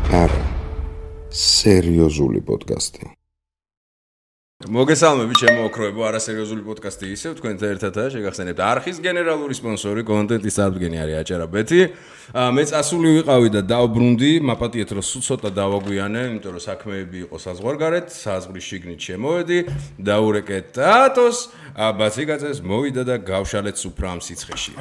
არა, სერიოზული პოდკასტი. მოგესალმებით ჩემო ოქროებო, არასერიოზული პოდკასტი ისევ თქვენთან ერთადაა შეგახსენებთ არხის გენერალური სპონსორი კონტენტის აღდგენი არის აჭარაბეთი. მე წასული ვიყავი და დავბრუნდი, მაპატიეთ რომ სულ ცოტა დავაგვიანე, იმიტომ რომ საქმეები იყო საზღვარგარეთ, საზღვრის შიგნით შემოვედი, დაურეკეთ ტატოს, ბაციკაცეს მოვიდა და გავშალეთ სუფრა ამ სიცხეში.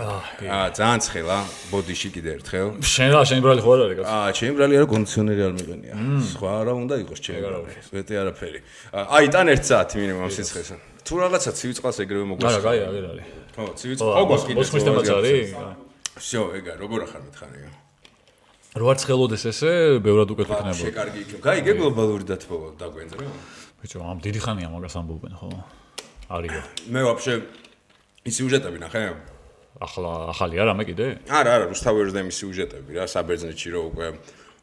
ძალიან ცხელა, ბოდიში კიდე ერთხელ. შენ ბრალი ხო არ არის კაცო? ჩემი ბრალი არა, კონდიციონერი არ მიყენია. სხვა რა უნდა იყოს ჩემი ბრალი. მეტი არაფერი. აი, თან 1 საათი მინიმუმ ამ სიცხეს. თუ რაღაცა ცივი წყალს ეგრევე მოგვასწრა. არა, კაი, აღარ არის. ხო, ცივი წყალ. ოღონდ კიდე მოსმის თემაც არის? всё, ეგა, როგორ ახარ მითხარია? რო არ ცხელოდეს ესე, ბევრად უკეთ იქნება. შეკარგი იქნება. გაიგე გლობალური დათბობა დაგვენძრე? ბიჭო, ამ დიდი ხანია მაგას ამბობენ, ხო? არისო. მე ვაფშე ის სიუჟეტები ნახე? ახალი არა მე კიდე? არა, რუსთავერის და მის სიუჟეტები რა, საბერძნეთში რო უკვე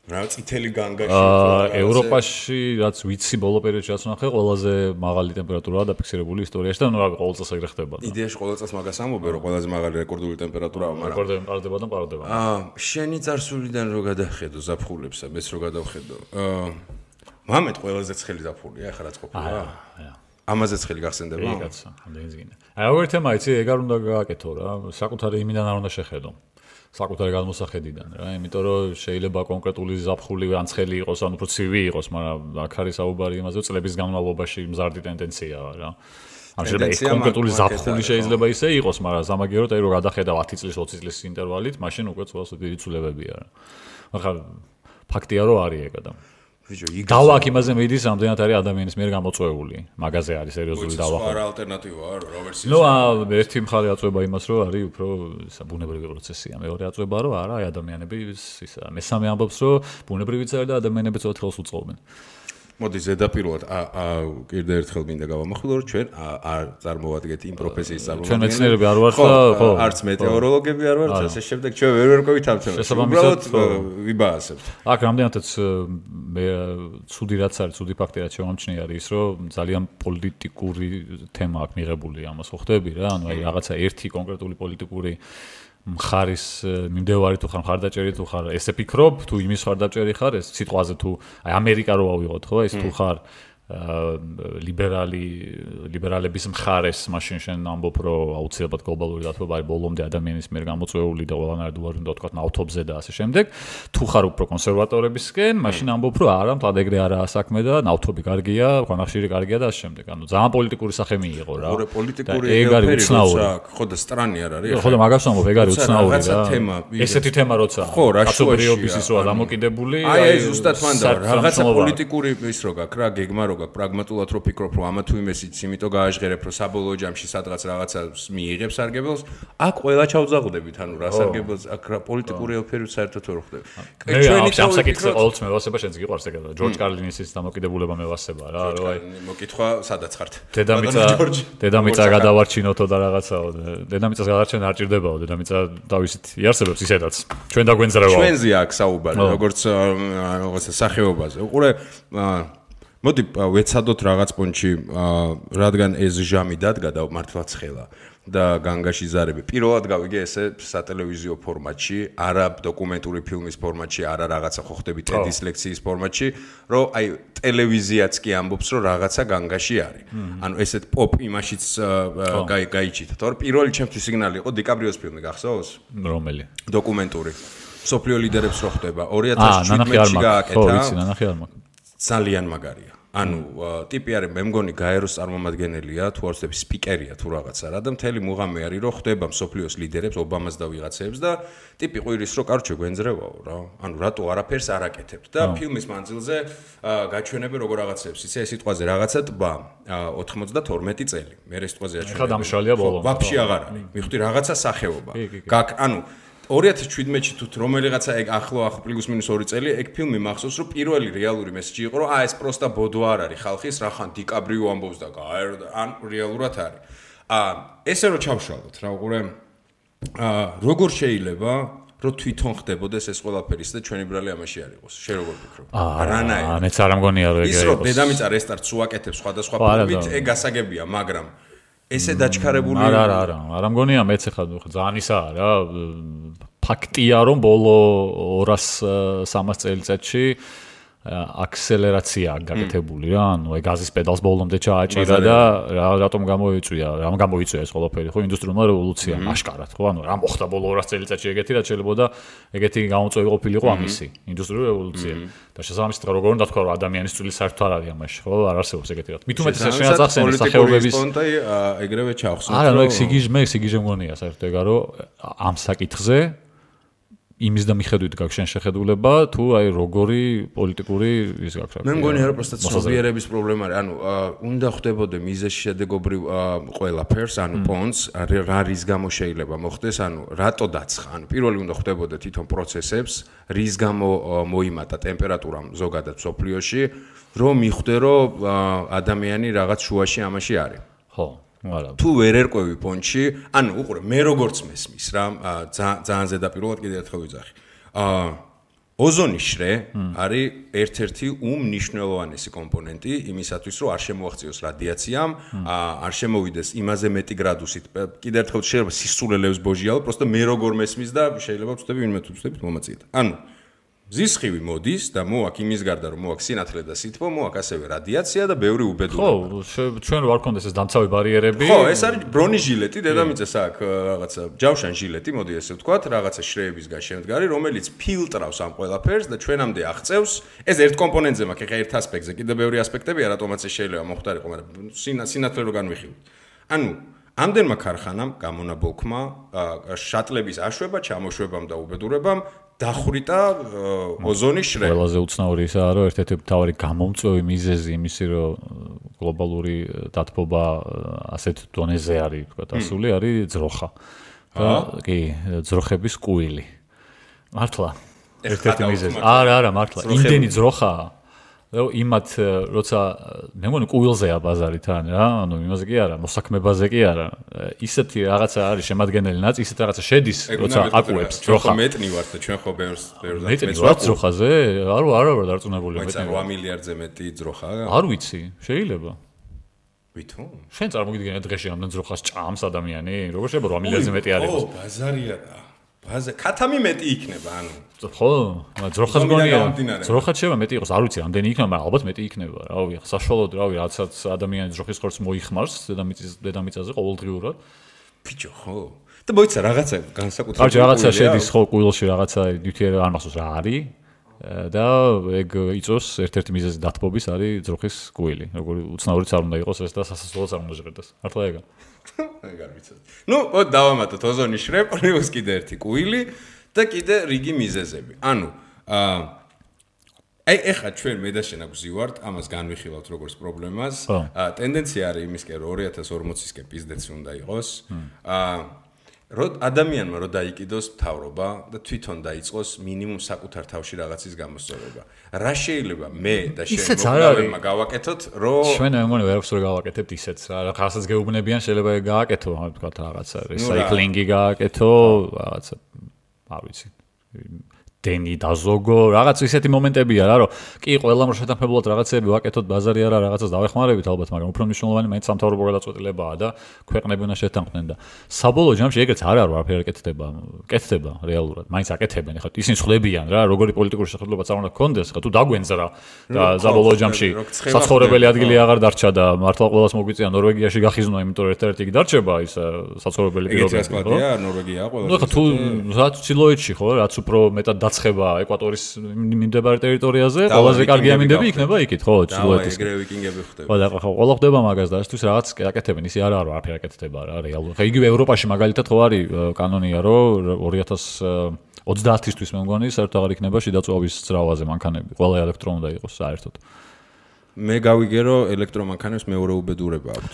რა წითელი განგაში ევროპაში რაც ვიცი ბოლო პერიოდში რაც ნახე ყველაზე მაღალი ტემპერატურაა დაფიქსირებული ისტორიაში და ნუ რა ყოველ წელს ეგრე ხდება. იდეაში ყოველ წელს მაგას ამბობენ რომ ყველაზე მაღალი რეკორდული ტემპერატურაა, მაგრამ რეკორდები მყარდება და მყარდება. შენი წარსულიდან რო გადახედო ზაფხულებსა, მეც რო გადავხედო. მამეთ ყველაზე ცხელი ზაფხულია, ახლა რაც ყოფილა. ამაზე ცხელი გახსენდება? კი კაცო, ამდენიც გინდა. აი როგორ თემა იცი, ეგ არ უნდა გააკეთო რა, საკუთარი იმიდან არ უნდა შეხედო. საკუთარი გადმოსახედიდან რა, იმიტომ რომ შეიძლება კონკრეტული ზაფხული ან ცხელი იყოს, ან უფრო ცივი იყოს, მაგრამ აქ არის საუბარი იმაზე, რომ წლების განმავლობაში მზარდი ტენდენციაა რა. ან შეიძლება კონკრეტული ზაფხული შეიძლება ისე იყოს, მაგრამ სამაგიეროდ აი რომ გადახედავ 10 წლის, 20 წლის ინტერვალით, მაშინ უკვე ცოტა დიდი ცვლილებებია რა. ახლა ფაქტია რომ არის ეგა და ბიჭო, დავა აქ იმაზე მიდის, რამდენად არის ადამიანის მიერ გამოწვეული. მაგაზე არის სერიოზული დავა. სხვა ალტერნატივაა, რა ვერსია. ნუ ერთი მხარე აწვება იმას, რომ არის უფრო ბუნებრივი პროცესია. მეორე აწვება, რომ არა, აი ადამიანები ისა. მესამე ამბობს, რომ ბუნებრივიც არის და ადამიანები ცოტა ხელს უწყობენ. მოდი ზედაპირულად კიდე ერთხელ მინდა გავამახვილო, რომ ჩვენ არ წარმოვადგეთ იმ პროფესიის წარმომადგენლები. ჩვენ მეცნიერები არ ვართ და ხო, არც მეტეოროლოგები არ ვართ, ასე შემდეგ ჩვენ ვერ ვერკვევით ამ თემას. უბრალოდ ვიბაასებთ. აქ რამდენადაც მე ცუდი რაც არის, ცუდი ფაქტი რაც შემამჩნია არის ის, რომ ძალიან პოლიტიკური თემა აქვს მიღებული ამას, ხო ხდები რა? ანუ აი რაღაცა ერთი კონკრეტული პოლიტიკური მხარის მიმდევარი თუ ხარ მხარდაჭერი თუ ხარ ესე ფიქრობ თუ იმის მხარდაჭერი ხარ ეს სიტყვაზე თუ აი ამერიკა რო ავიღოთ ხო ეს თუ ხარ ლიბერალების მხარეს მაშინ შენ ამბობ რომ აუცილებლად გლობალური დათბობა არის ბოლომდე ადამიანის მიერ გამოწვეული და ყველანაირად უარი უნდა თქვა ნავთობზე და ასე შემდეგ თუ ხარ უფრო კონსერვატორებისკენ მაშინ ამბობ რომ არა მთლად ეგრე არაა საქმე და ნავთობი კარგია ქვანახშირი კარგია და ასე შემდეგ ანუ ძალიან პოლიტიკური სახე მიიღო რა პოლიტიკური ეგ არის უცნაური ხო და სტრანი არ არის ხო და მაგას ამბობ ეგ არის უცნაური რა ესეთი თემა როცა ხო რა კაცობრიობის ის როა დამოკიდებული აი ზუსტად მანდა რაღაცა პოლიტიკური ის რო გაქვს რა გეგმა რო გაქვს პრაგმატულად რო ფიქრობ რომ ამა თუ იმესიც იმიტომ გააჟღერებ რომ საბოლოო ჯამში სადღაც რაღაცა მიიღებს სარგებელს აქ ყველა ჩავძაღდებით ანუ რა სარგებელს აქ რა პოლიტიკური ელფერი საერთოდ ვერ ხდება ჩვენი სამსაკითხი ყოველთვის მევასება შენს გიყვარს ეგა ჯორჯ კარლინის დამოკიდებულება მევასება რა რომ აი მოკითხვა სადაც ხართ დედამიწა გადავარჩინოთო და რაღაცაო დედამიწას გადარჩენა არ ჭირდებაო დედამიწა თავისით იარსებებს ისედაც ჩვენ დაგვენძრევაო ჩვენზე აქ საუბარი როგორც სახეობაზე უყურე მოდი ვეცადოთ რაღაც პონჩი რადგან ეს ჟამი დადგა და მართლაც ხელა და განგაში ზარები პირველად გავიგე ესე სატელევიზიო ფორმატში არა დოკუმენტური ფილმის ფორმატში არა რაღაცა ხო ხდები ტედის ლექციის ფორმატში რომ აი ტელევიზიაც კი ამბობს რომ რაღაცა განგაში არის ანუ ესეთ პოპ იმაშიც გაიჩიტა თორე პირველი ჩემთვის სიგნალი იყო დიკაბრიოს φιλმი გახსოვს რომელი დოკუმენტური სოფლიო ლიდერებს რო ხდება 2017-ში გააკეთა ხო ვიცი ნანახი არ მაქვს ძალიან მაგარია ანუ ტიპი არის მე მგონი გაეროს წარმომადგენელია თუ არ ვცდები სპიკერია თუ რაღაცა რა და მთელი მუღამი არის რომ ხდება მსოფლიოს ლიდერებს ობამას და ვიღაცებს და ტიპი ყვირის რომ კარჩე გვენძრევაო რა ანუ რატო არაფერს არ აკეთებთ და ფილმის მანძილზე გაჩვენებენ როგორ რაღაცებს იცი ეს სიტყვაზე რაღაცა ტბა 92 წელი მე ეს სიტყვაზე აჩვენებ ხა დამშალია ბოლო ვაფშე აღარ არის მივხვდი რაღაცა სახეობა ანუ 2017-ში თუ რომელიღაცა ეგ ახლო პლუს მინუს 2 წელი ეგ ფილმი მახსოვს რომ პირველი რეალური მესეჯი იყო რომ ეს პროსტა ბოდო არ არის ხალხის რახან დიკაბრიო ამბობს და ან რეალურად არის ესე რომ ჩავშალოთ რა უყურე როგორ შეიძლება რომ თვითონ ხდებოდეს ეს ყველაფერი და ჩვენი ბრალი ამაში არ იყოს შე როგორ ფიქრობ არანაირად მეც არ ამგონია რომ ეგ ის რომ დედამიწა რესტარტს უაკეთებს სხვადასხვა ფილმით ეგ გასაგებია მაგრამ ესე დაჩქარებული არა მგონია მეც ახლა ძალიან ისაა რა ფაქტია რომ ბოლო 200-300 წელიწადში აქსელერაცია გაკეთებული რა ანუ აი გაზის პედალს ბოლომდე ჩააჭირა და რატომ გამოიწვია ეს ყველაფერი ხო ინდუსტრიულმა რევოლუციამ აშკარად ხო ანუ რა მოხდა ბოლო 200 წელიწადში ეგეთი რაც შეიძლება ეგეთი გამოწვევი ყოფილიყო ამისი ინდუსტრიული რევოლუცია და შესაბამისად როგორ უნდა თქვა რომ ადამიანის წვილი საერთოდ არ არის ამაში ხო არ არსებობს ეგეთი რა მით უმეტეს შენაც ახსენე სახეობების პონტი ეგრევე ჩახსოვს არა ნუ სიგიჟე მგონია საერთოდ ეგა რომ ამ საკითხზე იმის და მიხედვით გაქვს შენ შეხედულება თუ აი როგორი პოლიტიკური ის გაქვს მე მგონია რომ პროსტა ცნობიერების პრობლემა არის ანუ უნდა ხვდებოდე მიზეზ შედეგობრივ ყველაფერს ანუ პონს რა რის გამო შეიძლება მოხდეს ანუ რატო დაცხა ანუ პირველი უნდა ხვდებოდე თვითონ პროცესებს რის გამო მოიმატა ტემპერატურამ ზოგადად სოფლიოში რომ მიხვდე რომ ადამიანი რაღაც შუაში ამაში არის ხო თუ ვერ ერკვევი პონჩი, ანუ უყურე, მე როგორც მესმის რა, ძალიან ზედაპირულად კიდევ ერთხელ ვიძახი. ოზონის შრე არის ერთ-ერთი უმნიშვნელოვანესი კომპონენტი იმისათვის, რომ არ შემოაღწიოს რადიაციამ, არ შემოვიდეს იმაზე მეტი გრადუსით. კიდევ ერთხელ შეიძლება სისულელებს ბოჟიალო, პროსტა მე როგორ მესმის და შეიძლება ვწდები ვინმე თუ ვწდებით მომაწიეთ. ანუ ზისხივი მოდის და მოაქვს იმის გარდა რომ მოაქვს სინათლე და სითბო, მოაქვს ასევე რადიაცია და ბევრი უბედურება. ხო, ჩვენ რო არ გქონდეს ეს დამცავი ბარიერები. ხო, ეს არის ბრონიშილეტი, დედამიწას აქვს რაღაცა ჯავშან ჟილეტი, მოდი ესე ვთქვათ, რაღაცა შრეებისგან შემდგარი, რომელიც ფილტრავს ამ ყველაფერს და ჩვენამდე აღწევს. ეს ერთ კომპონენტზე მაქვს, ეხა ერთ ასპექტზე, კიდევ ბევრი ასპექტებია, რატომაც ეს შეიძლება მოხდარიყო, მაგრამ სინათლე რო განვიხილოთ. ანუ ამდენმა ქარხანამ გამონაბოლქმა შატლების აშვება, ჩამოშვებამ და უბედურებამ დახვრიტა ოზონის შრე. ყველაზე უცნაური ისაა, რომ ერთ-ერთი მთავარი გამომწვევი მიზეზი იმისი, რომ გლობალური დათბობა ასეთ დონეზე არის, თქვა ასული, არის ძროხა. და კი, ძროხების კუილი. მართლა. ერთ-ერთი მიზეზი. არა, მართლა. იმდენი ძროხაა. რომ იმათ როცა მე მგონი კუილზეა ბაზარი თან რა, ანუ იმაზე კი არა, მოსაქმებაზე კი არა. ისეთი რაღაცა არის შემადგენელი ნაწილი, ისეთ რაღაცა შედის, როცა აკუებს ძროხა. მეტნი ვართ და ჩვენ ხო ბევრს მეტნი ვართ ძროხაზე? არა ვარ დარწმუნებული მეტნი. 8 მილიარდზე მეტი ძროხაა. არ ვიცი, შეიძლება. ვითომ? შენ წარმოგიდგენია დღეში ამდენ ძროხას ჭამს ადამიანი? როგორ შეიძლება 8 მილიარდზე მეტი არ იყოს? ო, ბაზარია და ქათამი მეტი იქნება, ანუ ხო, ძროხას გონია. ძროხაც შეიძლება მეტი იყოს, არ ვიცი, ამდენი იქნება, მაგრამ ალბათ მეტი იქნება. რავი, საშუალოდ რავი, რაცაც ადამიანი ძროხის ხორცს მოიხმარს დედამიწაზე ყოველდღიურად. ბიჭო, ხო. და მოიცა რაღაცა განსაკუთრებული. კარგი, რაღაცა შედის ხო კუილში, რაღაცა ნიუტიერი არ მახსოვს რა არის. და ეგ იწოს ერთ-ერთი მიზეზი დათბობის არის ძროხის კუილი. როგორი უცნაურიც არ უნდა იყოს ეს და სასასწროც არ უნდა ჟღერდეს. მართლა ეგა. ეგარ ვიცოდი. ნუ, დავამატოთ ოზონის შრე, პლუს კიდე ერთი კუილი და კიდე რიგი მიზეზები. ანუ აი ეხლა ჩვენ მე და შენ აგვზივართ, ამას განვიხილავთ როგორც პრობლემას. ტენდენცია არის იმისკენ რომ 2040-ისკენ პიზდეცი უნდა იყოს. რომ ადამიანმა რომ დაიკიდოს მთავრობა და თვითონ დაიწყოს მინიმუმ საკუთარ თავში რაღაცის გამოსწორება. რა შეიძლება მე და შენ მოგავებმა გავაკეთოთ, რომ ჩვენ მე მგონი ვერაფერს ვერ გავაკეთებთ ისეც რა. რაღაცას გეუბნებიან, შეიძლება გააკეთო, თქვა რაღაცა რეცაიკლინგი გააკეთო, რაღაცა არ ვიცი. დენი დაზოგო, რაღაც ისეთი მომენტებია რა, რომ კი ყველამ რო შეთანხმებულად რაღაცები ვაკეთოთ, ბაზარი არა, რაღაცას დავეხმარებით ალბათ, მაგრამ უფრო მნიშვნელოვანი მაინც სამთავრობო გადაწყვეტილებაა და ქვეყნები უნდა შეთანხმდნენ და საბოლოო ჯამში ეგრეც არ არის ვაფერი კეთდება რეალურად, მაინც აკეთებენ, ეხლა ისინი ხვდებიან რა, როგორი პოლიტიკური შეხედულებაც არ უნდა გქონდეს, ხა თუ დაგვენძრა და საბოლოო ჯამში საცხოვრებელი ადგილი აღარ დარჩა და მართლა ყველას მოგვიწია ნორვეგიაში გახიზნვა, იმიტომ რომ ერთ-ერთი კი დარჩება ის საცხოვრებელი პირობები, ხო? ნორვეგია ყველა. ნუ ხა თუ რაც ჩილოეთში ხო, რაც უფრო მეტად ცხება ეკვატორის მიმდებარე ტერიტორიაზე, ყველაზე კარგი ამინდები იქნება იქით, ხო, ჩრდილოეთის. ეგრევე ვიკინგები ხდება. ხო, და ყველა ხდება მაგას დაისთვის რაღაც აკეთებენ, ისე არა არ ვაფერ აკეთდება რა, რეალურად. ხა იგივე ევროპაში მაგალითად ხო არის კანონია, რომ 2030-ისთვის მე მგონი საერთოდ აღარ იქნება შიდა წვავის ძრავაზე მანქანები, ყველა ელექტრო უნდა იყოს საერთოდ. მე გავიგე რომ ელექტრომანქანებს მეორე უბედურება აქვთ.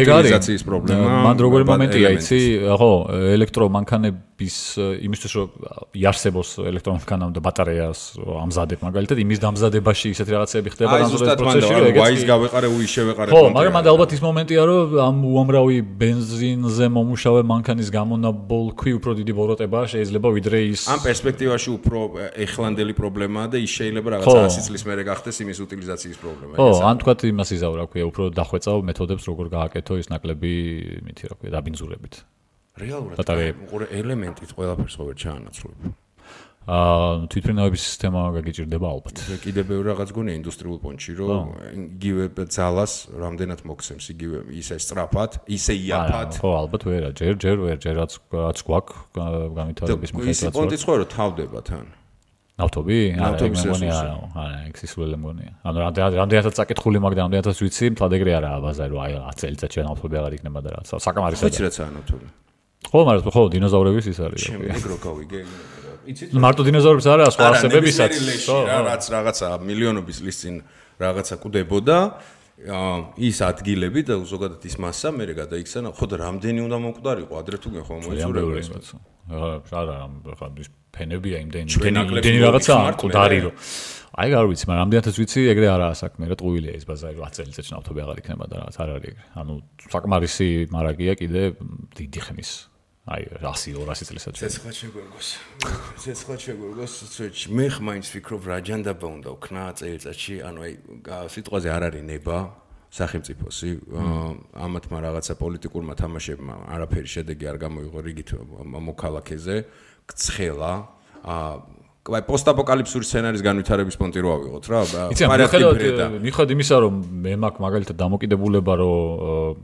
ეგ არის უტილიზაციის პრობლემა. მან როგორი მომენტია იცი, ხო, ელექტრომანქანები იმისთვის რომ იარსებოს ელექტრომანქანამ და ბატარეას ამზადებ მაგალითად იმის დამზადებაში ისეთი რაღაცები ხდება განსაკუთრებით პროცესში რომ ვაის გავეყარე უი შევეყარე ხო მაგრამ მანდ ალბათ ის მომენტია რომ ამ უამრავი ბენზინზე მომუშავე მანქანის გამონაბოლქვი უფრო დიდი ბოროტებაა შეიძლება ვიდრე ის ამ პერსპექტივაში უფრო ეხლანდელი პრობლემაა და ის შეიძლება რაღაცა 100 წლის მერე გახდეს იმის უტილიზაციის პრობლემა ხო ან თქვათ იმას იზავ რა ქვია უფრო დახვეწავ მეთოდებს როგორ გააკეთო ის ნაკლები მითი რა ქვია დაბინძურებით რეალურად უყურე ელემენტით ყველაფერს ყოველ ჩაანაცვლებ თვითმფრინავების სისტემა გაგიჭირდება ალბათ კიდე ბევრი რაღაც გონია ინდუსტრიულ პონჩში რომ იგივე ძალას რამდენად მოგცემს იგივე ისე სწრაფად ისე იაფად ხო ალბათ ვერა ჯერ რაც გვაქვს განვითარების მიხედვით პონტიც ხო რომ თავდება თან ნავთობი? არა, მეგონია არა, ეგ სისულელე მეგონია. ანუ რამდენადაც წაკითხული მაგ და რამდენადაც ვიცი, მთლად ეგრე არაა ბაზარი, რომ აი 10 წელიწადში ნავთობი აღარ იქნება და რაც. საკამარისაა. ვიცი რაცაა ნავთობი. ხო, მაგრამ ხო, დინოზავრების ის არის. ჩემი ეგრო გავიგე. იცით? მარტო დინოზავრების არა, სხვა არსებებისაც. ხო, რაღაცა მილიონობის წლის წინ რაღაცა კვდებოდა. ის ადგილები და ზოგადად ის მასა მე გადაიქცა, ხო და რამდენი უნდა მომკვდარიყო, ადრე თუ გეხო მოიწურება ეს. არა, ხა ის ფენებია იმდენი რაღაცა მკვდარი რომ აი არ ვიცი, მაგრამ რამდენადაც ვიცი, ეგრე არაა საქმე, რა ტყუილია ეს ბაზარი 10 წელიწადში ნავთობი აღარ იქნება და რაღაც არ არის ეგრე. ანუ საკმარისი მარაგია კიდე დიდი ხნის. აი 100-200 წელიწადში. ცეცხლად შეგვერგოს, მე ხმაინც ვფიქრობ რა ჯანდაბა უნდა ვქნა წელიწადში, ანუ აი სიტყვაზე არ არის ნება სახელმწიფოსი, ამათმა რაღაცა პოლიტიკურმა თამაშებმა არაფერი შედეგი არ გამოიღო რიგით მოქალაქეზე, ცხელა, აი პოსტაპოკალიფსური სცენარის განვითარების პონტი რო ავიღოთ რა, მიხედავთ იმისა, რომ მე მაქვს მაგალითად დამოკიდებულება, რომ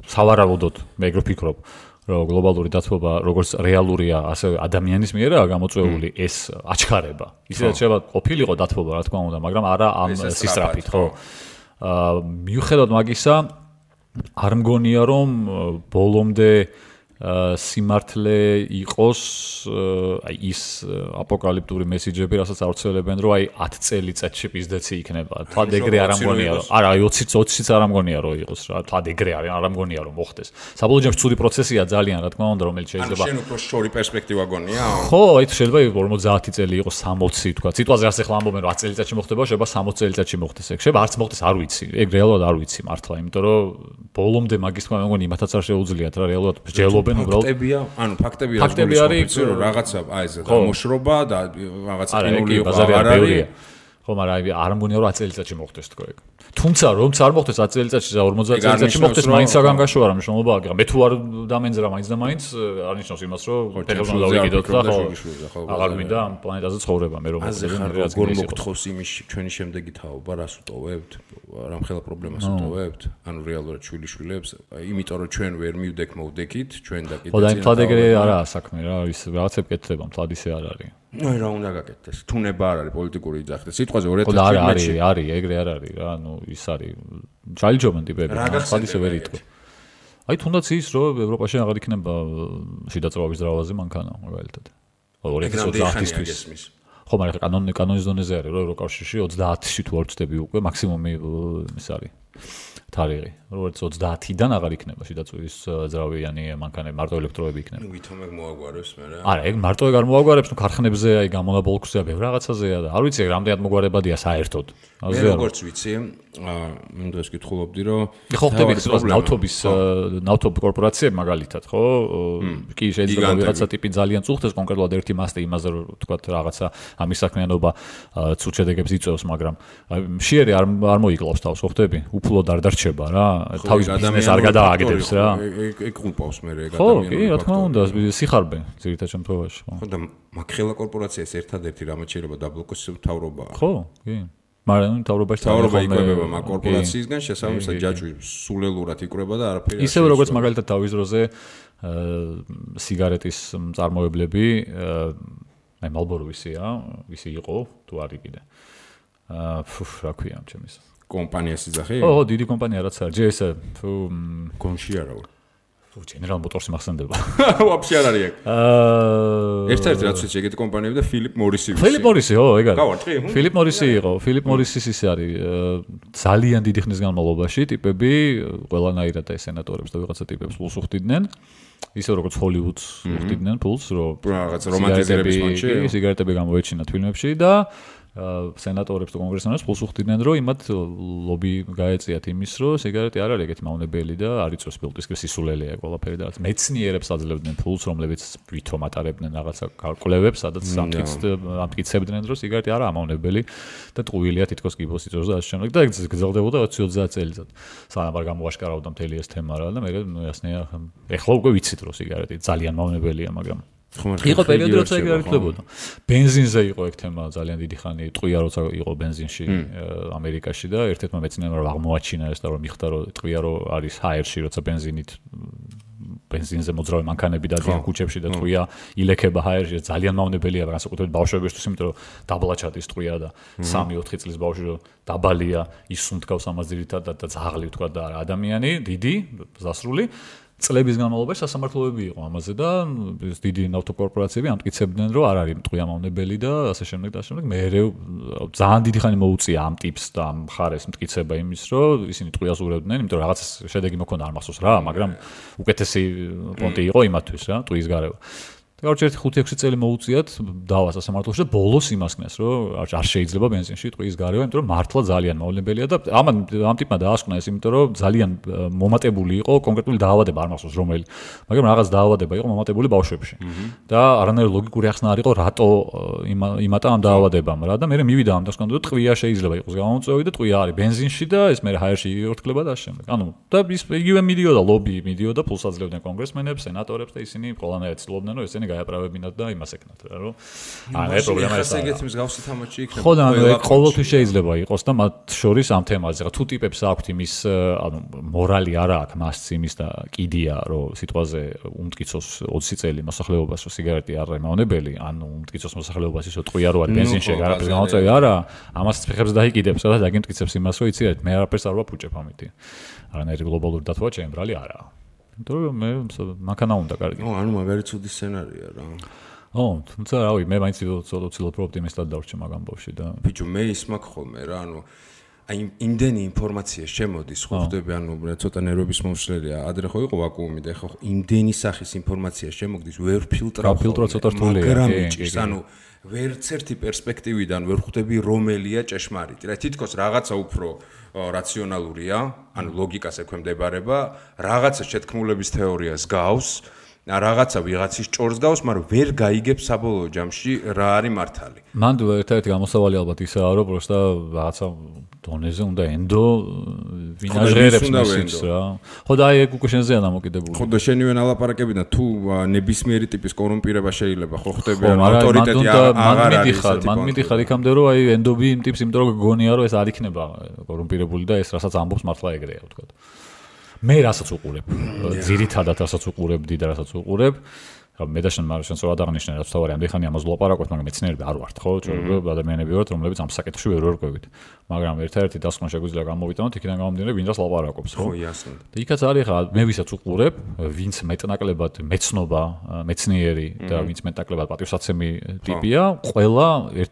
სავარაუდოდ მე ეგრე ვფიქრობ, რომ გლობალური დათბობა როგორც რეალურია, ასევე ადამიანის მიერაა გამოწვეული ეს აჩქარება. ისედაც შეიძლება ყოფილიყო დათბობა, რა თქმა უნდა, მაგრამ არა ამ სისწრაფით, ხო. მიუხედავად მაგისა, არ მგონია რომ ბოლომდე სიმართლე იყოს აი ის აპოკალიფტური მესიჯები, რასაც ავრცელებენ, რომ აი 10 წელიწადში პიზდეცი იქნება. თვად ეგრე არ მგონია რომ არა, აი 20-იც არ მგონია რომ იყოს რა. თვად ეგრე არ მგონია რომ მოხდეს. საბოლოო ჯამში ცუდი პროცესია ძალიან, რა თქმა უნდა, რომელიც შეიძლება ან შენ უფრო შორი პერსპექტივა გონია? ხო, აი შეიძლება 50 წელი იყოს 60 თქვა. სიტყვაზე ასე ხლა ამბობენ რომ 10 წელიწადში მოხდება, შეიძლება 60 წელიწადში მოხდეს ეგ. შეიძლება არც მოხდეს, არ ვიცი. ეგ რეალურად არ ვიცი მართლა, იმიტომ რომ ბოლომდე მაგის თქმა მეგონი იმათაც არ შეუძლიათ რა რეალურად მსჯელობენ ფაქტებია, ანუ ფაქტები არის რომ რაღაცა აი ეს გამოშრობა და რაღაცა კინული იყო არ არის. ხო, მაგრამ აი არ მგონია რომ 10 წელიწადში მოხდეს თქო ეგ. თუმცა რომც არ მოხდეს 10 წელიწადში და 50 წელიწადში მოხდეს, მაინც საგანგაშო არა მნიშვნელობა აქვს. მე თუ არ დამენძრა მაინც და მაინც არ ნიშნავს იმას რომ ფეხებს უნდა დავიკიდოთ და ხო. აღარ მინდა ამ პლანეტაზე ცხოვრება მე რომ როგორ მოგთხოვს იმის ჩვენი შემდეგი თაობა, რას უტოვებთ? რამხელა პრობლემას უტოვებთ? ანუ რეალურად შვილიშვილებს, იმიტომ რომ ჩვენ ვერ მივდექ მოვდექით, ჩვენ და კიდე ხო და მთლად ეგრე არაა საქმე რა, ის რაღაცები კეთდება, მთლად ისე არ არის. ნუ რა უნდა გაკეთდეს? თუნება არ არის პოლიტიკური იძახი. სიტყვაზე 2017-ში არის, ეგრე არ არის რა, ანუ ის არის ჯალიჯობენ ტიპები, სხვა ისე ვერ იტყვი. აი თუნდაც ის რომ ევროპაში აღარ იქნება შიდა წვავის ძრავაზე მანქანა მაგალითად. 2030-ისთვის. ხო, მაგრამ კანონის დონეზე არის რომ ევროკავშირში 30-ში თუ არ ვწდები უკვე მაქსიმუმი ის არის. თარიღი, როგორც 30-დან აღარ იქნება შიდა წვივის ძრავიანი მანქანები, მარტო ელექტროები იქნება. ნუ ვითომ ეგ მოაგვარებს მე რა. არა, ეგ მარტო ეგ არ მოაგვარებს, ნუ ქარხნებზე აი გამონაბოლქვზეა, ბევრ რაღაცაზეა და არ ვიცი ეგ რამდენად მოგვარებადია საერთოდ. მე როგორც ვიცი, მინდა ეს კითხულობდი რომ ხო ხდები ნავთობის კორპორაციები მაგალითად, ხო? კი შეიძლება ვიღაცა ტიპი ძალიან წუხდეს კონკრეტულად ერთი მასტე იმაზე რომ თქვა რაღაცა ამის საქმიანობა ცუდ შედეგებს იწვევს, მაგრამ მშიერი არ მოიკლავს თავს, ხო ხდები? უფლოდ არ დარჩება რა, თავის ბიზნესს არ გადააგდებს რა. ეგ ყულპავს მე ეგ ადამიანი. ხო, კი, რა თქმა უნდა, სიხარბე ძირითად შემთხვევაში, ხო. ხო და მაგხელა კორპორაციას ერთადერთი რამაც შეიძლება დაბლოკოს მთავრობაა. ხო, კი. მაგრამ მთავრობაში მთავრობა იკვებება მაგ კორპორაციისგან, შესაბამისად ჯაჭვი სულელურად იკვრება და არაფერი. ისევე როგორც მაგალითად თავის დროზე სიგარეტის მწარმოებლები, აი Marlboro ვისი იყო, თუ არის კიდე. რა ქვია ჩემის კომპანიას იძახი? ხო, დიდი კომპანია რაც არის. ჯერ ეს გონში არა ვარ. General Motors მახსენდება. Вообще არ არის აქ. ერთ-ერთი რაც ვიცი, ეგეთი კომპანიები და Philip Morris-ი. Philip Morris-ი, ეგ არის. გავარტყი? Philip Morris-ი იყო. Philip Morris-ის ის არის ძალიან დიდი ხნის განმავლობაში ტიპები ყველანაირად და სენატორებს და ვიღაცა ტიპებს ფულს უხდიდნენ. ისე როგორც Hollywood-ს უხდიდნენ ფულს, რომ რაღაც რომანტიზირების მომენტში სიგარეტები გამოეჩინათ ფილმებში და სენატორებს და კონგრესმენებს ფულს უხდიდნენ, რომ იმათ ლობი გაეწიათ იმის, რომ სიგარეტი არ არის ეგეთი მავნებელი და არ იწვევს ფილტვისკრის სისულელეა ყველაფერი და რაც მეცნიერებს აძლევდნენ ფულს, რომლებიც ვითომ ატარებდნენ რაღაცა კალკულებებს, სადაც ამტკიცებდნენ, რომ სიგარეტი არაა მავნებელი და ტყუილია თითქოს კიბოს იწვევს და ასე შემდეგ და ეგ გრძელდებოდა 20-30 წელიწად. სანამ არ გამოაშკარავდა მთელი ეს თემა რა და მე ясნია ეხლა უკვე ვიცით, რომ სიგარეტი ძალიან მავნებელია, მაგრამ იყო პერიოდი როცა ეგ არ ითვლებოდა. ბენზინზე იყო ეგ თემა ძალიან დიდი ხანი, ტყვია როცა იყო ბენზინში ამერიკაში და ერთ-ერთმა მეცნიერმა აღმოაჩინა ეს და რომ მიხდა რომ ტყვია რომ არის ჰაერში როცა ბენზინზე მოძრავი მანქანები დადიან ქუჩებში და ტყვია ილექება ჰაერში ძალიან მავნებელია განსაკუთრებით ბავშვებისთვის, იმიტომ რომ დაბლაჩატის ტყვია და 3-4 წლის ბავშვი რომ დაბალია ის უნთქავს ამას ძირითადად და ძაღლი თქვა და ადამიანი დიდი ზასრული წლების განმავლობაში სასამართლოები იყო ამაზე და დიდი ნავთობკორპორაციები ამტკიცებდნენ რომ არ არის ტყვია მავნებელი და ასე შემდეგ და ასე შემდეგ. მე ძალიან დიდი ხანი მოუწია ამ ტიპს და ამ მხარეს მტკიცება იმის რომ ისინი ტყვიას ურევდნენ, იმიტომ რომ რაღაც შედეგი მოქონდა არ მახსოვს რა, მაგრამ უკეთესი პონტი იყო იმათთვის რა, ტყვის გარევა. Короче, 5-6 წელი მოუწიათ დავა სასამართლოში და ბოლოს იმასკნეს, რომ არ შეიძლება ბენზინში ტყვის გარევა, იმიტომ რომ მართლა ძალიან მავნებელია და ამ ტიპმა დაასკვნა ეს, იმიტომ რომ ძალიან მომატებული იყო კონკრეტული დაავადება, არ მახსოვს რომელი, მაგრამ რაღაც დაავადება იყო მომატებული ბავშვებში. და არანაირი ლოგიკური ახსნა არ იყო, რატო იმატა ამ დაავადებამ რა და მე მივიდა ამ დასკვნა, რომ ტყვია შეიძლება იყოს გამომწვევი და ტყვია არის ბენზინში და ეს მე ჰაერში იღორთქლება და ასე შემდეგ. ანუ და ის იგივე მიდიოდა ლობი, მიდიოდა ფულს აძლევდნენ კონგრესმენებს, სენატორებს და ისინი ყველანაირად ცდილობდნენ, რომ ესენი გაეправებინათ და იმას ეკნათ რა რომ აი პრობლემა ეს არის. ეგეთ მსგავსი თამაში იქნება. ხო და ყოველთვის შეიძლება იყოს და მათ შორის ამ თემაზე რა თუ ტიპებს აქვთ იმის ანუ მორალი არა აქვს მას იმის და კიდია რომ სიტყვაზე უმტკიცოს 20 წელი მოსახლეობას რომ სიგარეტი არ არის მავნებელი ანუ უმტკიცოს მოსახლეობას ისო ტყვია რო არის ბენზინში არაფერს გამოწევი არა ამას ფეხებს დაიკიდებს და დაგიმტკიცებს იმას რომ იცით მე არაფერს არ ვაფუჭებ ამითი არანაირი გლობალური დათვა ჩემბრალი არაა. იმიტომ რომ მე მანქანა უნდა კარგი. ანუ მაგარი ცუდი სცენარია რა. თუმცა რავი, მე მაინც ცოტა ოპტიმისტად დავრჩე მაგ ამბავში და ბიჭო მე ის მაქვს ხოლმე რა, ანუ აი იმდენი ინფორმაცია შემოდის, ხო ხდები, ანუ ცოტა ნერვების მომსვლელია. ადრე ხო იყო ვაკუუმი და ხო იმდენი სახის ინფორმაცია შემოგდის, ვერ ფილტრავ. ფილტრა ცოტა რთულია. მაგრამ ბიჭო, ანუ ვერც ერთი პერსპექტივიდან ვერ ხვდები რომელია ჭეშმარიტი. რა თითქოს რაღაცა უფრო რაციონალურია, ანუ ლოგიკას ექვემდებარება, რაღაცა შეთქმულების თეორიას გავს, რაღაცა ვიღაცის ჭორს გავს, მაგრამ ვერ გაიგებს საბოლოო ჯამში რა არის მართალი. მან ერთ-ერთი გამოსავალი ალბათ ისაა, რომ პროსტა რაღაცა დონეზე უნდა ენდო ვინაჟერებს მესიც რა. ხო და აი ეგ უკვე შენზეა დამოკიდებული. ხო და შენივე ალაპარაკებიდან თუ ნებისმიერი ტიპის კორუმპირება შეიძლება ხო ხდები ან ავტორიტეტი აღარ არის. მან მიდიხარ იქამდე რომ აი ენდობი იმ ტიპს, იმიტომ რომ გონია რომ ეს არ იქნება კორუმპირებული და ეს რასაც ამბობს მართლა ეგრეა ვთქვა. მე რასაც უყურებ, ძირითადად რასაც უყურებდი და რასაც უყურებ, მე და შენ შენს რა დაღნიშნე რაც თავარი ამდენ ხანი ამას ვლაპარაკობთ, მაგრამ მეცნიერები არ ვართ, ხო? ჩვენ ადამიანები ვართ, რომლებიც ამ საკითხში ვერ ვერკვევით. მაგრამ ერთ-ერთი დასკვნა შეგვიძლია გამოვიტანოთ, იქიდან გამომდინარე, ვინც ლაპარაკობს, ხო? ხო, იასნა. და იქაც არის ხა, მე ვისაც უყურებ, ვინც მეტნაკლებად მეცნობა, მეცნიერი და ვინც მეტნაკლებად პატივსაცემი ტიპია, ყველა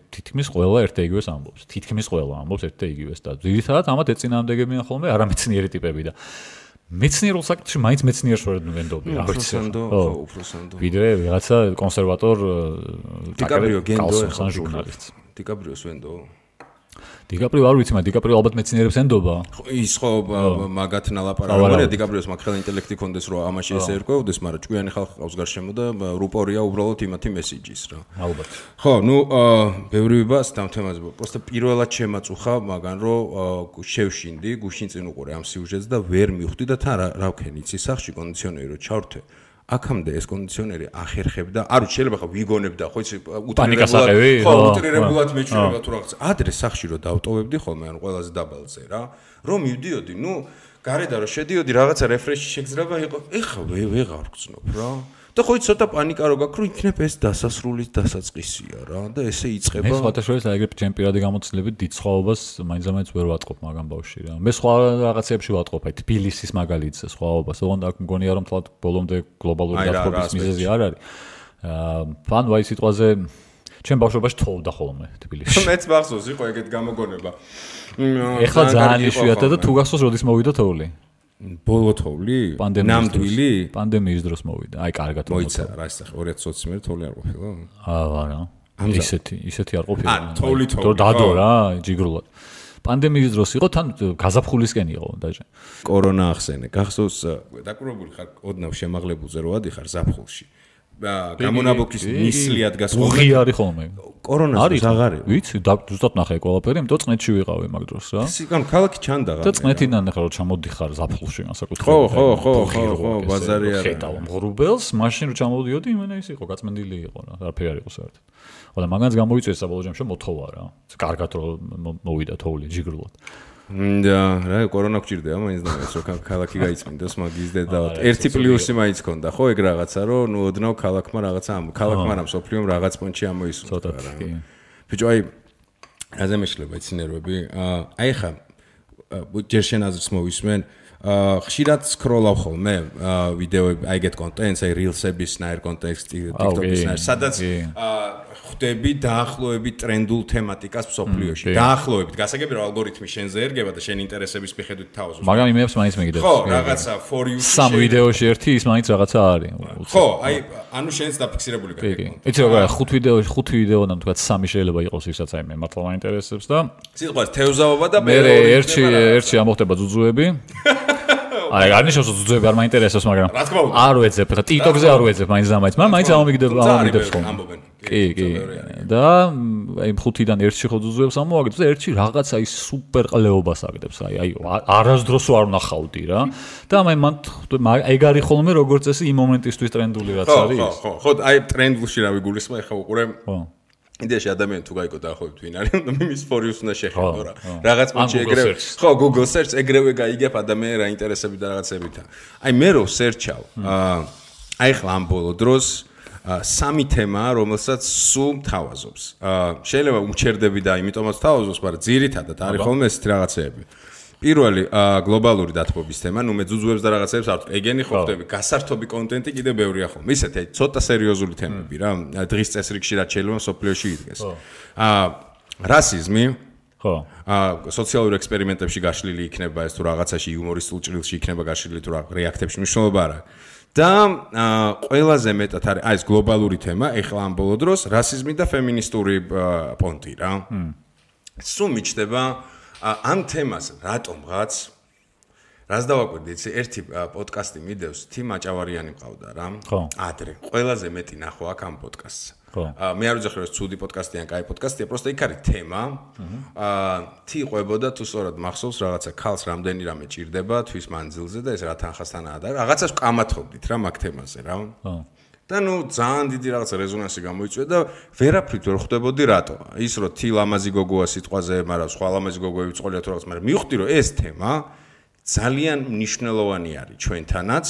თითქმის ყველა ერთ და იგივეს ამბობს. თითქმის ყველა ამბობს ერთ და იგივეს და ძირითადად ამათ ეწინააღმდეგებიან ხოლმე არამეცნიერი ტიპები და მეცნიერულ საკითხში მაინც მეცნიერს ვერ ვენდობი რა ვიცი. უფროსანდო. ვიდრე ვიღაცა კონსერვატორ დიკაპრიო გენდო ხან ჟურნალისტს. დიკაპრიოს ვენდო. დიკაპრიო არ ვიცი, მაგრამ დიკაპრიო ალბათ მეცნიერებს ენდობა. ის ხო მაგათ ნალაპარაკობია დიკაპრიოს მაგხელა ინტელექტი კონდეს რომ ამაში ესე ერკვევდეს, მაგრამ ჭკვიანი ხალხი ყავს გარშემო და რუპორია უბრალოდ იმათი მესიჯის რა. ალბათ. ხო, ნუ ბევრი ვიბას ამ თემაზე. პროსტა პირველად შემაწუხა, მაგრამ რომ შევშინდი, გუშინ წინ უყურე ამ სიუჟეტს და ვერ მივხვდი და თან რა ვქენი, იცი სახში კონდიციონერი რომ ჩავრთე. აქამდე ეს კონდიციონერი ახერხებდა, არ ვიცი შეიძლება ხა ვიგონებდა, ხო იცი უტრირებულად მეჩვენება თუ რაღაც. ადრე სახში რომ დავტოვებდი ხოლმე, ანუ ყველაზე დაბალზე რა, რომ მივდიოდი, ნუ გარედან რომ შედიოდი, რაღაცა რეფრეში შეგზრება იყო, ეხა ვეღარ ვგრძნობ რა. და ხო ცოტა პანიკა რო გაქვს, რომ იქნებ ეს დასასრულის დასაწყისია რა და ესე იწყება. მე სხვადასხვა ეგრე ჩემპიონატი გამოცდილებით დიდ სხვაობას მაინც ვერ ვატყობ მაგამ ბავშვი რა. მე სხვა რაღაცებში ვატყობ, აი თბილისის მაგალითზე სხვაობას, ოღონდ აქ მგონია რომ თლად ბოლომდე გლობალური დათბობის მიზეზი არ არის. ფან ვაი სიტყვაზე ჩემ ბავშვობაში თოვდა ხოლმე თბილისში. მეც მახსოვს იყო ეგეთ გამოგონება. ეხლა ძალიან იშვიათია და თუ გახსოვს როდის მოვიდა თოვლი? ბოლო თოვლი? ნამდვილი? პანდემიის დროს მოვიდა. აი კარგად მოიცა რა ისე 2020 მერე თოვლი არ ყოფილა? არა. ისეთი არ ყოფილა. თოვლი. დადო რა, ჯიგრულად. პანდემიის დროს იყო თან გაზაფხულისკენ იყო დაჟე. კორონა ახსენე. გახსოვს დაკურებული ხარ ოდნავ შემაღლებულზე რო ადიხარ ზაფხულში. გამონაბოქის ნისლიად გასხოლმე. უღი არის ხოლმე. კორონას აღარი. ვიცი, ზუსტად ნახე ყველაფერი, იმიტომ წნეთში ვიყავი მაგ დროს რა. სიკან ქალაქი ჩანდა რა. და წნეთიდან ახლა რო ჩამოდიხარ ზაფხულში განსაკუთრებით. ხო, ბაზარი არა. ხედავ მღრუბელს, მაშინ რო ჩამოდიოდი, იმენა ის იყო, გაწმენდილი იყო რა, არაფერი არ იყო საერთოდ. ხოლო მაგანაც გამოიწვია საბოლოო ჯამში მოთოვა რა. კარგად რო მოვიდა თოვლი ჯიგრულად. და რა კორონა გჭირდება მაინც და ეს რო ქალაქი გაიწმინდოს მაგის დედავად. ერთი პლუსი მაინც ქონდა ხო ეგ რაღაცა რომ ნუ ოდნავ ქალაქმა რაღაცა ქალაქმა რა სოფლიომ რაღაც პონჩი ამოისურვა რა. ბიჭო აი რაზე მეშლება იცინერვები? აი ხა ჯერ შენ აზრს მოვისმენ ხშირად სკროლავ ხოლმე ვიდეოები აი ეგეთ კონტენტს აი rilsების ნაირ კონტექსტი TikTok-ის ნაირ სადაც ხვდები დაახლოებით ტრენდულ თემატიკას მსოფლიოში დაახლოებით გასაგები რომ ალგორითმი შენზე ერგება და შენ ინტერესების მიხედვით თავაზობს მაგრამ იმებს მაინც მიგდებს ხო რაღაცა for you სამ ვიდეოში ერთი ის მაინც რაღაცა არის ხო აი ანუ შენს დაფიქსირებული გაიგო იცი როგორ ხუთ ვიდეოდან თქვა სამი შეიძლება იყოს ისაც აი მე მართლა მაინტერესებს და სიტყვას თევზაობა და მე ერთში ამოხდება ძუძუები აი არნიშნავს რომ ძუძუები არ მაინტერესებს მაგრამ არ ვეძებ ხა TikTok-ზე არ ვეძებ მაინც და მაინც ამომიგდებს ხოლმე კი და აი ხუთიდან ერთში ხო ძუძუებს ამოაგდებს და ერთში რაღაცა ის სუპერ ყლეობას აგდებს აი არასდროს არ ვნახავდი რა და მან ეგ არის ხოლმე როგორც წესი იმ მომენტისთვის ტრენდული რაც არის ხო აი ტრენდულში რა ვიგულისხმა ეხა უყურე იდეაში ადამიანი თუ გაიგო დაახლოებით ვინ არის და მის ფორიუს უნდა შეხედო რა რაღაც პონჩი ეგრევე ხო Google search ეგრევე გაიგებ ადამიანი რა ინტერესები და რაღაცებითა აი მე რო search-ავ აი ხლა ამ ბოლო დროს სამი თემაა რომელსაც სულ მთავაზობს შეიძლება უმჩერდები და იმიტომაც თავაზობს მაგრამ ძირითადად არის ხოლმე ესეთი რაღაცეები პირველი გლობალური დათბობის თემა, ნუ მე ძუძუებს და რაღაცებს არ ვთქვი. ეგენი ხო ხდები, გასართობი კონტენტი კიდე ბევრია ხოლმე. ისეთი ცოტა სერიოზული თემები რა. დღის წესრიგში რაც შეიძლება სოფლიოში იდგეს. რასიზმი. ხო. სოციალურ ექსპერიმენტებში გაშლილი იქნება ეს თუ რაღაცაში იუმორისტულ ჭრილში იქნება გაშლილი თუ რეაქტებში მნიშვნელობა არა. და ყველაზე მეტად არის აი ეს გლობალური თემა, ეხლა ამ ბოლო დროს რასიზმი და ფემინისტური პონტი რა. სულ მიჩნდება ამ თემას რატომღაც რას დავაკვირდი იცი ერთი პოდკასტი მიდევს თი მაჭავარიანი მყავდა რა ადრე ყველაზე მეტი ნახო აქ ამ პოდკასტს მე არ ვიძახი რომ ეს ცუდი პოდკასტია ან კაი პოდკასტია просто იქ არის თემა თი ყვებოდა თუ სწორად მახსოვს რაღაცა ქალს რამდენი რამე ჭირდება თვის მანძილზე და ეს რა თანხასთანაა და რაღაცას ვკამათობდით რა მაგ თემაზე რა და ნუ ძალიან დიდი რაღაცა რეზონანსი გამოიწვია და ვერაფრით ვერ ხვდებოდი რატო. ის რომ თი ლამაზი გოგოა სიტყვაზე, მაგრამ სხვა ლამაზი გოგოები წოლია თუ რაღაც, მაგრამ მივხვდი რომ ეს თემა ძალიან მნიშვნელოვანი არის ჩვენთანაც.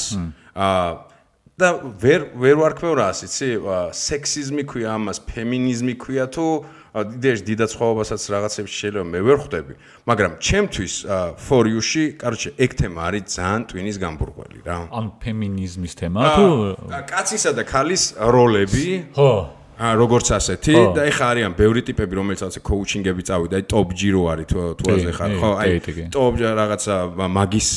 და ვერ ვარქმევ რას, იცი? სექსიზმი ქვია ამას, ფემინიზმი ქვია თუ იდეაში დიდად სხვაობასაც რაღაცებში შეიძლება მე ვერ ხვდები, მაგრამ ჩემთვის for you-ში, კაროჩე, ეგ თემა არის ძალიან ტვინის გამბურგველი რა. ან ფემინიზმის თემა თუ კაცისა და ქალის როლები? ხო. როგორც ასეთი და ეხა არიან ბევრი ტიპები რომელიც ასე კოუჩინგები წავიდა, აი ტოპ ჯირო არის თუ ასე ხარ, ხო, აი ტოპ რაღაცა მაგის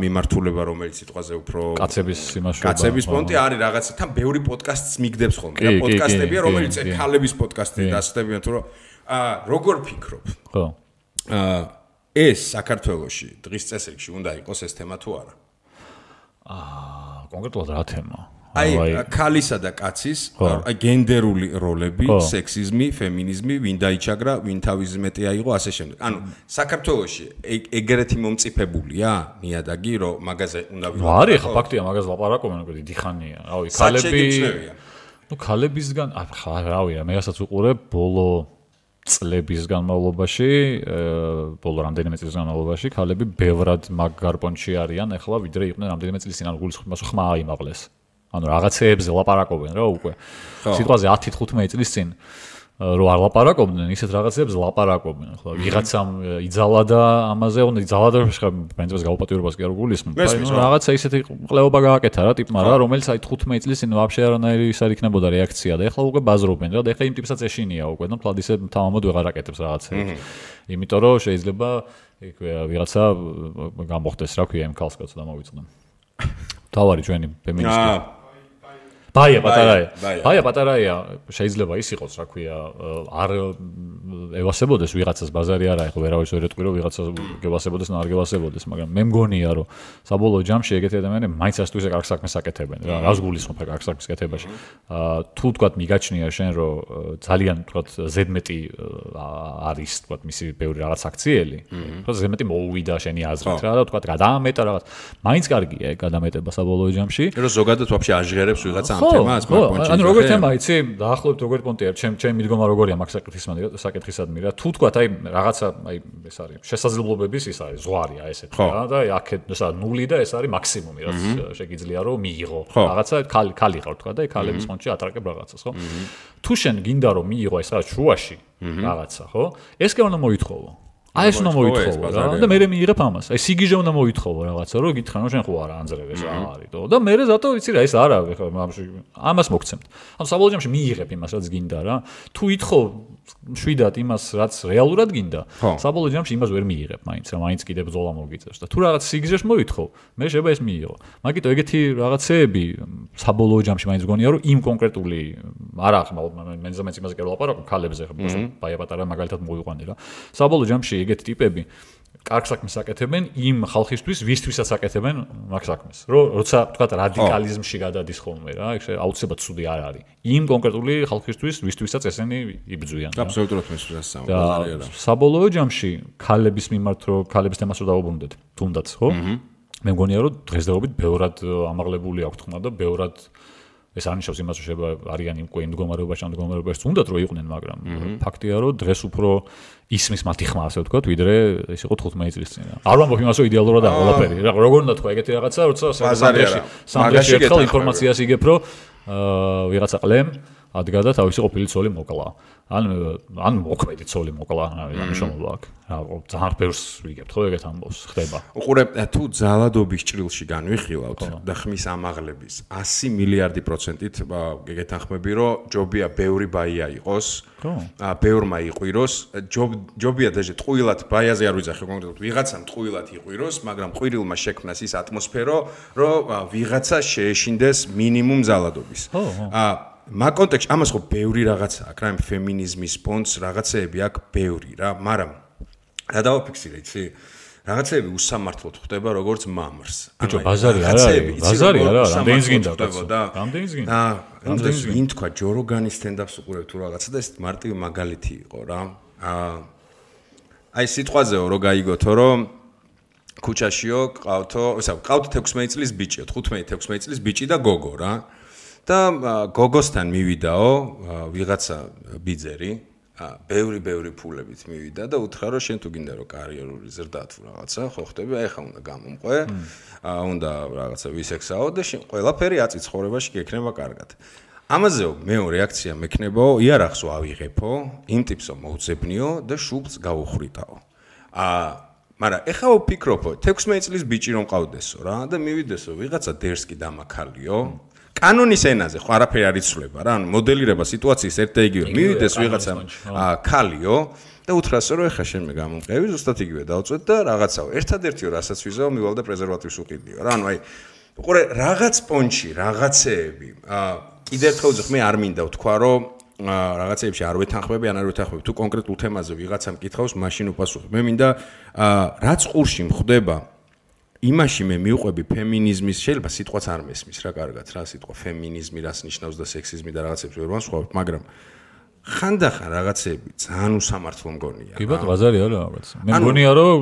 მიმართულება რომელიც სიტყვაზე უფრო კაცების იმაშობა. კაცების პონტი არის რაღაცა თან ბევრი პოდკასტს მიგდებს ხოლმე და პოდკასტებია რომელიც ქალების პოდკასტი დასწდებიან თუ როგორ ფიქრობ? ხო. ეს საქართველოში დღის წესრიგში უნდა იყოს ეს თემა თუ არა? კონკრეტულად რა თემა? აი ქალისა და კაცის აი გენდერული როლები, სექსიზმი, ფემინიზმი, ვინ დაიჩაგრა, ვინ თავის მეტი აიღო, ასე შემდეგ. ანუ საქართველოში ეგრეთი მომწიფებულია ნიადაგი, რომ მაგაზე უნდა ვიყო. არის ხა ფაქტია, მაგაზე ლაპარაკობენ უკვე დიდი ხანია. რავი, ქალები ნუ ქალებისგან ხა რავია, მე რასაც უყურებ ბოლო წლების განმავლობაში, ბოლო რამდენიმე წლის განმავლობაში ქალები ბევრად მაგ გარპონჩი არიან, ახლა ვიდრე იყვნენ რამდენიმე წლის წინ, ანუ გულისხმობს ხმა აიმაღლეს. ანუ რაღაცეებზე ლაპარაკობენ რა უკვე. სიტყვაზე 10-15 წლის წინ რო არ ლაპარაკობდნენ, ისეთ რაღაცებს ლაპარაკობენ. ხო, ვიღაცამ იძალა და ამაზე, უნდა იძალა და პრინციპს გაუპატიურებას კი არ გულისხმობ. რაღაცა ისეთი ყლეობა გააკეთა რა ტიპმა რა, რომელიც აი 15 წლის წინ ვაფშე არანაირი ის არ იქნებოდა რეაქცია და ეხლა უკვე ბაზრობენ რა და ეხლა იმ ტიპსაც ეშინია უკვე და მთლად ისე თავამოდ ვეღარ აკეთებს რაღაცებს. იმიტომ რომ შეიძლება იქ ვიღაცა გამოხდეს რა ქვია იმ ქალს კაცს და მოვიწყდნენ. თავარი ჩვენი ფემინისტი ბაია პატარაია შეიძლება ის იყოს რა ქვია არ ევასებოდეს ვიღაცას ბაზარი არა ეხლა ვერავის ვერ ეტყვი რომ ვიღაცას გევასებოდეს და არ გევასებოდეს მაგრამ მე მგონია რომ საბოლოო ჯამში ეგეთი ადამიანები მაინც ასე თუ ისე კარგ საქმეს აკეთებენ რა რას გულისხმობ კარგ საქმის კეთებაში თუ თქვათ მიგაჩნია შენ რომ ძალიან თქვათ ზედმეტი არის თქვათ მისი ბევრი რაღაც აქციელი თქო ზედმეტი მოუვიდა შენი აზრით რა და თქვათ გადაამეტა რაღაც მაინც კარგია ეგ გადამეტება საბოლოო ჯამში რომ ზოგადად ვაფშე აჟღერებს ვიღაცა ანუ როგორ თემა იცი დაახლოებით როგორ პონტია ჩემი მიდგომა როგორია მაგ საკითხისადმი რა თუ თქვა აი რაღაცა აი ეს არის შესაძლებლობების ის არის ზღვარია ესეთი რა და აქეთ ესა ნული და ეს არის მაქსიმუმი რაც შეგიძლია რომ მიიღო რაღაცა ქალი ხარ თქვა და აი ქალების ფონდში ატარაკებ რაღაცას ხო თუ შენ გინდა რომ მიიღო ეს რაღაც შუაში რაღაცა ხო ეს კი უნდა მოითხოვო აი ეს უნდა მოითხოვო რა და მე მიიღებ ამას. აი სიგიჟე უნდა მოითხოვო რაღაცა, რომ გითხრან რომ შენ ხო არა ანძრევ ეს რა არის თო და მე ზატო ვიცი რა ეს არა ამას მოგცემთ. ანუ საბოლოო ჯამში მიიღებ იმას რაც გინდა რა. თუ ითხოვ შვიდად იმას რაც რეალურად გინდა, საბოლოო ჯამში იმას ვერ მიიღებ მაინც რა, მაინც კიდე ბრძოლა მოგიწევს და თუ რაღაც სიგიჟეშ მოითხოვ, მე შეიძლება ეს მიიღო. მაგიტო ეგეთი რაღაცეები საბოლოო ჯამში მაინც გონია რომ იმ კონკრეტული არა ხმა მე ზამეც იმაზე კი ვლაპარაკობ ქალებზე ხო ბაია პატარა მაგალითად მოვიყვანე რა. საბოლოო ჯამში ეგეთი ტიპები კარგ საქმეს აკეთებენ იმ ხალხისთვის, ვისთვისაც აკეთებენ მაგ საქმეს. როცა თქვა რადიკალიზმში გადადის ხოლმე რა, ეგ აუცილებლად ცუდი არ არის. იმ კონკრეტული ხალხისთვის, ვისთვისაც ესენი იბრძვიან. აბსოლუტურად მესმის რა. საბოლოო ჯამში ქალების მიმართ რო ქალების თემას რო დავუბრუნდეთ, თუნდაც, ხო? მე მგონია რომ დღესდღეობით ბევრად ამაღლებული აქვს თქმა და ბევრად ეს არნიშნავს იმას რომ შეიძლება არიან უკვე იმ მდგომარეობაში ან მდგომარეობაში თუნდაც რო იყვნენ, მაგრამ ფაქტია რომ დღეს უფრო ისმის მათი ხმა ასე ვთქვათ, ვიდრე ეს იყო 15 წლის წინ. არ ვამბობ იმას რომ იდეალურად არ ყველაფერი. როგორ უნდა თქვა ეგეთი რაღაცა, როცა სამდრეში ერთხელ ინფორმაციას იგებ რომ ვიღაცა ყლემ ადგა და თავისი ყოფილი ცოლი მოკლა. ან მოქმედი ცოლი მოკლა, ამის შემოვა აქვს. რა ძალიან ბევრს ვიგებთ ხო ეგეთ ამბავს ხდება. უყურე თუ ძალადობის ჭრილში განვიხილავთ და ხმის ამაღლების 100 მილიარდი პროცენტით გეგეთანხმები რომ ჯობია ბევრი ბაია იყოს. ბევრმა იყვიროს, ჯობია დაჟე ტყუილად ბაიაზე არ ვიძახე კონკრეტულად ვიღაცამ ტყუილად იყვიროს, მაგრამ ყვირილმა შექმნას ის ატმოსფერო, რომ ვიღაცა შეეშინდეს მინიმუმ ძალადობის. მაგ კონტექსტში ამას ხო ბევრი რაღაცა აქვს რა, ფემინიზმის პონტს რაღაცეები აქვს ბევრი რა, მაგრამ რა დავაფიქსირე იცი? რაღაცეები უსამართლოდ ხდება როგორც მამრს. ბიჭო, ბაზარი არა, რამდენიც გინდა კაცო? რამდენიც გინდა? რამდენიც ვინ თქვა ჯო როგანის სტენდაპს უყურებ თუ რაღაცა და ეს მარტივი მაგალითი იყო რა. აი სიტყვაზეო რო გაიგოთო რომ ქუჩაშიო ყავთო, ყავთ 16 წლის ბიჭი, 15-16 წლის ბიჭი და გოგო რა. და გოგოსთან მივიდაო ვიღაცა ბიძერი ბევრი ფულებით მივიდა და უთხრა რომ შენ თუ გინდა რომ კარიერული ზრდა თუ რაღაცა ხო ხტები აი ხა უნდა გამომყვე უნდა რაღაცა ვისექსაო და შენ ყველაფერი აწი ცხოვრებაში გექნება კარგად ამაზეო მეო რეაქცია მექნებაო იარაღს ავიღებო იმ ტიპსო მოუძებნიო და შუბლს გავუხრიტაო მაგრამ ეხა ვფიქრობო 16 წლის ბიჭი რომ ყავდესო რა და მივიდესო ვიღაცა დერსკი დამაქალიო კანონის ენაზე ხო არაფერი არ იცვლება რა ანუ მოდელირება სიტუაციის ერთ და იგივე მივიდეს ვიღაცა ქალიო და უთხრასო რომ ეხა შენ მე გამომყევი ზუსტად იგივე დავწვეთ და რაღაცაო ერთადერთიო რასაც ვიზაო მივალ და პრეზერვატივს უყიდიო რა ანუ აი უყურე რაღაც პონჩი რაღაცეები კიდევ ერთხელ ვძახ მე არ მინდა ვთქვა რომ რაღაცეებში არ ვეთანხმები ან არ ვეთანხმები თუ კონკრეტულ თემაზე ვიღაცამ კითხავს მაშინ უპასუხებ მე მინდა რაც ყურში მხდება იმაში მე მივყვები ფემინიზმის შეიძლება სიტყვაც არ მესმის რა კარგად რა სიტყვა ფემინიზმი რას ნიშნავს და სექსიზმი და რაღაცებს ვერ ვანსხვავებ მაგრამ ხანდახან რაღაცები ძალიან უსამართლო მგონია კი ბატონო ბაზარი არა რაღაც მე მგონია რომ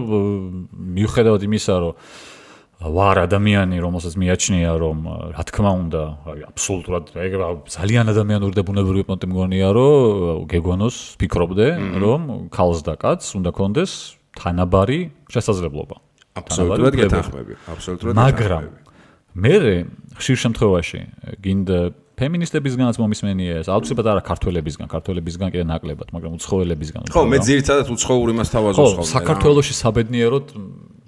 მიუხედავად იმისა რომ ვარ ადამიანი რომელსაც მიაჩნია რომ რა თქმა უნდა აბსოლუტურად ეგ ძალიან ადამიანური და ბუნებრივი პონტი მგონია რომ გეგონოს ფიქრობდე რომ ქალს და კაცს უნდა კონდეს თანაბარი შესაძლებლობა აბსოლუტურად გეთანხმები, აბსოლუტურად. მაგრამ მე ხშირ შემთხვევაში გინდა ფემინისტებისგანაც მომისმენია ეს, აუცილებლად არა ქართველებისგან კიდე ნაკლებად, მაგრამ უცხოელებისგან. ხო, მე ძირითადად უცხოურ იმას თავაზობს ხოლმე. საქართველოში საბედნიეროდ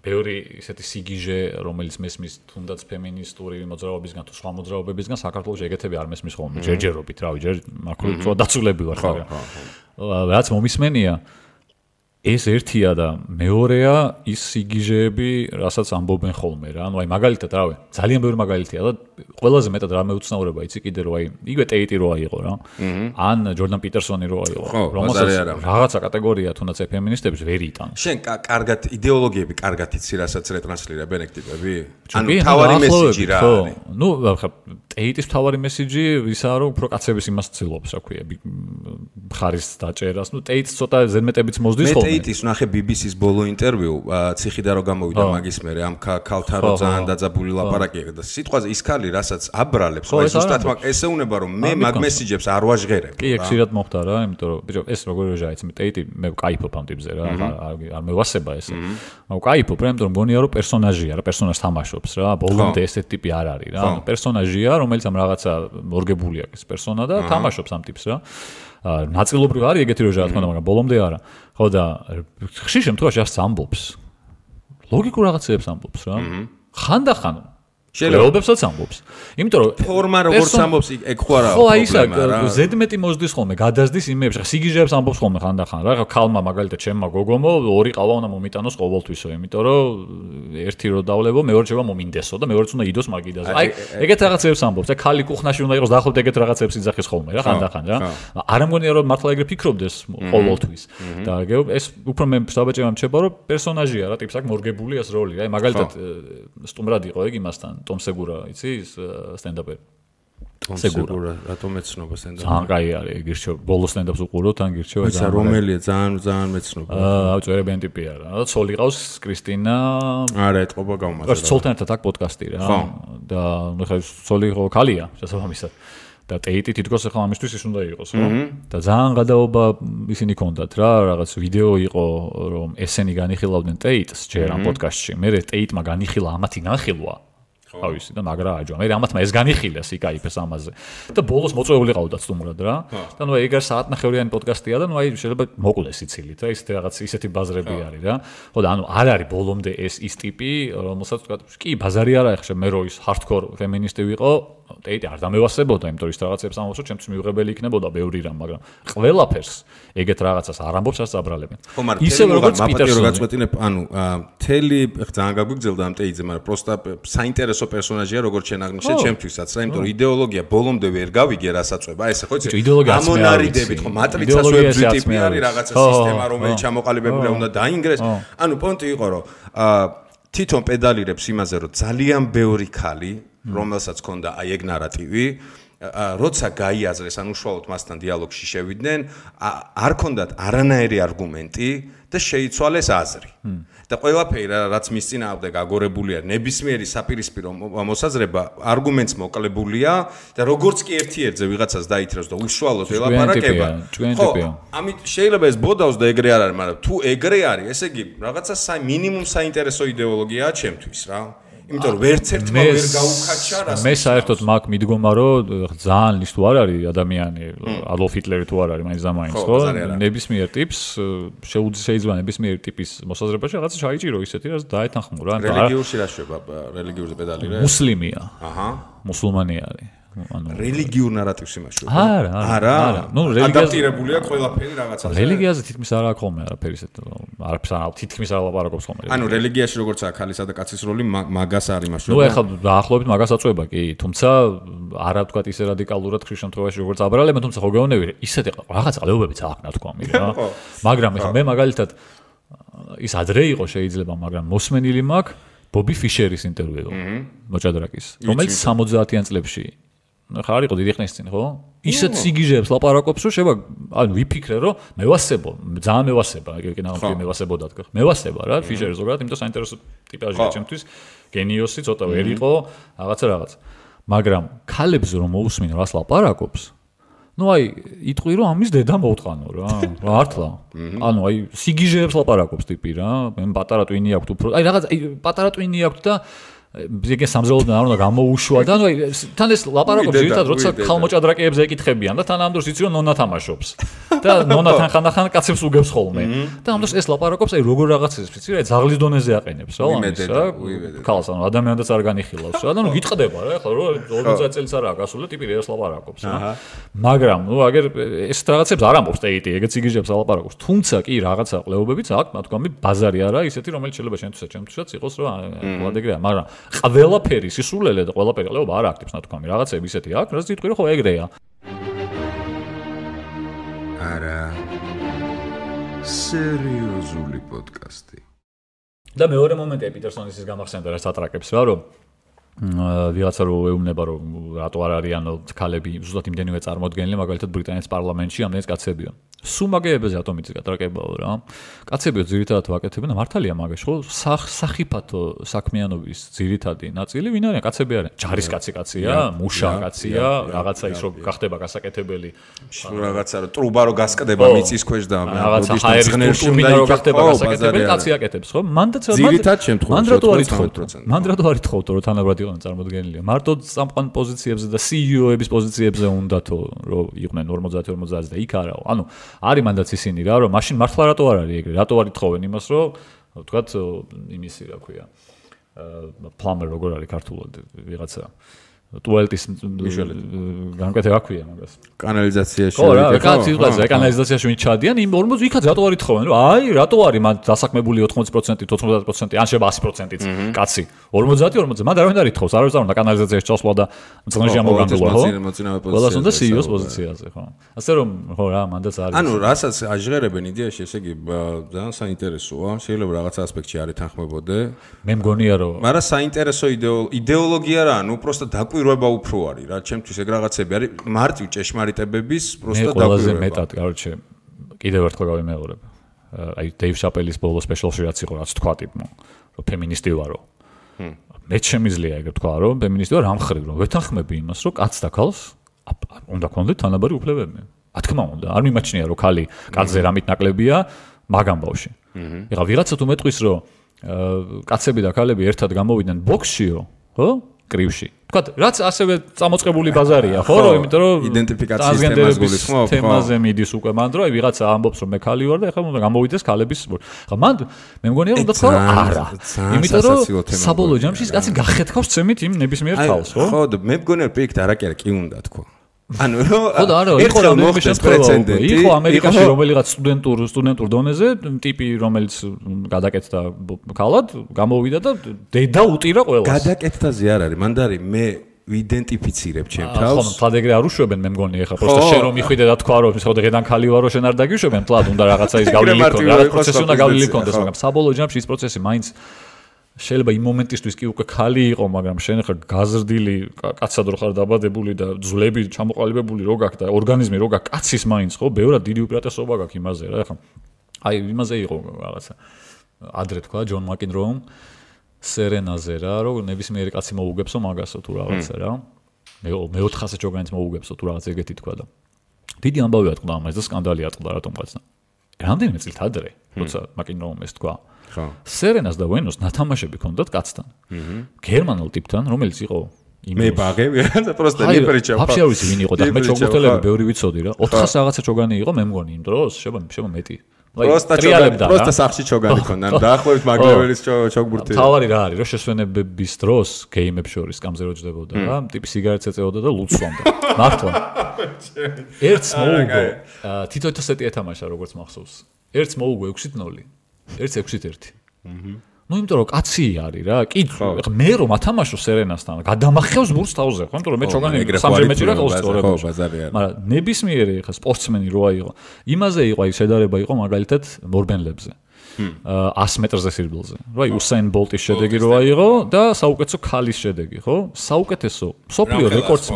ბევრი ისეთი სიგიჟე, რომელიც მესმის თუნდაც ფემინისტური მოძრაობისგან თუ სხვა მოძრაობებისგან, საქართველოში ეგეთები არ მესმის ხოლმე, ჯერჯერობით, რავი, ჯერ მაქრო დაცულები ვარ, მაგრამ რაც მომისმენია ეს ერთია და მეორეა ის სიგიჟეები, რასაც ამბობენ ხოლმე რა. ანუ აი მაგალითად, რავი, ძალიან ბევრი მაგალითია და ყველაზე მეტად რა მეუცნაურება იცი კიდე რომ აი იგივე ტეიტი როა იყო რა. ან ჯორდან პიტერსონი როა იყო. რომელსაც რაღაცა კატეგორია თუნდაც ფემინისტებს ვერ იტანს. შენ კარგად იდეოლოგიები კარგად იცი, რასაც რეტრანსლირებენ ეგ ტიპები? ანუ თავარი მესიჯი რა არის? ნუ ხა ტეიტის თავარი მესიჯი ისაა რომ უფრო კაცების იმას ცდილობს, რა ქვია, მხარის დაჭერას. ნუ ტეიტს ცოტა ზედმეტებიც მოსდის ხოლმე. ტეიტის ნახე BBC-ს ბოლო ინტერვიუ, ციხიდან რო გამოვიდა მაგის მერე, ამ ქალთან რო ძალიან დაძაბული ლაპარაკი და სიტყვაზე ის ქალი რასაც აბრალებს, აი ზუსტად ესეუნება რომ მე მაგ მესიჯებს არ ვაჟღერებ. კი, ეგ ხშირად მოხდა რა, იმიტომ რომ ბიჭო, ეს როგორ ვეჟაიც, მე ტეიტი მე ვკაიფობ ამ ტიპზე რა, არ მევასება ეს. მაგრამ ვკაიფობ რა, იმიტომ რომ მგონია რომ პერსონაჟია რა, პერსონაჟს თამაშობს რა, ბოლომდე ესეთი ტიპი არ არის რა, პერსონაჟია, რომელიც ამ რაღაცა მორგებული აქვს პერსონა და თამაშობს ამ ტიპს რა. ნაწილობრივ არის ეგეთი როჟა რა თქმა უნდა, მაგრამ ბოლომდე არა. ხო და ხშირ შემთხვევაში ასე ამბობს. ლოგიკურ რაღაცებს ამბობს რა. ხანდახან შელებებსაც ამბობს. იმიტომ რომ ფორმა როგორც ამბობს, ეგ ხო არა. ხო, აი ისა ზედმეტი მოსდის ხოლმე, გადასდის იმეებში. სიგიჟეებს ამბობს ხოლმე ხანდახან რა. ქალმა მაგალითად ჩემმა გოგომო ორი ყავა უნდა მომიტანოს ყოველთვისო, იმიტომ რომ ერთი რო დავლებო, მეორე შევა მომინდესო და მეორეც უნდა იდოს მაგიდაზე. აი ეგეთ რაღაცებს ამბობს. აი ქალი კუხნაში უნდა იყოს დაახლოებით ეგეთ რაღაცებს იძახის ხოლმე რა ხანდახან რა. არ ამგონია რომ მართლა ეგრე ფიქრობდეს ყოველთვის. და ეს უფრო მე საბაჭევ ამჩება რომ პერსონაჟია რა, ტიპს აქვს მორგებული ეს როლი. აი მაგალითად სტუმრად იყო ეგ იმასთან ტომ სეგურა, იცი, სტენდაპერი. ტომ სეგურა, რატომ ეცნობა სტენდაპი? ძალიან კაი არის, გირჩევ, ბოლო სტენდაპს უყუროთ, ან გირჩევა ძალიან. ისა რომელია, ძალიან მეცნობა. წერებიან ტიპი არა. და ცოლი ყავს კრისტინა. არა, ეთყობა გამომაზრდა. ცოლთან ერთად აქვს პოდკასტი რა. და ნუ ხა ცოლი ხო ქალია, შესაბამისად. და ტეიტი თითქოს ახლა ამისთვის ის უნდა იყოს, ხო? და ძალიან გადაობა ისინი ქონდათ რა, რაღაც ვიდეო იყო, რომ ესენი განიხილავდნენ ტეიტს ჯერ ამ პოდკასტში. მე ტეიტმა განიხილა ამათი განხილვა. ავისი და მაგრა აჯვა. მე ამათმა ეს განიხილეს იკაიფეს ამაზე. და ბოლოს მოწვეული ყავდათ სტუმრად რა. და ნუ ეგ საათნახევრიანი პოდკასტია და ნუ აი შეიძლება მოკლეს იცილით რა, ისეთი რაღაც ისეთი ბაზრები არის რა. ხო და ანუ არ არის ბოლომდე ეს ის ტიპი, რომელსაც თქვა, კი ბაზარი არა ეხლა მე რო ის ჰარდკორ ფემინისტი ვიყო, ტეიტი არ დამევასებოდა, იმიტომ ის რაღაცებს ამბობს, რომ ჩემთვის მიუღებელი იქნებოდა ბევრი რამ, მაგრამ ყველაფერს ეგეთ რაღაცას არ ამბობს, არც აბრალებენ. ისე როგორც პიტერსონი გაწყვეტინებ, ანუ თელი ძალიან გაგვიგზელდა ამ ტეიტზე, მაგრამ პროსტა საინტერესო პერსონაჟია, როგორც შენ აღნიშნე ჩემთვისაც, რა, იმიტომ რომ იდეოლოგია ბოლომდე ვერ გავიგე რასაწובה, ესე ხო იცი? ამონარიდებით ხო მატრიცას ვებზი ტიპი არის, რაღაცა სისტემა, რომელიც ჩამოყალიბებულია უნდა დაინგრეს. ანუ პონტი იყო, რომ თვითონ პედალირებს იმაზე, რომ ძალიან ბევრი ქალი რომელსაც ქონდა აი ეგ ნარატივი, როცა გაიაზრეს, ან უშუალოდ მასთან დიალოგში შევიდნენ, არ ქონდათ არანაირი არგუმენტი და შეიცვალეს აზრი. და ყველაფერი რაც მის წინააღმდეგ აგორებული არის, ნებისმიერი საპირისპირო მოსაზრება არგუმენტს მოკლებულია და როგორც კი ერთ-ერთზე ვიღაცას დაითრევს და უშუალოდ ელაპარაკება. ხო, ამით შეიძლება ეს ბოდავს და ეგრე არ არის, მაგრამ თუ ეგრე არის, ესე იგი რაღაცა მინიმუმ საინტერესო იდეოლოგიაა ჩემთვის რა. იმიტომ რომ ვერც ერთმა ვერ გაუკაჩა რას. მე საერთოდ მაგ მიდგომა რომ ძალიან ის თუ არ არის ადამიანი, ადოლფ ჰიტლერი თუ არ არის, მაინც და მაინც, ხო? ნებისმიერ ტიპს შეიძლება ნებისმიერ ტიპის მოსაზრებაში რაღაცა ჩაიჭირო ისეთი, რაც დაეთანხმო რა. რელიგიურში რა შვება? რელიგიურზე პედალირე? მუსლიმია. აჰა. მუსულმანი არის. ანუ რელიგიურ ნარატივს იმაშუა. არა. ნუ ადაპტირებულია ყველაფერი რაღაცაზე. რელიგიაზე თითქმის არ აქვს ხოლმე არაფერი ისეთ. არაფერს თითქმის არ ლაპარაკობს ხოლმე. ანუ რელიგიაში როგორცაა ქალისა და კაცის როლი მაგას არ იმაშუა. ნუ ეხლა დაახლოებით მაგას აწובה კი, თუმცა არა ვთქვათ ისე რადიკალურად ხშირ შემთხვევაში როგორც აბრალებენ, თუმცა ხო გეუბნები ისეთი რაღაც ყლეობებიც აქვს ნათქვამი რა. მაგრამ ეხლა მე მაგალითად ის ადრე იყო შეიძლება, მაგრამ მოსმენილი მაქვს ბობი ფიშერის ინტერვიუ მოჭადრაკის, რომელიც 70-იან წლებში ხარ იყო დიდი ხნის წინ, ხო? ისეთ სიგიჟეებს ლაპარაკობს, რომ შევა, ანუ ვიფიქრე, რომ მევასებო, ძალიან მევასება, ეგ ნამდვილად მევასებოდა თქო. მევასება რა, ფიშერი ზოგადად, იმიტომ საინტერესო ტიპაჟია ჩემთვის, გენიოსი ცოტა ვერ იყო, რაღაცა. მაგრამ ქალებს რომ მოусმინო რას ლაპარაკობს, ну აი იტყვი რომ ამის დედა მოვტყანო რა მართლა ანუ აი სიგიჟეებს ლაპარაკობს ტიპი რა მე პატარა ტვინი აქვს უფრო აი რაღაც პატარა ტვინი აქვს და ეგ სამზელოდან არ უნდა გამოუშვა და ანუ თან ეს ლაპარაკობს ძირითადად როცა ხალმოჭადრაკეებზე ეკითხებიან და თან ამ დროს იცი რომ ნონა თამაშობს და ნონათან ხანდახან კაცებს უგებს ხოლმე და ამ დროს ეს ლაპარაკობს აი როგორ რაღაცებს ვიცი რა ძაღლის დონეზე აყენებს რა ამის რა ქალს ანუ ადამიანს არ განიხილავს რა და ნუ გიტყდება რა ახლა რო 40 წელს არაა გასული ტიპი რას ლაპარაკობს რა მაგრამ ნუ აგერ ეს რაღაცებს არ ამბობს ტეიტი ეგეც იგიჟებს ლაპარაკობს თუმცა კი რაღაცა ყლეობებიც აქვს თქვამი ბაზარი არა ისეთი რომელიც შეიძლება ჩემთვისაც იყოს რა ვადეგრეა მაგრამ ყველაფერი სისულელე და ყველაფერი ყლეობა არ აქტებს თქვამი რაღაცები ისეთი აქვს რაც თვითონ ხო ეგრეა არა სერიოზული პოდკასტი და მეორე მომენტია პიტერსონის ის გამახსენდა რა სატრაკებს რა რომ ვიღაცა რო ეუბნება რომ რატო არ არიან ქალები ზუსტად იმდენივე წარმოდგენილი მაგალითად ბრიტანეთის პარლამენტში ამდენი კაცებია სუმაგეებზე რატომ იცი გატრაკებაო რა კაცებიო ძირითადად ვაკეთებენ და მართალია მაგაში ხო სახიფათო საქმიანობის ძირითადი ნაწილი ვინ არიან კაცები არიან ჯარისკაცია მუშა კაცია რაღაცა ის რო გახდება გასაკეთებელი რაღაცა რო ტრუბა რო გასკდება მიწის ქვეშ და რაღაცა ჰაერის ტურბინა რო გახდება გასაკეთებელი კაცი აკეთებს ხო მან რატო არ ითხოვთ რომ თანაბრად იყვნენ წარმოდგენილი მარტო წამყვან პოზიციებზე და CEO-ების პოზიციებზე უნდათო რომ იყვნენ 50-50 და იქ არაო ანუ არის მანდაც ისინი რა რომ მაშინ მართლა რატო არ არის ეგრე რატო არ ითხოვენ იმას რომ ვთქვათ იმისი რა ქვია პლამერ როგორ არის ქართულად ვიღაცა ტუალეტის განკეთება ქვია მაგას კანალიზაციაში ხო რა კაცი კანალიზაციაში ვინ ჩადიან იმ 40 იქაც რატო არ ითხოვენ რომ აი რატო არის მან დასაქმებული 80%-ით 90%-ით ან შეიძლება 100%-ით კაცი 50 მან არავინ არ ითხოვს არავის არ უნდა კანალიზაციაში ჩასვლა და მწნეჟი ამოგანგულა ხო ყველას უნდა CEO-ს პოზიციაზე ხო ასე რომ ხო რა მანდაც არის ანუ რასაც აჟღერებენ იდეაში ესე იგი ძალიან საინტერესოა შეიძლება რაღაცა ასპექტში არ ეთანხმებოდე მე მგონია რომ მაგრამ საინტერესო იდეოლოგია რა ანუ უბრალოდ დაკვირვება უფრო არის რა ჩემთვის ეგ რაღაცები არის მარტივ ჭეშმარიტებების უბრალოდ დაკვირვება ყველაზე მეტად короче კიდევ ერთხელ გავიმეორებ აი დეივ შაპელის ბოლო სპეშალში რაც იყო რაც თქვა ტიპმა რომ ფემინისტი ვარო მე შემიძლია ეგ თქვა რომ ფემინისტი ვარ ამ ხრივ რომ ვეთანხმები იმას რომ კაცს და ქალს უნდა ქონდეთ თანაბარი უფლებები რა თქმა უნდა არ მიმაჩნია რომ ქალი კაცზე რამით ნაკლებია მაგ ამბავში ეხლა ვიღაცა თუ მეტყვის რომ კაცები და ქალები ერთად გამოვიდნენ ბოქსშიო ხო კრივში. თქვათ, რაც ასევე წამოწყებული ბაზარია, ხო, რომ იმიტომ რომ იდენტიფიკაციის თემას გულისხმობ, ხო? თემაზე მიდის უკვე მან დრო, აი ვიღაცა ამბობს რომ მე ქალი ვარ და ეხლა უნდა გამოვიდეს ქალების. ხა მან მე მგონია უნდა თქვა არა. იმიტომ რომ საბოლოო ჯამში ის კაცი გახეთქავს წემით იმ ნებისმიერ თავს, ხო? ხო, მე მგონია პირიქით არაკერა კი უნდა თქვა. ანუ ხო და არა იყო რამე შემთხვევა იყო ამერიკაში რომელიღაც სტუდენტურ დონეზე ტიპი რომელიც გადაკეთდა ქალად გამოვიდა და დედა უტირა ყველას გადაკეთდაზე არ არის მანდარი მე ვიდენტიფიცირებ ჩემ თავს ხო თლად ეგრე არ უშვებენ მე მგონი ეხლა პროსტა შენ რომ მიხვიდე და თქვა რომ ხო დღედან ქალი ვარო შენ არ დაგიშვებენ თლად უნდა რაღაცა ის გავლილი ქონდეს რაღაც პროცესი უნდა გავლილი ქონდეს მაგრამ საბოლოო ჯამში ის პროცესი მაინც შეიძლება იმ მომენტისთვის კი უკვე ქალი იყო, მაგრამ შენ ხარ გაზრდილი, კაცად რო ხარ დაბადებული და ძვლები ჩამოყალიბებული რო გაქვს და ორგანიზმი რო გაქვს, კაცის მაინც ხო, ბევრად დიდი უპირატესობა გაქვს იმაზე რა, ხა. აი იმაზე იყო რაღაცა. ადრე თქვა ჯონ მაკინროუმ სერენაზე რა, რომ ნებისმიერი კაცი მოუგებსო მაგასო თუ რაღაცა რა. მე 400 ჯოგანიც მოუგებსო თუ რაღაც ეგეთი თქვა და. დიდი ამბავი ატყდა ამას და სკანდალი ატყდა რატომღაც. რამდენიმე წლით ადრე, როცა მაკინროუმ ეს თქვა. სერენას და ვენოს ნათამაშები ქონდათ კაცთან. გერმანულ ტიპთან, რომელიც იყო მე ბაღე, რა პროსტა ნიპრიჩა. ვაფშე არ ვიცი ვინ იყო და მე ჩოგბურთელები ბევრი ვიცოდი რა. 400 რაღაცა ჩოგანი იყო, მე მგონი იმ დროს, შეიძლება მეტი. პროსტა სახში ჩოგანი ქონდა. დაახლოებით მაგლეველის ჩოგბურთი. თავარი რა არის, რომ შესვენებების დროს გეიმებს შორის კამზე რო ჯდებოდა რა, ტიპი სიგარეტს ეწეოდა და ლუდს სვამდა. მართლა. ერთს მოუგო. თითო სეტი ეთამაშა როგორც მახსოვს. ერთს მოუგო 6-0. 1-6-1. ნუ იმიტომ რომ კაცი არის რა, კი მე რომ ათამაშო სერენასთან, გადამახევს ბურს თავზე, ხო? იმიტომ რომ მე ჩოგანი სამჯერ მეჭირა ყავს სწორებაში. მაგრამ ნებისმიერი ხა სპორტსმენი როა იყო. იმაზე იყო აი შედარება იყო მაგალითად მორბენლებზე. 100 მეტრზე სირბილზე. რა იუსაინ ბოლტის შედეგი როა იყო და საუკეთესო ქალის შედეგი, ხო? საუკეთესო სოფლიო რეკორდს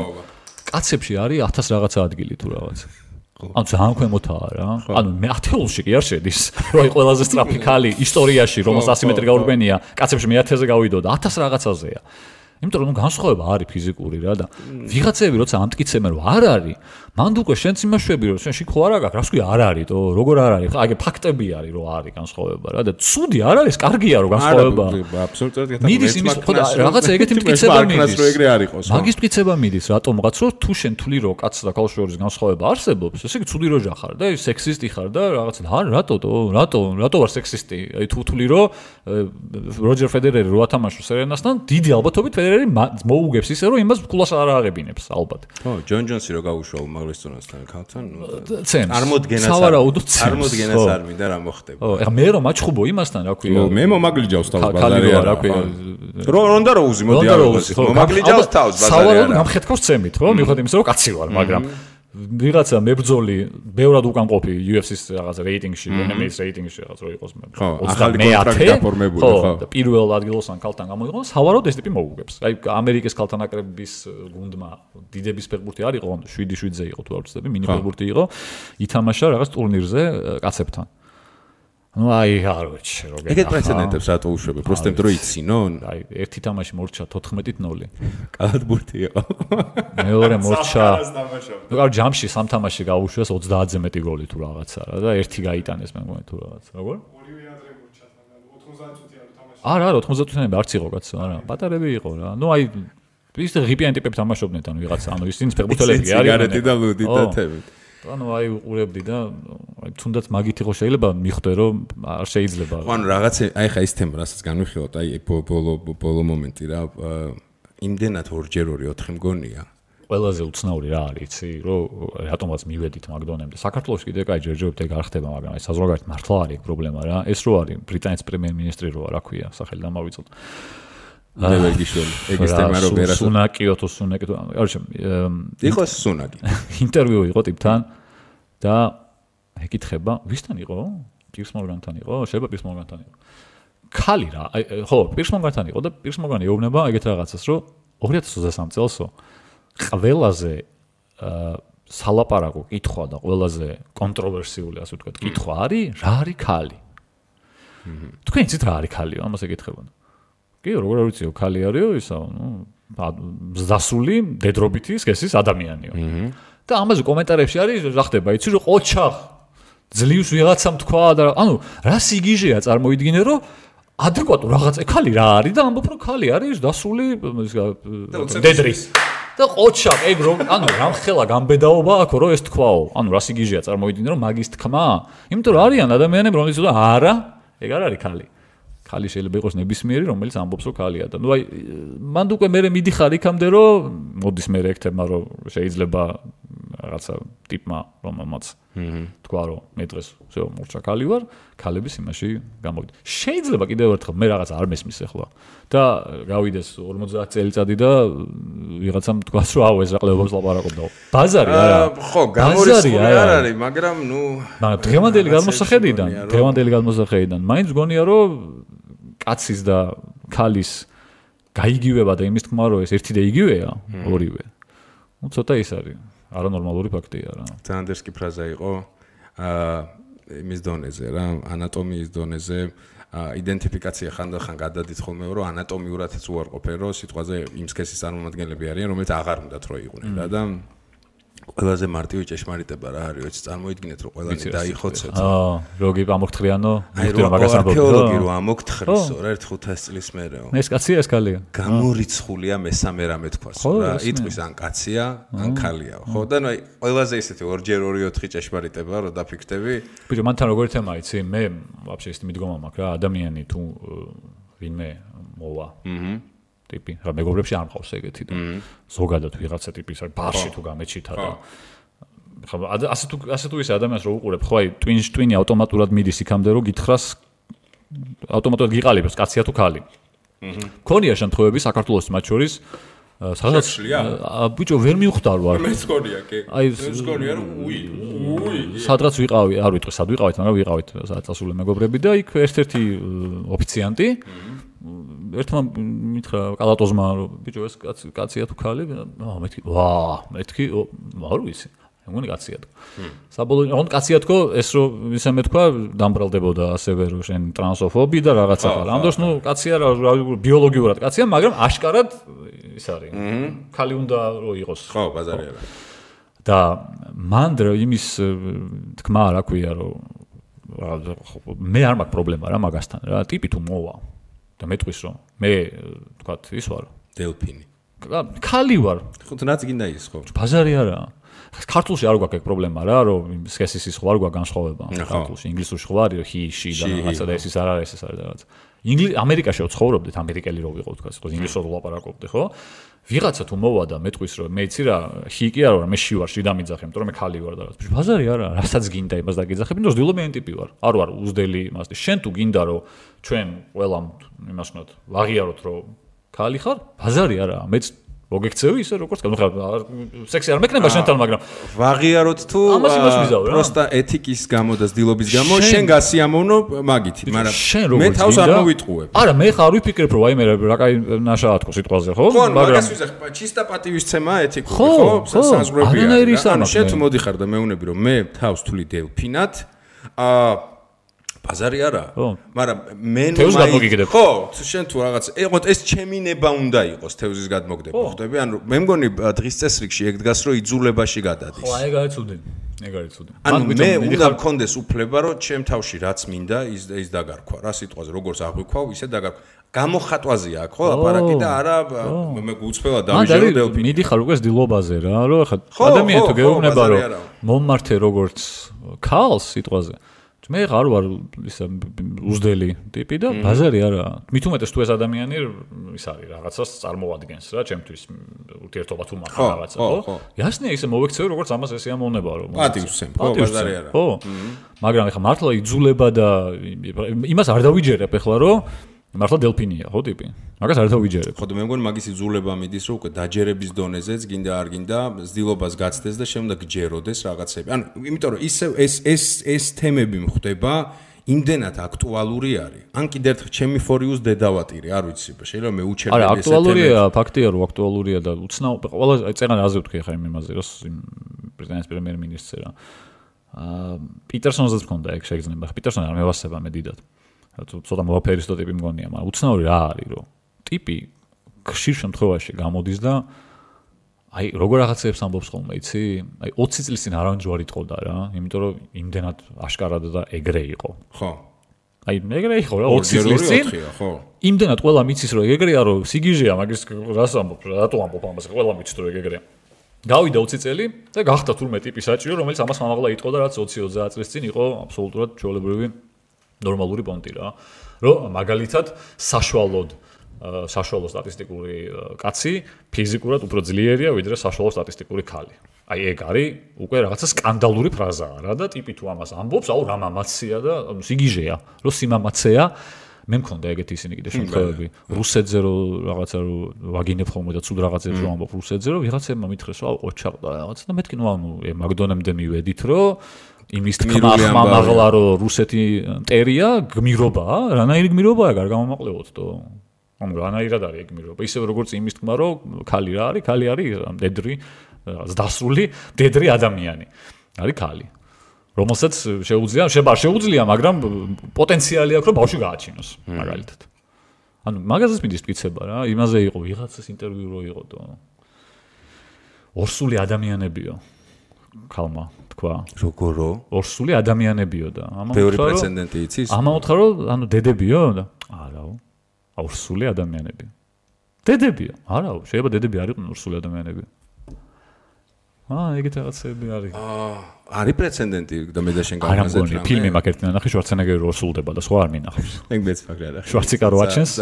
კაცებში არის 1000 რაღაცა ადგილი თუ რაღაცა. ანუ ძალიან ქვემოთაა რა. ანუ მე 10-ში კი არ შედის. რო აი ყველაზე სწრაფი ქალი ისტორიაში, რომელსაც 100 მეტრი გაურბენია, კაცებში მე 1000-ზე გავიდოდა, 1000 რაღაცაზეა. იმიტომ რომ განსხვავება არის ფიზიკური რა და ვიღაცები როცა ამტკიცებენ რომ არ არის, მანდ უკვე შენც იმაშვები რომ შენ შიქო არ აქვს, რას ქვია არ არის, თო როგორ არ არის, აი ფაქტები არის რომ არის განსხვავება რა და ცუდი არ არის, კარგია რომ განსხვავება. აბსოლუტურად მიდის იმის ხოდა რაღაცა ეგეთი მტკიცება მიდის. რო ეგრე არ იყოს. მაგის მტკიცება მიდის რატომღაც რომ თუ შენ თვლი რომ კაცს და ქალს შორის განსხვავება არსებობს, ესე იგი ცუდი როჟა ხარ და სექსისტი ხარ და რაღაცა რატო ვარ სექსისტი? აი თუ თვლი რომ როჯერ ფედერერი რო ათამაშოს სერენასთან, დიდი ალბათობით ფედერერი მოუგებს ისე რომ იმას კულას არ აღებინებს ალბათ. ხო, ჯონ ჯონსი რო გაუშვა უმაღლესწორასთან ქალთან, სავარაუდოდ წარმოდგენას არ მინდა რა მოხდება. ხო, ეხლა მე რომ მაჩხუბო იმასთან, რა ქვია. მე მომაგლიჯავს თავს ბაზარი რა ქვია. რონდა რო უზი მოდი არ უზი. მომაგლიჯავს თავს ბაზარი. სავარაუდოდ გამხეთქავს ცემით, ხო? მიუხედავად იმისა, რომ კაცი ვარ, მაგრამ ვიღაცა მებრძოლი ბევრად უკანყოფი UFC-ს რაღაც რეიტინგში, MMA-ს რეიტინგში რაღაც რო იყოს მე. ხო, ახალი კონტრაქტი გაფორმებული, ხო. და პირველ ადგილოსან ქალთან გამოიღო, სავარაუდოდ ეს ტიპი მოუგებს. აი ამერიკის ქალთა ნაკრების გუნდმა დიდების ფეხბურთი არ იყო, 7-7-ზე იყო თუ არ ვცდები, მინი ფეხბურთი იყო, ითამაშა რაღაც ტურნირზე კაცებთან. ну აი არ ვიცი როგორ ეგეთ პრეცედენტებს რატო უშვები? просто იმიტომ რომ იცინონ? აი ერთი თამაში მორჩა 14-0. კალათბურთი იყო. მეორე მორჩა. ну კარ ჯამში სამ თამაში გაუშვეს 30-ზე მეტი გოლი თუ რაღაცა რა და ერთი გაიტანეს მე მგონი თუ რაღაცა. როგორ? ორივე ადრე მორჩა მაგრამ 90 წუთი არ თამაში. არა 90 წუთი არც იყო კაცო, არა. პატარები იყო რა. ну აი ის ღიპიანი ტიპები თამაშობდნენ ანუ ვიღაცა, ანუ ისინი ფეხბურთელები არიან. სიგარეტი და ლუდი და თევით. ანუ აი უყურებდი და აი თუნდაც მაგით იყო შეიძლება მიხვდე რომ არ შეიძლება. ხო ანუ რაღაც აი ხა ის თემა რასაც განვიხილოთ აი ბოლო მომენტი რა იმდენად 2x2 4 მგონია. ყველაზე უცნაური რა არის იცი რომ რატომაც მივედით მაგდონემდე. საქართველოს კიდე კაი ჯერჯერობით ეგ არ ხდება მაგრამ აი საზღვარგარეთ მართლა არის პრობლემა რა. ეს რო არის ბრიტანეთის პრემიერ-მინისტრი რო რა ქვია სახელი დამავიწოთ. ნევეგიშვილი ეგის თემა რო ვერას სუნაკიო თუ სუნაკი არჩე იყო სუნაკი ინტერვიუ იყო ტიპთან და ეკითხება ვისთან იყო პირს მორგანთან იყო შეიძლება პირს მორგანთან იყო ქალი რა ხო პირს მორგანთან იყო და პირს მორგანი ეუბნება ეგეთ რაღაცას რომ 2023 წელსო ყველაზე სალაპარაკო კითხვა და ყველაზე კონტროვერსიული ასე ვთქვათ კითხვა არის რა არის ქალი თქვენ იცით რა არის ქალიო ამას ეკითხებოდა კი როგორ არ ვიციო ქალი არისო ისა ნუ ზასული დედრობითი სქესის ადამიანიო და ამაზე კომენტარებში არის რა ხდება იცი რომ ოჩახ ძლივს ვიღაცამ თქვა და ანუ რა სიგიჟეა წარმოიდგინე რომ ადეკვატურ რაღაც ქალი რა არის და ამბობ რომ ქალი არის დასული დედრი და ოჩახ ეგ რომ ანუ რამხელა გამბედაობა აქ რომ ეს თქვაო ანუ რა სიგიჟეა წარმოიდგინე რომ მაგის თქმა იმიტომ რომ არიან ადამიანები რომლებიც და არა ეგ არ არის ქალი ქალი შეიძლება იყოს ნებისმიერი, რომელიც ამბობს რომ ქალია და ნუ აი მანდ უკვე მე მიდიხარ იქამდე რომ მოდის მე ექტებმა რომ შეიძლება რაღაცა ტიპმა რომელმაც თქვა რომ მე დღეს всё მორჩა ქალი ვარ, ქალების იმაში გამოვიდა. შეიძლება კიდევ ერთხელ მე რაღაც არ მესმის ახლა და გავიდეს 50 წელიწადი და ვიღაცამ თქვას რომ აუ ეს რა ყლებობს ლაპარაკობდა. ბაზარი არა. ხო, გამორიცხული არ არის, მაგრამ ნუ დღევანდელი გადმოსახედიდან მაინც გონია რომ კაცის და ქალის გაიგივება და იმის თქმა რომ ეს ერთი და იგივეა ორივე. ნუ ცოტა ის არის არანორმალური ფაქტია რა. ზანდერსკი ფრაზა იყო იმის დონეზე რა, ანატომიის დონეზე იდენტიფიკაცია ხანდახან გადადით ხოლმე რომ ანატომიურადაც უარყოფენ რომ სიტყვაზე იმ სქესის წარმომადგენლები არიან რომელიც აღარ უნდათ რომ იყვნენ რა და ყველაზე მარტივი ჭეშმარიტება რა არის ვიცი წარმოიდგინეთ რომ ყველანი დაიხოცეთ როგი ამოგთხრიანო მაგას არქეოლოგი რომ ამოგთხრისო რა 1-500 წლის მერეო ეს კაცია ეს ქალია გამორიცხულია მესამე რამე თქვას რა იტყვის ან კაცია ან ქალია ხო და ნუ აი ყველაზე ისეთი 2x2-4 ჭეშმარიტება რომ დაფიქრდები ბიჭო მანთან როგორ თემა იცი მე ვაფშე ის მიდგომა მაქვს რა ადამიანი თუ ვინმე მოვა ტიპი რა მეგობრებში არ მყავს ეგეთი და ზოგადად ვიღაცა ტიპის არის ბარში თუ გამეჩითა და ხო ასე თუ ისე ადამიანს რო უყურებ ხო აი ტვინი ავტომატურად მიდის იქამდე რომ გითხრას ავტომატურად გიყალიბებს კაცია თუ ქალი მქონია შემთხვევები საქართველოს მათ შორის სადაც ბიჭო ვერ მივხვდარ ვარ მე მგონია კი აი მე მგონია რომ უი სადღაც ვიყავი არ ვიტყვი სად ვიყავით მაგრამ ვიყავით სადაც ასული მეგობრები და იქ ერთ-ერთი ოფიციანტი ერთმა მითხრა კალატოზმა რომ ბიჭო ეს კაცია თუ ქალი მეთქი ვა მეთქი არ ვიცი მე მგონი კაცია თქო. საბოლოო ოღონდ კაცია თქო, ეს რო ისე მეთქვა, დამბრალდებოდა ასევე რომ შენ ტრანსოფობი და რაღაცა ხარ. ამ დროს ნუ კაცია რა ბიოლოგიურად კაცია, მაგრამ აშკარად ის არის. ქალი უნდა რო იყოს. ხო, ბაზარი არა. და მან იმის თქმა რა ქვია რომ მე არ მაქვს პრობლემა რა მაგასთან რა ტიპი თუ მოვა და მეტყვის რომ მე თქვათ ის ვარ დელფინი ქალი ვარ ხო თუნდაც გინდა ის ხო ბაზარი არა ქართულში არ გვაქვს ეგ პრობლემა რა რომ სქესის ის ხო არ გვაქვს განსხვავება ქართულში ინგლისურში ხო არის რომ he და რაღაცა და ეს არ არის ეს არის რაღაც ამერიკაში ვცხოვრობდით ამერიკელი რო ვიყო თქვა ხო ინგლისურად ვლაპარაკობდი ხო ვიღაცა თუ მოვა და მეტყვის რომ მე იცი რა he კი არა მე ში ვარ ში დამიძახე იმიტომ რომ მე ქალი ვარ და რაღაც ბაზარი არა რასაც გინდა იმას დაგიძახები იმიტომ რომ ზდილობიანი ტიპი ვარ არ ვარ უზდელი იმას შენ თუ გინდა რომ ჩვენ ყველამ იმას ვქნათ ვაღიაროთ რომ ქალი ხარ ბაზარი არა მეც მოგექცევი ისე როგორც სექსი არ მექნება შენთან მაგრამ ვაღიაროთ თუ პროსტა ეთიკის გამო და ზდილობის გამო შენ გასიამოვნო მაგითი მაგრამ მე თავს არ მოვიტყუებ არა მე ხარ ვიფიქრებ რომ აი მე რა კაი ნაშაა თქო სიტყვაზე ხო მაგრამ ჩისტა პატივისცემა ეთიკური ხო საზღვრებია ანუ შენ თუ მოდიხარ და მეუნები რომ მე თავს თვლი დელფინად ბაზარი არა მაგრამ მე ხო შენ თუ რაღაც ეყოთ ეს ჩემი ნება უნდა იყოს თევზის გადმოგდება ხვდები ანუ მე მგონი დღის წესრიგში ეგ დგას რომ იძულებაში გადადის ხო ეგ არის ცუდი ანუ მე უნდა მქონდეს უფლება რომ ჩემ თავში რაც მინდა ის დაგარქვა რა სიტყვაზე როგორც აღვიქვავ ისე დაგარქვა გამოხატვაზია აქ ხო აპარატი და არა მე გუწფელა დავიჟერო დელფინი მიდიხარ უკვე ზდილობაზე რა რომ ხა ადამიანი თუ გეუბნება რომ მომმართე როგორც ქალს სიტყვაზე მე ხარ ვარ ისა უზდელი ტიპი და ბაზარი არა მით უმეტეს თუ ეს ადამიანი ის არის რაღაცას წარმოადგენს რა ჩემთვის ურთიერთობა თუ მაქვს რაღაცა ხო ясნია ისე მოვექცევი როგორც ამას ეს ამოვნება რომ პატივსცემ ხო ბაზარი არა ხო მაგრამ ეხლა მართლა იძულება და იმას არ დავიჯერებ ეხლა რომ მართლა დელფინია ხო ტიპი მაგას არ დავიჯერებ ხო და მე მგონი მაგის იძულება მიდის რომ უკვე დაჯერების დონეზეც გინდა არ გინდა ზდილობას გაცდეს და შემდეგ გჯეროდეს რაღაცები ანუ იმიტომ რომ ისე ეს თემები მხდება იმდენად აქტუალური არის ან კიდევ ერთხელ ჩემი ფორიუს დედავატირი არ ვიცი შეიძლება მე უჩერდები არა აქტუალურია ფაქტია რომ აქტუალურია და უცნაურ ყველა წეგან აზე ვთქვი ხა იმაზე რომ ბრიტანეთის პრემიერ-მინისტრი რა პიტერსონზეც მქონდა ეგ შეიძლება პიტერსონი არ მევასება მე დიდად ცოტა მოვაფერისტო ტიპი მგონია, მაგრამ უცნაური რა არის, რომ ტიპი ხშირ შემთხვევაში გამოდის და აი როგორ რაღაცებს ამბობს ხოლმე, იცი? აი 20 წლის წინ არავინ ჯვარი ტყოდა რა, იმიტომ რომ იმდენად აშკარად და ეგრე იყო. ხო. აი ეგრე იყო რა 20 წლის წინ. ხო. იმდენად ყველა მიცის რომ ეგრეა რომ სიგიჟეა, მაგის რას ამბობ, რატო ამბობ ამას, ყველა მიცის რომ ეგრეა. გავიდა 20 წელი და გახდა თურმე ტიპი საჭირო, რომელიც ამას მამაღლა იტყოდა, რაც 20-30 წლის წინ იყო აბსოლუტურად ჩვეულებრივი ნორმალური პონტი რა რომ მაგალითად საშუალო სტატისტიკური კაცი ფიზიკურად უფრო ძლიერია ვიდრე საშუალო სტატისტიკური ქალი. აი ეგ არის უკვე რაღაცა სკანდალური ფრაზაა რა და ტიპი თუ ამას ამბობს, აუ რა მამაცია და სიგიჟეა, რომ სიმამაცეა მე მქონდა ეგეთი ისინი კიდე შემთხვევები რუსეთზე რომ რაღაცა რომ ვაგინებ ხოლმე და ცუდ რაღაცებს რომ ამბობ რუსეთზე რომ ვიღაცებმა მითხრეს რომ აუ ყოჩაყდა რაღაცა და მეთქი ნუ ანუ მაგდონემდე მივედით რომ იმის თქმა ხმამაღლა რომ რუსეთი მტერია გმირობაა რანაირი გმირობაა გარ გამომაყლევოთ თო ანუ რანაირად არის ეგ გმირობა ისე როგორც იმის თქმა რომ ქალი რა არის ქალი არის მდედრი დასრული მდედრი ადამიანი არის ქალი რომელსაც შეუძლია მაგრამ პოტენციალი აქვს რომ ბავშვი გააჩინოს მაგალითად ანუ მაგაზეც მიდის მტკიცება რა იმაზე იყო ვიღაცას ინტერვიუ რო იყო თო ორსული ადამიანებიო ქალმა თქვა როგორო ორსული ადამიანებიო და ბევრი პრეცედენტი იცის ამაოთხარ რომ ანუ დედებიო და არაო ორსული ადამიანებიო დედებიო არაო შეიძლება დედები არ იყვნენ ორსული ადამიანები ეგეთ რაღაცები არის არის პრეცედენტი და მე და შენ გავაზრდა რა ფილმი მაგერტი ნახე შვარცენეგერი რო ორსულდება და სხვა არ მინახავს ეგ მეც ფაქრი არა შვარციკა რო აჩენს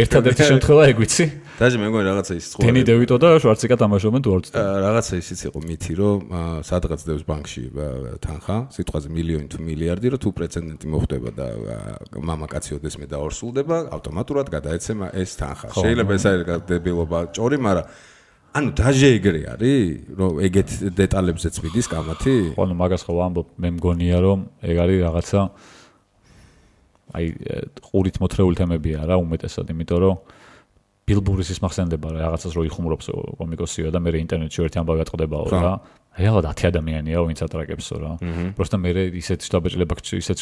ერთადერთი შემთხვევა ეგ ვიცი დაჟე მე მგონი რაღაცა ის დენი დევიტო და შვარციკა თამაშობენ თუ არ ვწდ რაღაცა ისიც იყო მითი რომ სადღაც დევს ბანკში თანხა სიტყვაზე მილიონი თუ მილიარდი რომ თუ პრეცედენტი მოხდება და მამაკაცი ოდეს მე და ორსულდება ავტომატურად გადაეცემა ეს თანხა შეიძლება ეს არის დებილობა ჭორი მაგრამ ანუ დაჟე ეგრე არის რომ ეგეთ დეტალებზეც მიდის კამათი? ხო, ანუ მაგას ხო ვამბობ, მე მგონია რომ ეგ არის რაღაცა აი ყურით მოთრეული თემებია რა უმეტესად, იმიტომ რომ ბილბურის ის მახსენდება რა რაღაცას რო იხუმრობს კომიკოსია და მე ინტერნეტში ერთი ამბავი ატყდებაო რა. რეალად 10 ადამიანია ვინც ატრაკებსო რა. просто მე ისეთ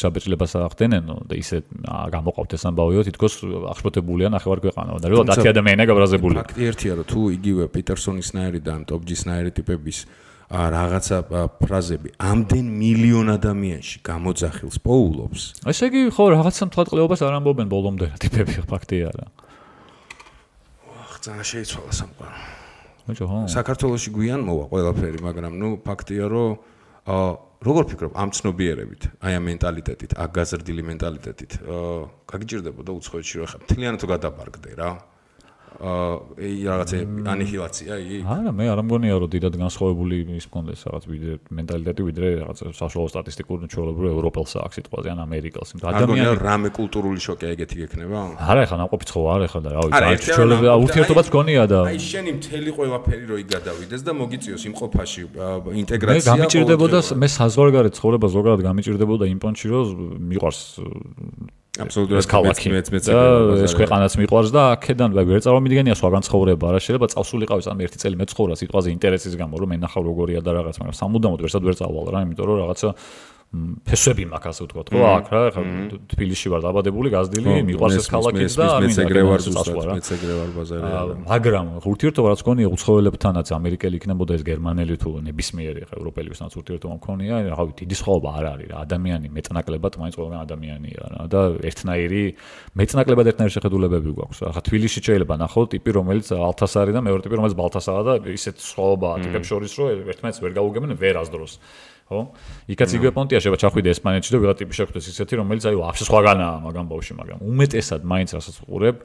შაბეჭდილებას ახდენენო და ისეთ გამოყავთ ეს ამბავიო თითქოს აღშფოთებულია ნახევარ ქვეყანა და რეალად 10 ადამიანია გაბრაზებული. ფაქტი ერთია რომ თუ იგივე პიტერსონისნაირი და ტოპჯისნაირი ტიპების რაღაცა ფრაზები ამდენ მილიონ ადამიანში გამოძახილს პოულობს. ესე იგი ხო რაღაცა მთლატყლეობას არ ამბობენ ბოლომდე რა ტიპები ფაქტია რა. ძალიან შეიცვალა სამყარო. მოიჭო ხო? საქართველოში გვიან მოვა ყველაფერი, მაგრამ ნუ ფაქტია რომ როგორ ფიქრობ ამ ცნობიერებით, აი ამ მენტალიტეტით, აქ გაზრდილი მენტალიტეტით, გაგიჭირდებოდა უცხოეთში რომ ხა მთლიანად თუ გადაბარგდე რა. რაღაცა ანიჰილაცია იგი? არა, მე არ მგონია რომ დიდად განსხვავებული ის მქონდეს რაღაც ვიდრე მენტალიტეტი, ვიდრე რაღაც საშუალო სტატისტიკური ჩვეულებრივ ევროპელსა აქ სიტყვაზე ან ამერიკელს. ადამიანი რამე კულტურული შოკი ეგეთი გექნება? არა, ეხლა ნაყოფიც ხო არ ეხლა და რა ვიცი, ჩვეულებრივ ურთიერთობაც გონია და აი შენი მთელი ყველაფერი რო იგადავიდეს და მოგიწიოს იმ ყოფაში ინტეგრაცია. მე გამიჭირდებოდა, მე საზღვარგარეთ ცხოვრება ზოგადად გამიჭირდებოდა იმ პონჩი რომ მიყვარს აბსოლუტურად ეს ქვეყანაც მიყვარს და აქედან ვერ წარმომიდგენია სხვაგან ცხოვრება რა შეიძლება წავსულიყავი ამ ერთი წელი მეცხოვრა სიტყვაზე ინტერესის გამო რომ მენახავ როგორია და რაღაც მაგრამ სამუდამოდ ვერ წავალ რა იმიტომ რომ რაღაცა ფესვები მაქვს ასე ვთქვათ ხო აქ რა ხა თბილისში ვარ დაბადებული გაზრდილი მიყვარს ეს ქალაქიც და არ მინდა მეც ეგრე ვარ ბაზარია მაგრამ ურთიერთობა რაც გქონია უცხოელებთანაც ამერიკელი იქნებოდა ეს გერმანელი თუ ნებისმიერი ხა ევროპელებისთანაც ურთიერთობა მქონია რა ვიცი დიდი სხვაობა არ არის რა ადამიანი მეწნაკლებად მაინც ყველგან ადამიანია რა და ერთნაირი მეწნაკლებად ერთნაირი შეხედულებები გვაქვს რა ხა თბილისში შეიძლება ნახოთ ტიპი რომელიც ალთას არის და მეორე ტიპი რომელიც ბალთასაა და ისეთ სხვაობაა ტიპებს შორის რომ ერთმანეთს ვერ გაუგებენ ვერასდროს ხო? იქაც იგივე პონტია შეიძლება ჩახვიდე ესპანეთში და ვიღა ტიპი შეხვდეს ისეთი რომელიც აი ვაფშე სხვაგანაა მაგამ ბავში მაგრამ უმეტესად მაინც რასაც უყურებ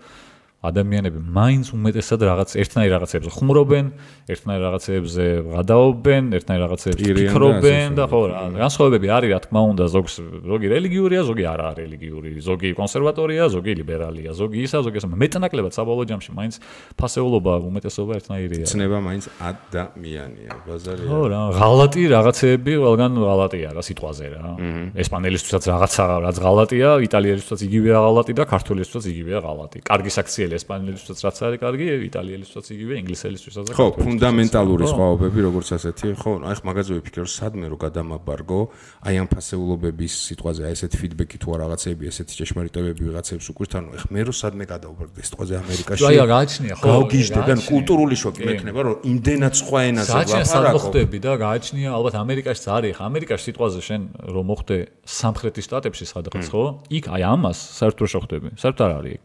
ადამიანები მაინც უმეტესად რაღაც ერთნაირ რაღაცებზე ხუმრობენ, ერთნაირ რაღაცებზე გადაობენ, ერთნაირ რაღაცებზე ფიქრობენ და ხო რა, განსხვავებები არის რა თქმა უნდა, ზოგი რელიგიურია, ზოგი არა რელიგიური, ზოგი კონსერვატორია, ზოგი ლიბერალია, ზოგი ისა, ზოგი ასე. მეტნაკლებად საბოლოო ჯამში მაინც ფასეულობა, უმეტესობა ერთნაირია. ცნება მაინც ადამიანია, ბაზარია. ხო რა, ღალატი რაღაცეები ყველგან ღალატია რა სიტყვაზე რა. ესპანელისთვისაც რაღაცა რაც ღალატია, იტალიელისთვისაც იგივეა ღალატი და ქართველისთვისაც იგივეა ღალატი. კარგი საქციელი ესპანელისთვისაც რაც არის კარგი, იტალიელისთვისაც იგივე, ინგლისელისთვისაც. ხო, ფუნდამენტალური სხვაობები როგორც ასეთი, ხო, აი ხ მაგაზე ვიფიქრე რომ სადმე რო გადამაბარგო, აი ამ ფასეულობების სიტყვაზე, აი ესეთ ფიდბექი თუ რაღაცეები, ესეთი ჭეშმარიტებები ვიღაცებს უკვირთ, ანუ ხ მე რო სადმე გადავბარგდე სიტყვაზე ამერიკაში. აი გააჩნია, ხო. გავგიჟდე და კულტურული შოკი მექნება, რომ იმდენად სხვა ენაზე ლაპარაკობ. ხდები და გააჩნია, ალბათ ამერიკაშიც არის, ხა ამერიკაში სიტყვაზე შენ რომ მოხდე სამხრეთის შტატებში სადღაც, ხო? იქ აი ამას საერთოდ არ შეხვდები. საერთოდ არ არის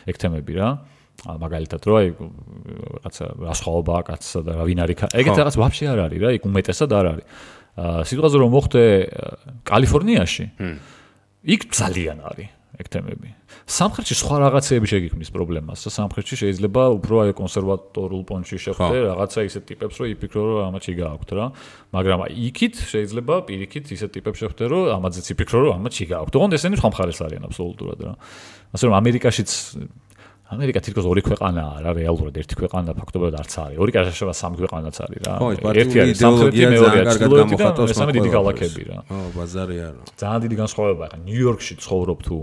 ეგ თემები რა. მაგალითად რო აი რაღაცა რასხვაობაა კაცსა და რა ვინ არის ეგეთ რაღაც ვაფშე არ არის რა იქ უმეტესად არ არის სიტყვაზე რომ მოხდე კალიფორნიაში იქ ძალიან არის ეგ თემები სამხრეთში სხვა რაღაცეები შეგიქმნის პრობლემას და სამხრეთში შეიძლება უფრო აი კონსერვატორულ პონჩში შეხვდე რაღაცა ისეთ ტიპებს რომ იფიქრო რომ ამათ შეგააქვთ რა მაგრამ აი იქით შეიძლება პირიქით ისეთ ტიპებს შეხვდე რომ ამათზეც იფიქრო რომ ამათ შეგააქვთ ოღონდ ესენი სხვა მხარეს არიან აბსოლუტურად რა ასე რომ ამერიკაშიც ამერიკა თითქოს ორი ქვეყანაა რა რეალურად ერთი ქვეყანა ფაქტობრივად არც არის ორი კაშაშება სამი ქვეყანაც არის რა ერთი არის სამხრეთი მეორე არის ჩრდილოეთი და მესამე დიდი ქალაქები რა ხო ბაზარია რა ძალიან დიდი განსხვავებაა ხა ნიუ-იორკში ცხოვრობ თუ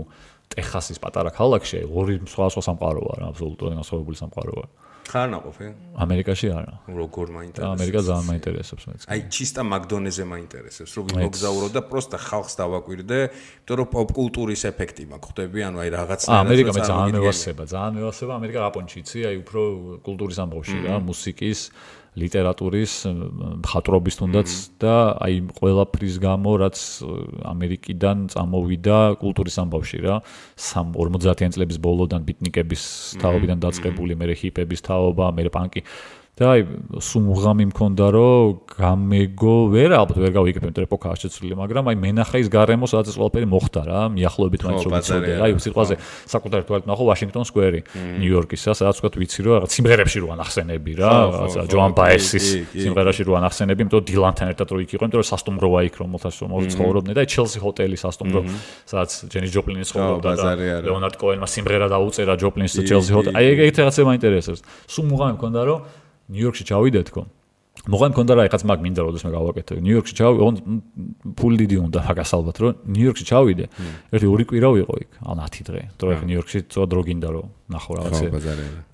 ტეხასის პატარა ქალაქში ორი სხვა სამყაროა რა აბსოლუტურად განსხვავებული სამყაროა ხარ ნაყოფი ამერიკაში არა როგორ მაინტერესებს ამერიკა ძალიან მაინტერესებს მეც აი ჩისტა მაგდონეზე მაინტერესებს რომ მოგზაურო და პროსტა ხალხს დავაკვირდე იმიტომ რომ პოპ კულტურის ეფექტი მაქვს ხვდები ანუ აი რაღაცნაირად ამერიკა მე ძალიან მევასება ამერიკა რაპონჩი იცი აი უფრო კულტურის ამბავში რა მუსიკის ლიტერატურის მხატვრობის თუნდაც და აი ყველაფრის გამო რაც ამერიკიდან წამოვიდა კულტურის ამბავში რა 50-იან წლების ბოლოდან ბიტნიკების თაობიდან დაწყებული მე ჰიპების თაობა მე პანკი და აი სუმღამი მქონდა რომ გამეგო ვერ ალბათ ვერ გავიგებ იმიტომ ეპოქაა შეცვლილი მაგრამ აი მენახა ის გარემო სადაც ეს ყველაფერი მოხდა რა მიახლოებით მაინც რომ ვიცოდე აი სიტყვაზე საკუთარი თვალით ნახო ვაშინგტონ სკვერი ნიუ-იორკისა სადაც ვთქვათ ვიცი რომ რაღაც სიმღერებში რო ანახსენები რა რაღაცა ჯოან ბაესის სიმღერაში რო ანახსენები იმიტომ დილანთან ერთად რო იქ იყო იმიტომ რომ სასტუმროა იქ რომელთაც ცხოვრობდნენ და აი ჩელსი ჰოტელი სასტუმრო სადაც ჯენი ჯოპლინი ცხოვრობდა და ლეონარდ კოენმა სიმღერა დაუწერა ჯოპლინის და ჩელსი ჰოტელი აი ეგეთი რაღაცა მაინტერესებს სუმღამი მქონდა რომ ნიუ-იორკში ჩავიდე თქო მოღან მქონდა რა ეხაც მაგ მინდა როდესაც მე გავაკეთე ნიუ-იორკში ოღონდ ფული დიდი უნდა მაგას ალბათ რომ ნიუ-იორკში ჩავიდე ერთი 2 კვირა ვიყო იქ ან 10 დღე თორე ნიუ-იორკში ცოტა დრო გინდა რომ ნახო რაღაცა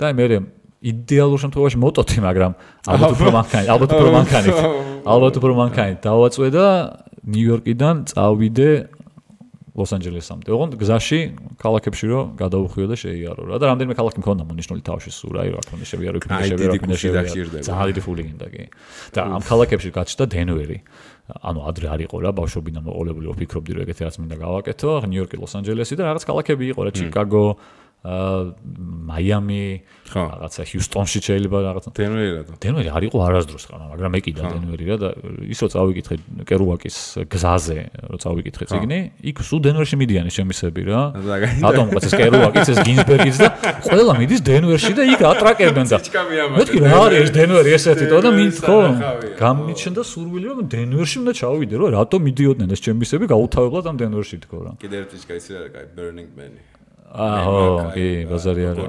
და მე იდეალურ შემთხვევაში მოტოთი მაგრამ ალბათ უფრო მანქანით დავაწვე და ნიუ-იორკიდან წავიდე ლოს-ანჯელესამდე. ოღონდ გზაში ქალაქებში რომ გადავუხვიო და შეიარო რა და რამდენიმე ქალაქი მქონდა მონიშნული თავში სულ რა რა თქმა უნდა შევიარო ძალიან დიდი ფული გინდა კი. და ამ ქალაქებში გაჩნდა დენვერი. ანუ ადრე არ იყო რა ბავშვობიდან მოყოლებული ვფიქრობდი რომ ეგეთი რაც მინდა გავაკეთო. ნიუ-იორკი, ლოს-ანჯელესი და რაღაც ქალაქები იყო რა ჩიკაგო მაიამი, რაღაცა ჰიუსტონში შეიძლება რაღაცა. დენვერი არ იყო არასდროს ხარ, მაგრამ ეკიდა დენვერი რა და ის რო წავიკითხე კერუაკის გზაზე, რო წავიკითხე წიგნი, იქ სულ დენვერში მიდიან შემისები რა. რატომ ყავს ეს კერუაკიც, ეს გინზბერგიც და ყველა მიდის დენვერში და იქ ატრაკებენ და. მეთქი რა არის ეს დენვერი ესეთი და მითქო. გამიჩნდა სურვილი რომ დენვერში უნდა ჩავიდე რა, რატომ მიდიოდნენ ეს შემისები გაუთავებლად ამ დენვერში თქო რა. კიდე ერთი ისე რა კაი Burning Man-ი. კი, ბაზარი არა.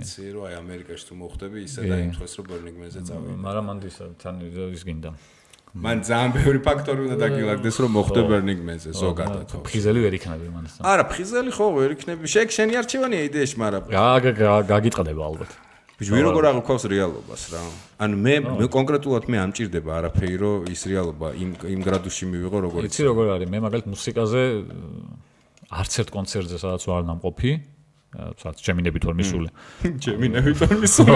იცი რომ აი ამერიკაში თუ მოხდები ისე და იმ დღეს რომ Burning Man-ზე წავიდე. მაგრამ მანდ თან ის გინდა. მან ძალიან ბევრი ფაქტორი უნდა დაგილაგდეს რომ მოხდე Burning Man-ზე ზოგადად. ფხიზელი ვერ იქნები მანდ. არა, ფხიზელი ხო ვერ იქნები. შენი არჩევანია იდეაში, მაგრამ გაგიტყდება ალბათ. ბიჭი როგორ აღქვავს რეალობას რა. ანუ მე კონკრეტულად მე ამჭირდება არაფერი რომ ის რეალობა იმ გრადუსში მივიღო როგორ იცი როგორ არის მე მაგალითად მუსიკაზე არც ერთ კონცერტზე სადაც ვარ ნამყოფი, სადაც ჩემინებით ვარ მისული. ჩემინებით ვარ მისული.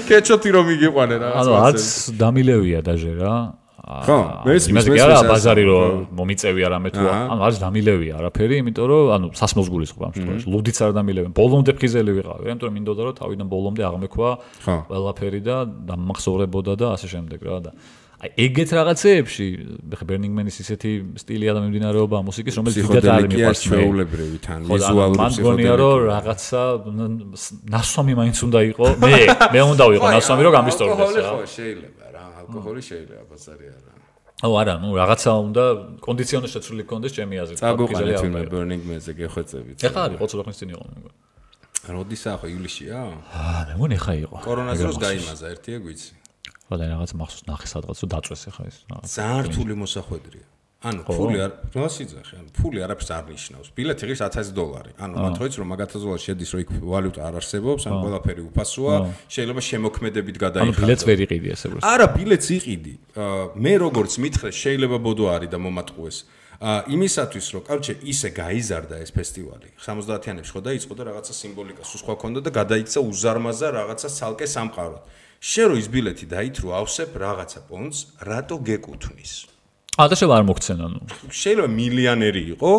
კეჩოთი რომ მიგიყვანე რა. ანუ არც დამილევია დაჟე რა. ხო, მესმის ბაზარი რომ მომიწევი არამე თუ ანუ არც დამილევია არაფერი, იმიტომ რომ ანუ სასმელს გულისხმობ ამ შემთხვევაში. ლუდიც არ დამილევენ. ბოლომდე ფხიზელი ვიყავი, იმიტომ რომ მინდოდა რომ თავიდან ბოლომდე აღმექვა ყველაფერი და დამახსოვრებოდა და ასე შემდეგ რა და აი ეგეთ რაღაცეებში ხე Burning Man-ის ისეთი სტილია და მიმდინარეობა მუსიკის რომელიც დიდად არ მიყვარს ჩვეულებრივი თან ვიზუალური ფსიქოდელია რომ რაღაცა ნასვამი მაინც უნდა იყო მე უნდა ვიყო ნასვამი რომ გამისტორდეს რა ხო შეიძლება რა ალკოჰოლი შეიძლება ბაზარი არა არა ნუ რაღაცა უნდა კონდიციონი შეცვლილი გქონდეს ჩემი აზრით წაგუყალეთ ვინმე Burning Man-ზე გეხვეწებით ეხლა არის ხო ცოტა ხნის წინ იყო როდისა ხო ივლისშია მე მგონი ეხლა იყო კორონას დროს გაიმაზა ერთია გვიცი ყველა რაღაც მახსოვს ნახე სადღაც რომ დაწვეს ახლა ეს რაღაც ძალიან რთული მოსახვედრია ანუ ფული არ რასიძახი ანუ ფული არაფერს არ ნიშნავს ბილეთი ღირს $1000 ანუ მათოიც რომ მაგ $1000 შედის რომ იქ ვალუტა არ არსებობს ან ყველაფერი უფასოა შეიძლება შემოქმედებით გადაიხადო ანუ ბილეთს ვერ იყიდი ესე უბრალოდ არა ბილეთს იყიდი მე როგორც მითხრე შეიძლება ბოდო არის და მომატყუეს იმისათვის რომ კარჩე ისე გაიზარდა ეს ფესტივალი 70-იანებში ხო დაიწყო და რაღაცა სიმბოლიკა სულ სხვა ქონდა და გადაიქცა უზარმაზა რაღაცა ცალკე სამყაროდ შენ რო ის ბილეთი დაითრო ავსებ რაღაცა პონს რატო გეკუთვნის და შეიძლება არ მოგცენ ანუ შეიძლება მილიონერი იყო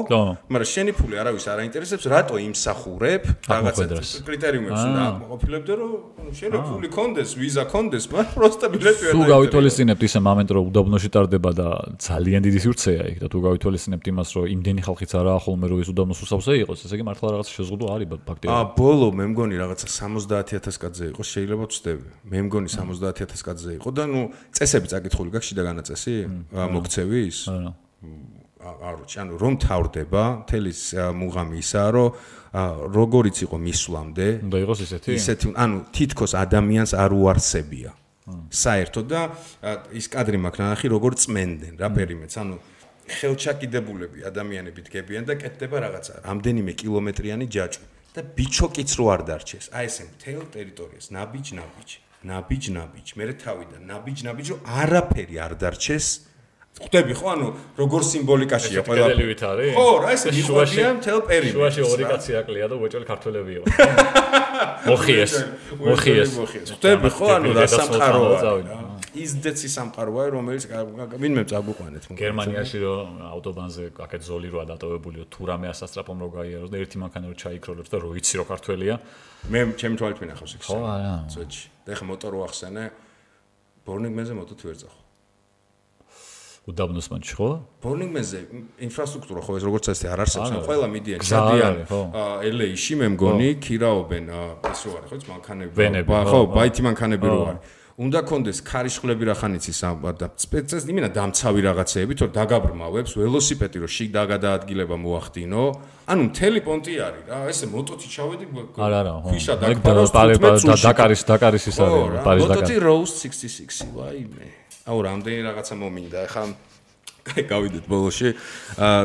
მაგრამ შენი ფული არავის არ აინტერესებს რატო იმსახურებ რაღაცა კრიტერიუმებს და აკმაყოფილებდე რომ შენი ფული კონდეს ვიზა კონდეს მაგრამ პროსტა ბილეთი ვერ თუ გავითვალისწინებთ ისე მომენტ რომ უდაბნოში ტარდება და ძალიან დიდი სივრცეა იქ და თუ გავითვალისწინებთ იმას რომ იმდენი ხალხიც არაა ხოლმე რომ ის უდაბნოს უსავსე იყოს ესე იგი მართლა რაღაცა შეზღუდვა არის ფაქტიურად ბოლო მე მგონი რაღაცა 70000 კაცზე იყო შეიძლება ვწდები მე მგონი 70000 კაცზე იყო და ნუ წესები წაკითხული გაქვს შიდა განაწესი მოგცე ვის? არჩი, ანუ რომ თავდება, თელის მუღამი ისაა, რომ როგორიც იყო მისვლამდე, უნდა იყოს ისეთი, ანუ თითქოს ადამიანს არ უარსებია. საერთოდ და ის კადრი მაქვს ნახი, როგორ წმენდნენ რა პერიმეტს, ანუ ხელჩაკიდებულები ადამიანები დგებიან და კეთდება რაღაცა, რამდენიმე კილომეტრიანი ჯაჭვი და ბიჩოკიც რო არ დარჩეს. აი ესე მთელ ტერიტორიას ნაბიჯ, მე თავიდან ნაბიჯ, რომ არაფერი არ დარჩეს. ხვდები ხო ანუ როგორ სიმბოლიკაშია ყველაფერი არის ხო რა ესე მიხვდიან მთელ პერიმეტრს შუაში ორი კაცი აკლია და უეჭველი ქართველები იყო მოხიეს ხვდები ხო ანუ რა სამყაროა ის დეცი სამყაროა რომელიც ვინმე წაგუყვანეთ გერმანიაში რომ ავტობანზე აქეთ ზოლი როა დატოვებულიო თუ რამე ასასტრაფომ რო გაიაროს და ერთი მანქანა რო ჩაიქროლებს და რო იცი რო ქართველია მე ჩემი თვალით მინახავს იქ ხო არა წოჩი და ეხა მოტორ ვახსენე Burning Man-ზე მოტოთ ვერ წახო უდაბნოს მანჩი ხო? Burning Man-ზე ინფრასტრუქტურა ხო ეს როგორც ასე არ არსებობს, ან ყველა მიდიან, ჩადიან LA-ში მე მგონი, ქირაობენ ეს რო არის ხო, მანქანები, ხო, ბაითი მანქანები რო არის. უნდა კონდეს ქარიშხლები რახანიცის და სპეცეს იმენა დამცავი რაღაცეები, თორე დაგაბრმავებს, ველოსიპედი რო შიგ დაგადაადგილება მოახდინო, ანუ მთელი პონტი არის რა, ესე მოტოთი ჩავედი, ქვიშა დაგფარავს 15 წუთში. დაკარის ის არის, პარიზ დაკარი. მოტოთი Rose 66, ვაიმე. აუ რამდენი რაღაცა მომინდა ახლა გავიდეთ ბოლოში.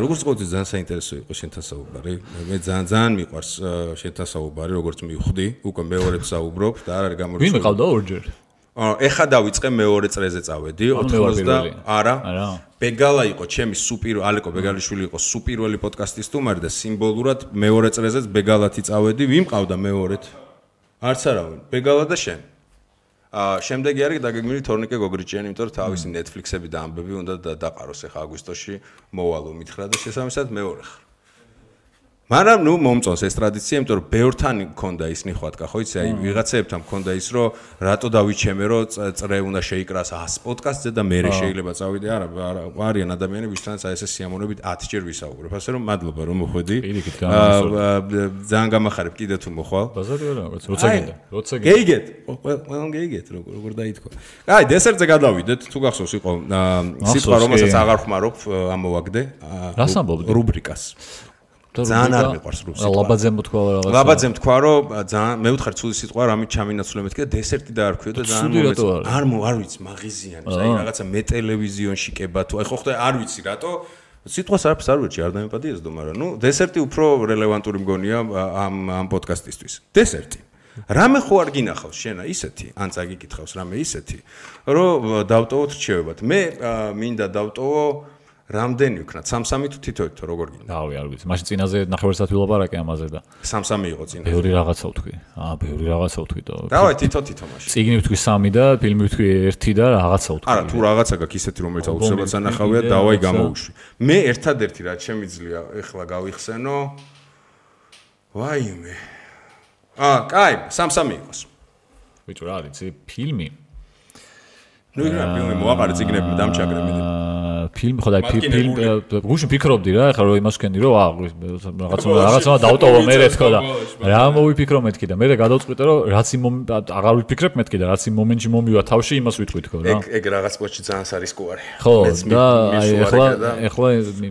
როგორც ყოველთვის ძალიან საინტერესო იყო შენთან საუბარი. მე ძალიან მიყვარს შენთან საუბარი, როგორც მივხვდი, უკვე მეორედ საუბრობ და არ არის გამორჩეული. ვინ მიყავდა ორჯერ? ეხა დავიწყე მეორე წრეზე წავედი 90 არა ბეგალა იყო ჩემი ალეკო ბეგალიშვილი იყო სუპირველი პოდკასტის სტუმარი და სიმბოლურად მეორე წრეზეც ბეგალათი წავედი ვინ მყავდა მეორედ არც არავინ ბეგალა და შენ შემდეგი არის დაგეგმილი თორნიკე გოგრიჭიანი იმიტომ რომ თავისი Netflix-ები და ამბები უნდა დაყაროს ეხა აგვისტოში მოვალო მითხრა და შესაბამისად მეორე ხარ მაგრამ ნუ მომწონს ეს ტრადიცია, იმიტომ რომ ბევრთან მქონდა ის ნიხვატკა, ხო იცი, აი ვიღაცებთან მქონდა ის, რომ რატო დავიჩემე, რომ წრე უნდა შეიკრას 100 პოდკასტზე და მე შეიძლება წავიდე, არა, არიან ადამიანები, ვისთანაც აი ესე სიამოვნებით 10 ჯერ ვისაუბრებ. ასე რომ მადლობა რომ მოხვედი. ძალიან გამახარებ კიდე თუ მოხვალ. ბაზარი არა, როცა გინდა. გეიგეთ. ყველამ გეიგეთ, როგორ დაითქვა. აი, დესერტზე გადავიდეთ, თუ გახსოვს იყო სიტყვა რომელსაც აღარ ხმარობ, ამოვაგდე. რას ამბობდი? რუბრიკას. ძალიან არ მიყვარს რუსი. ლაბაძემ თქვა რაღაცა. ლაბაძემ თქვა რომ ძალიან მე ვთხარ ცუდი სიტყვა რამით ჩამინაცვლე მეთქე და დესერტი დაარქვიო და ძალიან არ ვიცი მაღიზიანი აი რაღაცა მე ტელევიზიონში კება თუ აი ხო ხდა არ ვიცი რატო სიტყვას არაფერს არ ვეჭი არ დამეპატიესდო მაგრამ ნუ დესერტი უფრო რელევანტური მგონია ამ პოდკასტისთვის დესერტი რამე ხო არ გინახავს შენა ისეთი ან წაგიკითხავს რამე ისეთი რომ დავტოვოთ რჩევებად მე მინდა დავტოვო რამდენი ვქნათ? 3-3 თუ თითოეთ თუ როგორ გინდა? დავი არ ვიცი. მაშინ წინაზე ნახევარსად ვილაპარაკე ამაზე და 3-3 იყო წინაზე. ბევრი რაღაცა ვთქვი. ბევრი რაღაცა ვთქვი და დავაი თითო მაშინ. წიგნი ვთქვი 3 და ფილმი ვთქვი 1 და რაღაცა ვთქვი. არა, თუ რაღაცა გაქვს ისეთი რომელიც აუცილებლად ანახავია, დავაი გამოვუშვი. მე ერთადერთი რაც შემიძლია ეხლა გავიხსენო. ვაიმე. კაი, 3-3 იყოს. ბიჭო რა არის, ფილმი? ნუ იქნება ფილმი მოაყარე წიგნები დამჩაგრე მე. ფილმი ხო და ფილმ გუშინ ფიქრობდი რა ეხლა რომ იმას ვქენდი რომ რაღაცა დავტოვო მე თქო და რა მოვიფიქრო მეთქი და მე გადავწყვიტე რომ რაც იმ აღარ ვიფიქრებ მეთქი და რაც იმ მომენტში მომივა თავში იმას ვიტყვი თქო რა ეგ რაღაც პოჩი ძალიან სარისკოა ხო და ეხლა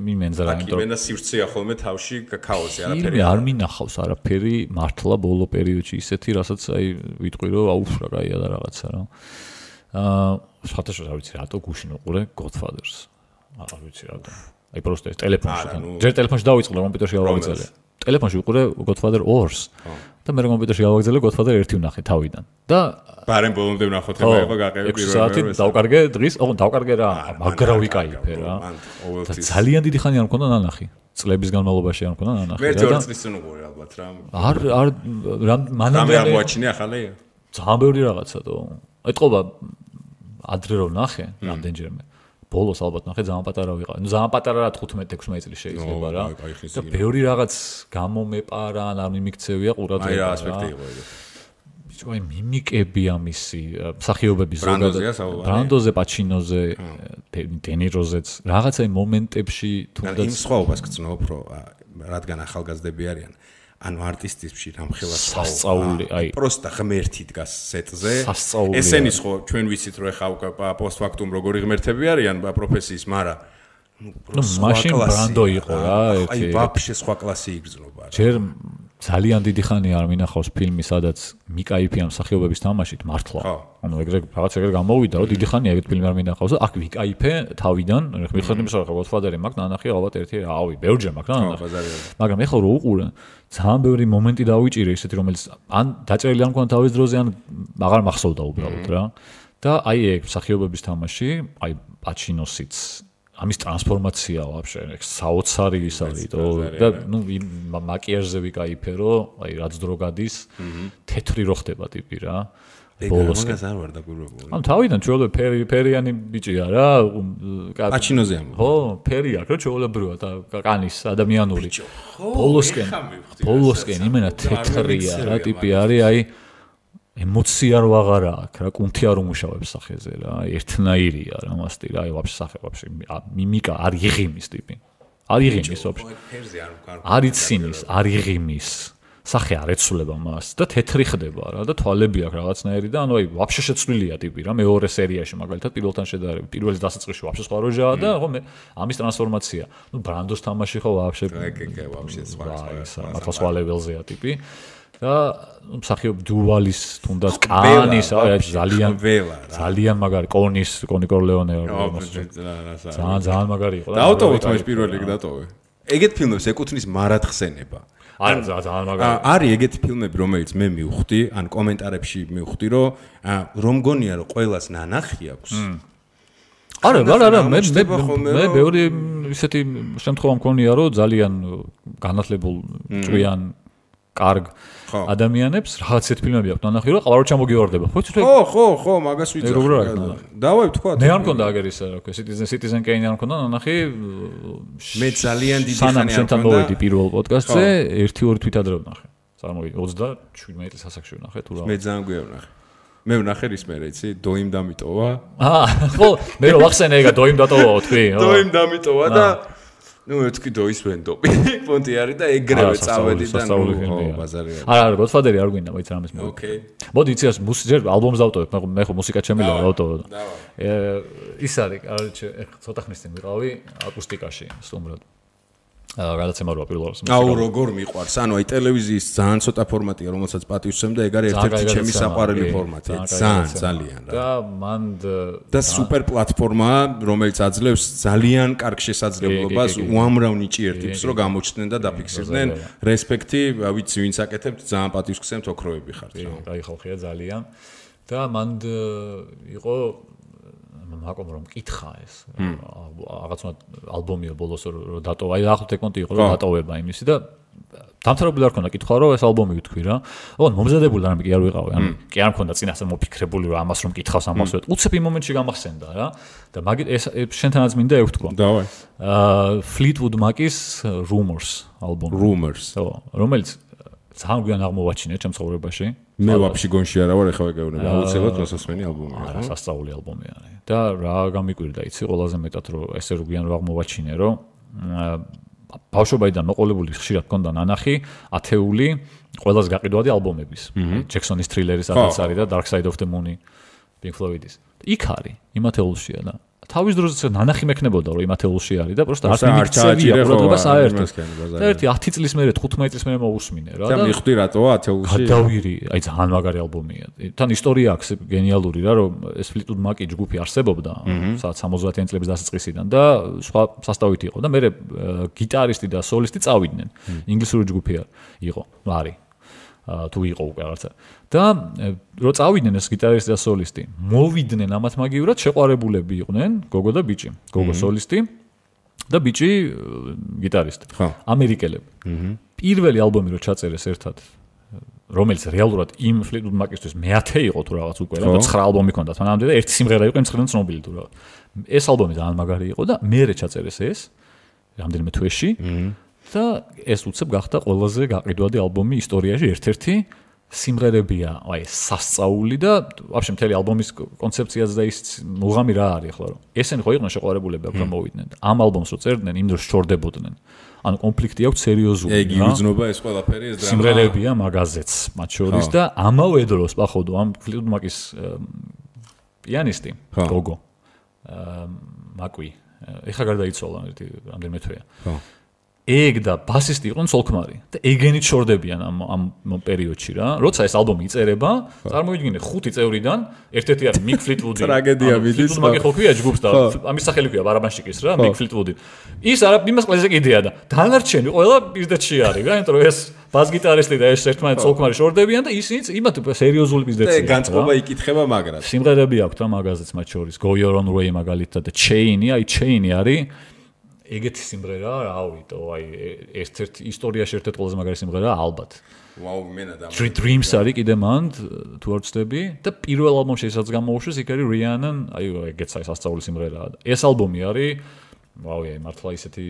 მიმენზა რა იმიტომ რომ სივრცეა ხოლმე თავში ქაოსი არაფერი არ მინახავს არაფერი მართლა ბოლო პერიოდში ისეთი რასაც აი ვიტყვი რომ აუφ რა კაია და რაღაცა რა სხვათაშორის არ ვიცი რატო გუშინ უყურე Godfather-ს არ ვიცი რატო. აი პროსტე ტელეფონში. ჯერ ტელეფონში დავიწყე კომპიუტერში გავაგზავნე. ტელეფონში უყურე Godfather 2-ს და მე კომპიუტერში გავაგზავნე Godfather 1 ვნახე თავიდან. და ბარემ ბოლომდე ვნახოთ ხება იყო გაყევი პირველი საათი დავკარგე დღის, დავკარგე რა, მაგრა ვიკაიფე რა. ძალიან დიდი ხანი არ მქონდა ნანახი. წლების განმავლობაში არ მქონდა ნანახი. მე 2 წლის წინ უყურე ალბათ რა. არ მანამდე არ მოაჩინე ახალი? ძალიან ბევრი რაღაცა თო. ეთყობა ადრე რომ ნახე რამდენჯერმე. ბოლოს ალბათ ნახე ძალიან პატარა ვიყავ. ნუ ძალიან პატარა რა 15-16 წელი შეიძლება რა. და ბევრი რაღაც გამომეპარა, არ მიმიქცევია ყურადღება. აი რა ასპექტი იყო ეგ. ბიჭო, აი მიმიკები ამისი მსახიობები ზოგადად. ბრანდოზე, პაჩინოზე, დენიროზეც, რაღაცა იმ მომენტებში თუნდაც იმ სხვაობას გწნობ, რომ რადგან ახალგაზრდები არიან. ანუ არტისტებში რამხელა სასწაული, აი პროსტა ღმერთი დგას სეტზე. სასწაული. ესენის ხო ჩვენ ვიცით რომ ეხა პოსტფაქტუმ როგორი ღმერთები არიან პროფესიის, მაგრამ ნუ მაშინ ბრანდო იყო რა, ერთი. აი ვაფშე სხვა კლასი იგრძნობა. ჯერ ძალიან დიდი ხანი არ მინახავს ფილმი, სადაც მიკაიფია მსახიობების თამაშით მართლა. ანუ ეგრე რაღაც ეგრე გამოვიდა, რომ დიდი ხანია ეგეთ ფილმი არ მინახავს და აქ ვიკაიფე თავიდან, მიხდები იმის რა Godfather-ი მაქვს ნანახი ალბათ ერთი რავი, ბევრჯერ მაქვს ნანახი. მაგრამ ეხლა რო უყურე, ძალიან ბევრი მომენტი დავიჭირე ისეთი, რომელიც ან დაჭერილი არ მქონდა თავის დროზე, ან აღარ მახსოვდა უბრალოდ რა. და აი ეგ მსახიობების თამაში, აი პაჩინოსიც ამის ტრანსფორმაცია ვაფშე საოცარი ის არის და ნუ მაკიაჟზე ვიკაიფე რომ აი რაც დრო გადის თეთრი რო ხდება ტიპი რა ბოლოს არ ვარ დაგვირებული ამ თავიდან ჩვეულებრივ ფერიანი ბიჭია რა პაჩინოზე ამ ხო ფერი აქვს რა ჩვეულებრივია და კანის ადამიანური ბოლოსკენ იმენა თეთრია რა ტიპი არის აი ემოცია რო აღარა აქვს რა კუნთი არ უმუშავებს სახეზე რა ერთნაირია რა მასტი რა აი ვაფშე სახე ვაფშე მიმიკა არ იღიმის ტიპი არ იღიმის ვაფშე არ ცინის არ იღიმის სახე არ ეცვლება მას და თეთრი ხდება რა და თვალები აქვს რაღაცნაირი და ანუ აი ვაფშე შეცვლილია ტიპი რა მეორე სერიაში მაგალითად პირველთან შედარებით პირველის დასაწყისში ვაფშე სხვა როჟაა და ხო მე ამის ტრანსფორმაცია ნუ ბრანდოს თამაში ხო ვაფშე ვაფშე სხვა მართლა სხვა ლეველზეა ტიპი და მსახიობ დუვალის თუნდაც კანის ძალიან მაგარი კონი კორლეონე ძალიან მაგარი იყო დაავტოვოთ მას პირველ რიგ დატოვე ეგეთ ფილმებს ეკუთვნის მარათხსენება არა ძალიან მაგარი არის ეგეთი ფილმები რომელიც მე მივხვდი ან კომენტარებში მივხვდი რომ გონია რომ ყველას ნანახი აქვს არა მე ბევრი ისეთი შემთხვევა მქონია რომ ძალიან განათლებულ ჭვიან კარგ ადამიანებს რაღაცეთ ფილმები აქვს ნანახი რომ ყავარო ჩამოგივარდება ხო მაგას ვიცი დავაი თქვა მე არ მქონდა აგერ ისა რა ქვია Citizen Kane არ მქონდა ნანახი მე ძალიან დიდი ხანი არ მქონდა პირველ პოდკასტზე 1-2 თვით ადრე ვნახე წარმოვიდი 37 წლის ასაკში ვნახე თუ რა მე ძალიან გვია ვნახე მე ვნახე რის მერე იცი დოიმ დამიტოვა ხო მე რო ვახსენე ეგა დოიმ დატოვაო თქვი დოიმ დამიტოვა და ნუ თქვი დოის ვენდობი პონტი არის და ეგრევე წავედი და ნუ ბაზარი არა გოდფადერი არ გვინდა მოიცა რამეს მე ოკეი მოდი იცი ეს ჯერ ალბომს დავტოვებ მე ხო მუსიკა შემიძლია დავტოვო ის არის ახლა ცოტა ხნის წინ ვიყავი აკუსტიკაში სტუმრად გადაცემა როა პირველს აუ როგორ მიყვარს ანუ აი ტელევიზიის ძალიან ცოტა ფორმატია რომელსაც პატივსცემ და ეგ არის ერთ-ერთი ჩემი საყვარელი ფორმატია ძალიან რა და მან და სუპერ პლატფორმაა რომელიც აძლევს ძალიან კარგ შესაძლებლობას უამრავ ნიჭიერ ტიპს რომ გამოჩნდნენ და დაფიქსირდნენ რესპექტი ვიცი ვინც აკეთებთ ძალიან პატივს გსცემთ ოქროები ხართ რა კაი ხალხია ძალიან და მან იყო მაკომ რომ მკითხა ეს რაღაცა ალბომია ბოლოს რომ დატოვა აი ახლოთ ეკონტი იყო რომ დატოვება იმისი და დამთავრებული არ ქონდა კითხვა რომ ეს ალბომი ვთქვი რა ოღონდ მომზადებული რამე კი არ ვიყავი ანუ კი არ მქონდა წინასწარ მოფიქრებული რომ ამას რომ მკითხავს ამას ვეთ უცებ იმ მომენტში გამახსენდა რა და მაგით ეს შენთანაც მინდა ევთქვა დავაი Fleetwood Mac-ის Rumors ალბომი Rumors რომელიც ძალიან გვიან აღმოვაჩინე ჩემ ცხოვრებაში მე ვაფშე გონში არა ვარ ეხლა ვეგეუბნები აუცილებლად მოსასმენი ალბომია რა სასწაული ალბომი არის და რა გამიკვირდა იცი ყველაზე მეტად რომ ესე რო გვიან რომ აღმოვაჩინე რომ ბავშვობიდან მოყოლებული ხშირად მქონდა ნანახი ათეული ყველაზე გაყიდვადი ალბომების ჯექსონის თრილერის რაღაც არის და Dark Side of the Moon Pink Floyd-ის იქ არის იმ ათეულშია და თავის დროზე ნანახი მექნებოდა რომ იმ ათეულში არის და პროსტა არ მიმიქცევია ყურადღება საერთოდ და ერთი 10 წლის მერე 15 წლის მერე მოусმინე რა და მიხვდი რატოა ათეულში გადავირი აი ძალიან მაგარი ალბომია თან ისტორია აქვს გენიალური რა რომ ეს Fleetwood Mac ჯგუფი არსებობდა სადაც 70-იან წლების დასაწყისიდან და სხვა სასტავითი იყო და მე გიტარისტი და სოლისტი წავიდნენ ინგლისური ჯგუფი იყო არის თუ იყო უკვე რაღაცა და რო წავიდნენ ეს გიტარისტი და სოლისტი მოვიდნენ ამათ მაგივრად შეყვარებულები იყვნენ გოგო და ბიჭი გოგო სოლისტი და ბიჭი გიტარისტი ამერიკელები პირველი ალბომი რო ჩაწერეს ერთად რომელიც რეალურად იმ Fleetwood Mac-ისთვის მე-10 იყო თუ რაღაც უკვე რა 9 ალბომი ქონდა თანამდე და ერთი სიმღერა იყო იმ 9-დან ცნობილი თუ რა ეს ალბომი ძალიან მაგარი იყო და მე ჩაწერეს ეს რამდენიმე თვეში და ეს უცებ გახდა ყველაზე გაყიდვადი ალბომი ისტორიაში ერთ-ერთი სიმღერებია აი სასწაული და ვაფშე მთელი ალბომის კონცეფციაც და ის მუღამი რა არის ახლა რომ ესენი ხო იყვნენ შეყვარებულები აქ რომ მოვიდნენ ამ ალბომს რო წერდნენ იმ დროს შორდებოდნენ ანუ კონფლიქტი აქვს სერიოზული ეგ იუძნობა ეს ყველაფერი ეს დრამა სიმღერებია მაგაზეც მათ შორის და ამავე დროს პახოვდო ამ Fleetwood Mac-ის პიანისტი გოგო მაკვი ეხა გარდაიცვალა ერთი რამდენიმე თვეა ეგ და ბასისტი იყვნენ სოლქმარი და ეგენით შორდებიან ამ პერიოდში რა. როცა ეს ალბომი იწერება, წარმოვიდგინე 5 წევრიდან ერთ-ერთი არის Mick Fleetwood. ტრაგედია მიდის. მაგე ხო ქვია ჯგუფს და ამის სახელი ქვია ბარაბანშიკის რა, Mick Fleetwood. ის არა იმას ყველაზე კიდეა და დანარჩენი ყველა პირდეთში არის რა, იმიტომ რომ ეს ბას-გიტარისტი და ეს ერთმანეთს სოლქმარი შორდებიან და ისინიც იმათ სერიოზული პირდეთია. და განწყობა ikითხება მაგრად. სიმღერები აქვს რა მაგაზეც მათ შორის. Go Your Own Way მაგალითად და Chain-ი, აი Chain-ი არის ეგეთი სიმღერა, რავით, აი ერთ-ერთი ისტორიაში ერთ-ერთი ყველაზე მაგარი სიმღერაა ალბათ. ვაუ, მენა და Three Dreams არის კიდე მან თუ არ ვცდები და პირველ ალბომში ესაც გამოუშვეს იქ არის Rihanna, აი ეგეც აი სასწაული სიმღერაა. ეს ალბომი არის ვაუ, აი მართლა ისეთი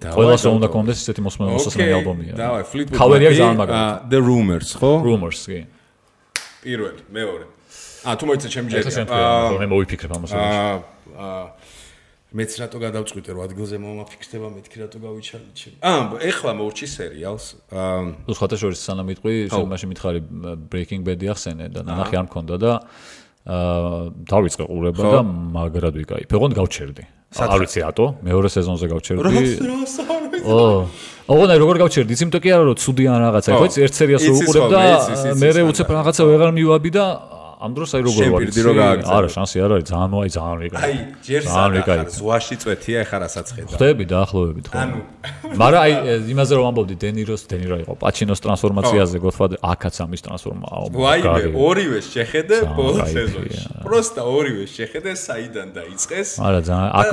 ყველას უნდა კონდეს ისეთი მოსმენი ალბომია. დავაი, Fleetwood Mac-ი ძალიან მაგარი. The Rumors, ხო? Rumors, კი. პირველი, მეორე. თუ მოიცა ჩემი ჯერი. მე მოვიფიქრებ ამას. მეც რატო გადავწყვიტე რომ ადგილზე მომაფიქსდება მეთქი რატო გავიჩალე. ეხლა მოვჭი სერიალს. თუ სხვათა შორის სანამ მიტყვი, მაშინ მითხარი Breaking Bad-ი ახსენე და ნახე არ მქონდა და დავიწყე ყურება და მაგრად ვიკაიფე. ოღონდ გავჩერდი. არ ვიცი რატო, მეორე სეზონზე გავჩერდი. ოღონდ აი როგორ გავჩერდი, იცი იმიტომ კი არა რომ ცუდი ან რაღაცა, ხო იცი, ერთ სერიას რო უყურებ და მე უცებ რაღაცა ვეღარ მივაბი და ამ დროს აი როგორ ვარ შენ პირდი რო გააგზავნე. არა, შანსი არ არის, ძალიან ვიკაი. აი, ჯერ სადახარ ზღვაში წვეთია, ეხლა რასაც ხედავ. ხდები დაახლოებით ხო. მაგრამ აი იმაზე რომ ამბობდი დენირო იყო პაჩინოს ტრანსფორმაციაზე, Godfather აქაც ამის ტრანსფორმაა. ვაიმე, ორივე შეხედე ბოლო სეზონში. პროსტა ორივე შეხედე საიდან დაიწყეს. არა, ძალიან აქ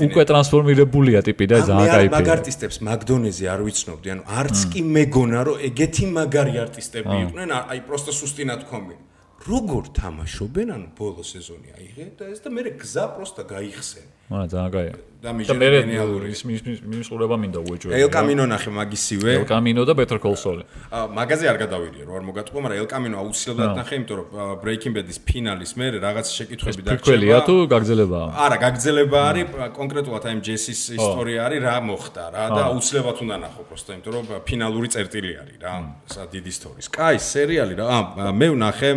უკვე ტრანსფორმირებულია ტიპი და ძალიან кайფია. მაგ არტისტებს მაგდონეზე არ ვიცნობდი, ანუ არც კი მეგონა რომ ეგეთი მაგარი არტისტები იყვნენ, აი პროსტა სუსტი ნათქვამი. როგორ თამაშობენ, ანუ ბოლო სეზონი აიღე და ეს და მე გზა პროსტა გაიხსენ. არა, ძალიან кайია. და მე გენიალური ის ყურება მინდა უეჭველი. ელ კამინო ნახე მაგისივე. ელ კამინო და Better Call Saul. მაგაზე არ გადავირიე, რომ არ მოგატყუა, მაგრამ ელ კამინო აუცილებლად ნახე, იმიტომ რომ Breaking Bad-ის ფინალის მერე რაღაც შეკითხვები დარჩება. პრიკველია თუ გაგრძელებაა? არა, გაგრძელება არის, კონკრეტულად აი ჯესის ისტორია არის, რა მოხდა რა და აუცილებლად უნდა ნახო, პროსტა, იმიტომ რომ ფინალური წერტილი არის რა, სა დიდი ისტორიის. კაი, სერიალი რა. მე ვნახე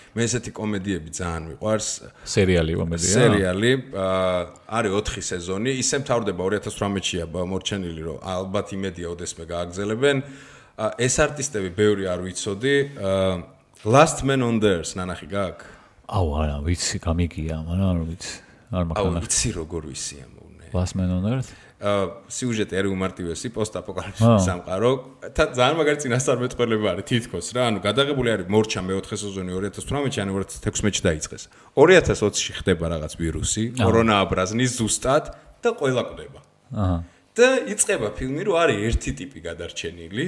მე ესეთი კომედიები ძალიან მიყვარს. სერიალი კომედია. სერიალი არის 4 სეზონი, ისე მთავრდება 2018-ია მორჩენილი, რომ ალბათ იმედია ოდესმე გააგრძელებენ. ეს არტისტები ბევრი არ ვიცოდი. Last Man on the Earth ნანახი გაქვს? აუ არა, ვიცი, გამიგია, მაგრამ არ ვიცი. არ მაქვს. აუ ვიცი როგორ ვიცია მოუნე. Last Man on Earth? სიუჟეტი არის უმარტივესი, პოსტ-აპოკალიფსის სამყარო. ძალიან მაგარი წინასწარმეტყველება არის თითქოს რა, ანუ გადაღებული არის მორჩა მე-4 სეზონი 2018-ში, ანუ 2016-ში დაიწყეს. 2020-ში ხდება რაღაც ვირუსი, კორონა აბრაზნის ზუსტად და ყველა კვდება. აჰა. და იწყება ფილმი, რომ არის ერთი ტიპი გადარჩენილი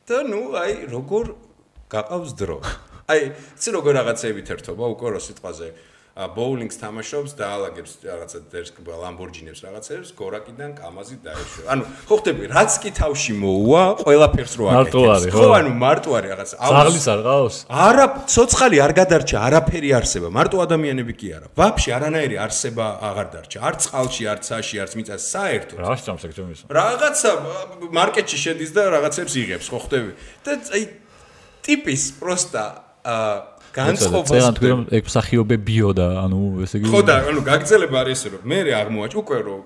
და ნუ აი როგორ გაყავს დრო. აი, იცი როგორ რაღაცეებით ერთობა უკვე რო სიტყვაზე ბოულინგს თამაშობს და ალაგებს რაღაცა ლამბორჯინებს რაღაცებს გორაკიდან კამაზი დაეშვება. ანუ ხო ხდები, რაც კი თავში მოუვა, ყველაფერს რო აკეთებს. ხო, ანუ მარტო არის რაღაცა. ზაღლის არ ყავს? არა, ცოცხალი არ გადარჩა, არაფერი არსება, მარტო ადამიანები კი არა. ვაფშე არანაირი არსება აღარ დარჩა. არც წყალში, არც საში, არც მიწაში, საერთოდ. რა შეჭამს ეგ ჩემის? რაღაცა მარკეტში შედის და რაღაცებს იღებს, ხო ხდები? და აი ტიპის პროსტა განწყობას წერან თქვენ ეგ მსახიობებიო და ანუ ესე იგი ხო და ანუ გაგრძელება არის ესე რომ მე აღმოაჩ უკვე რომ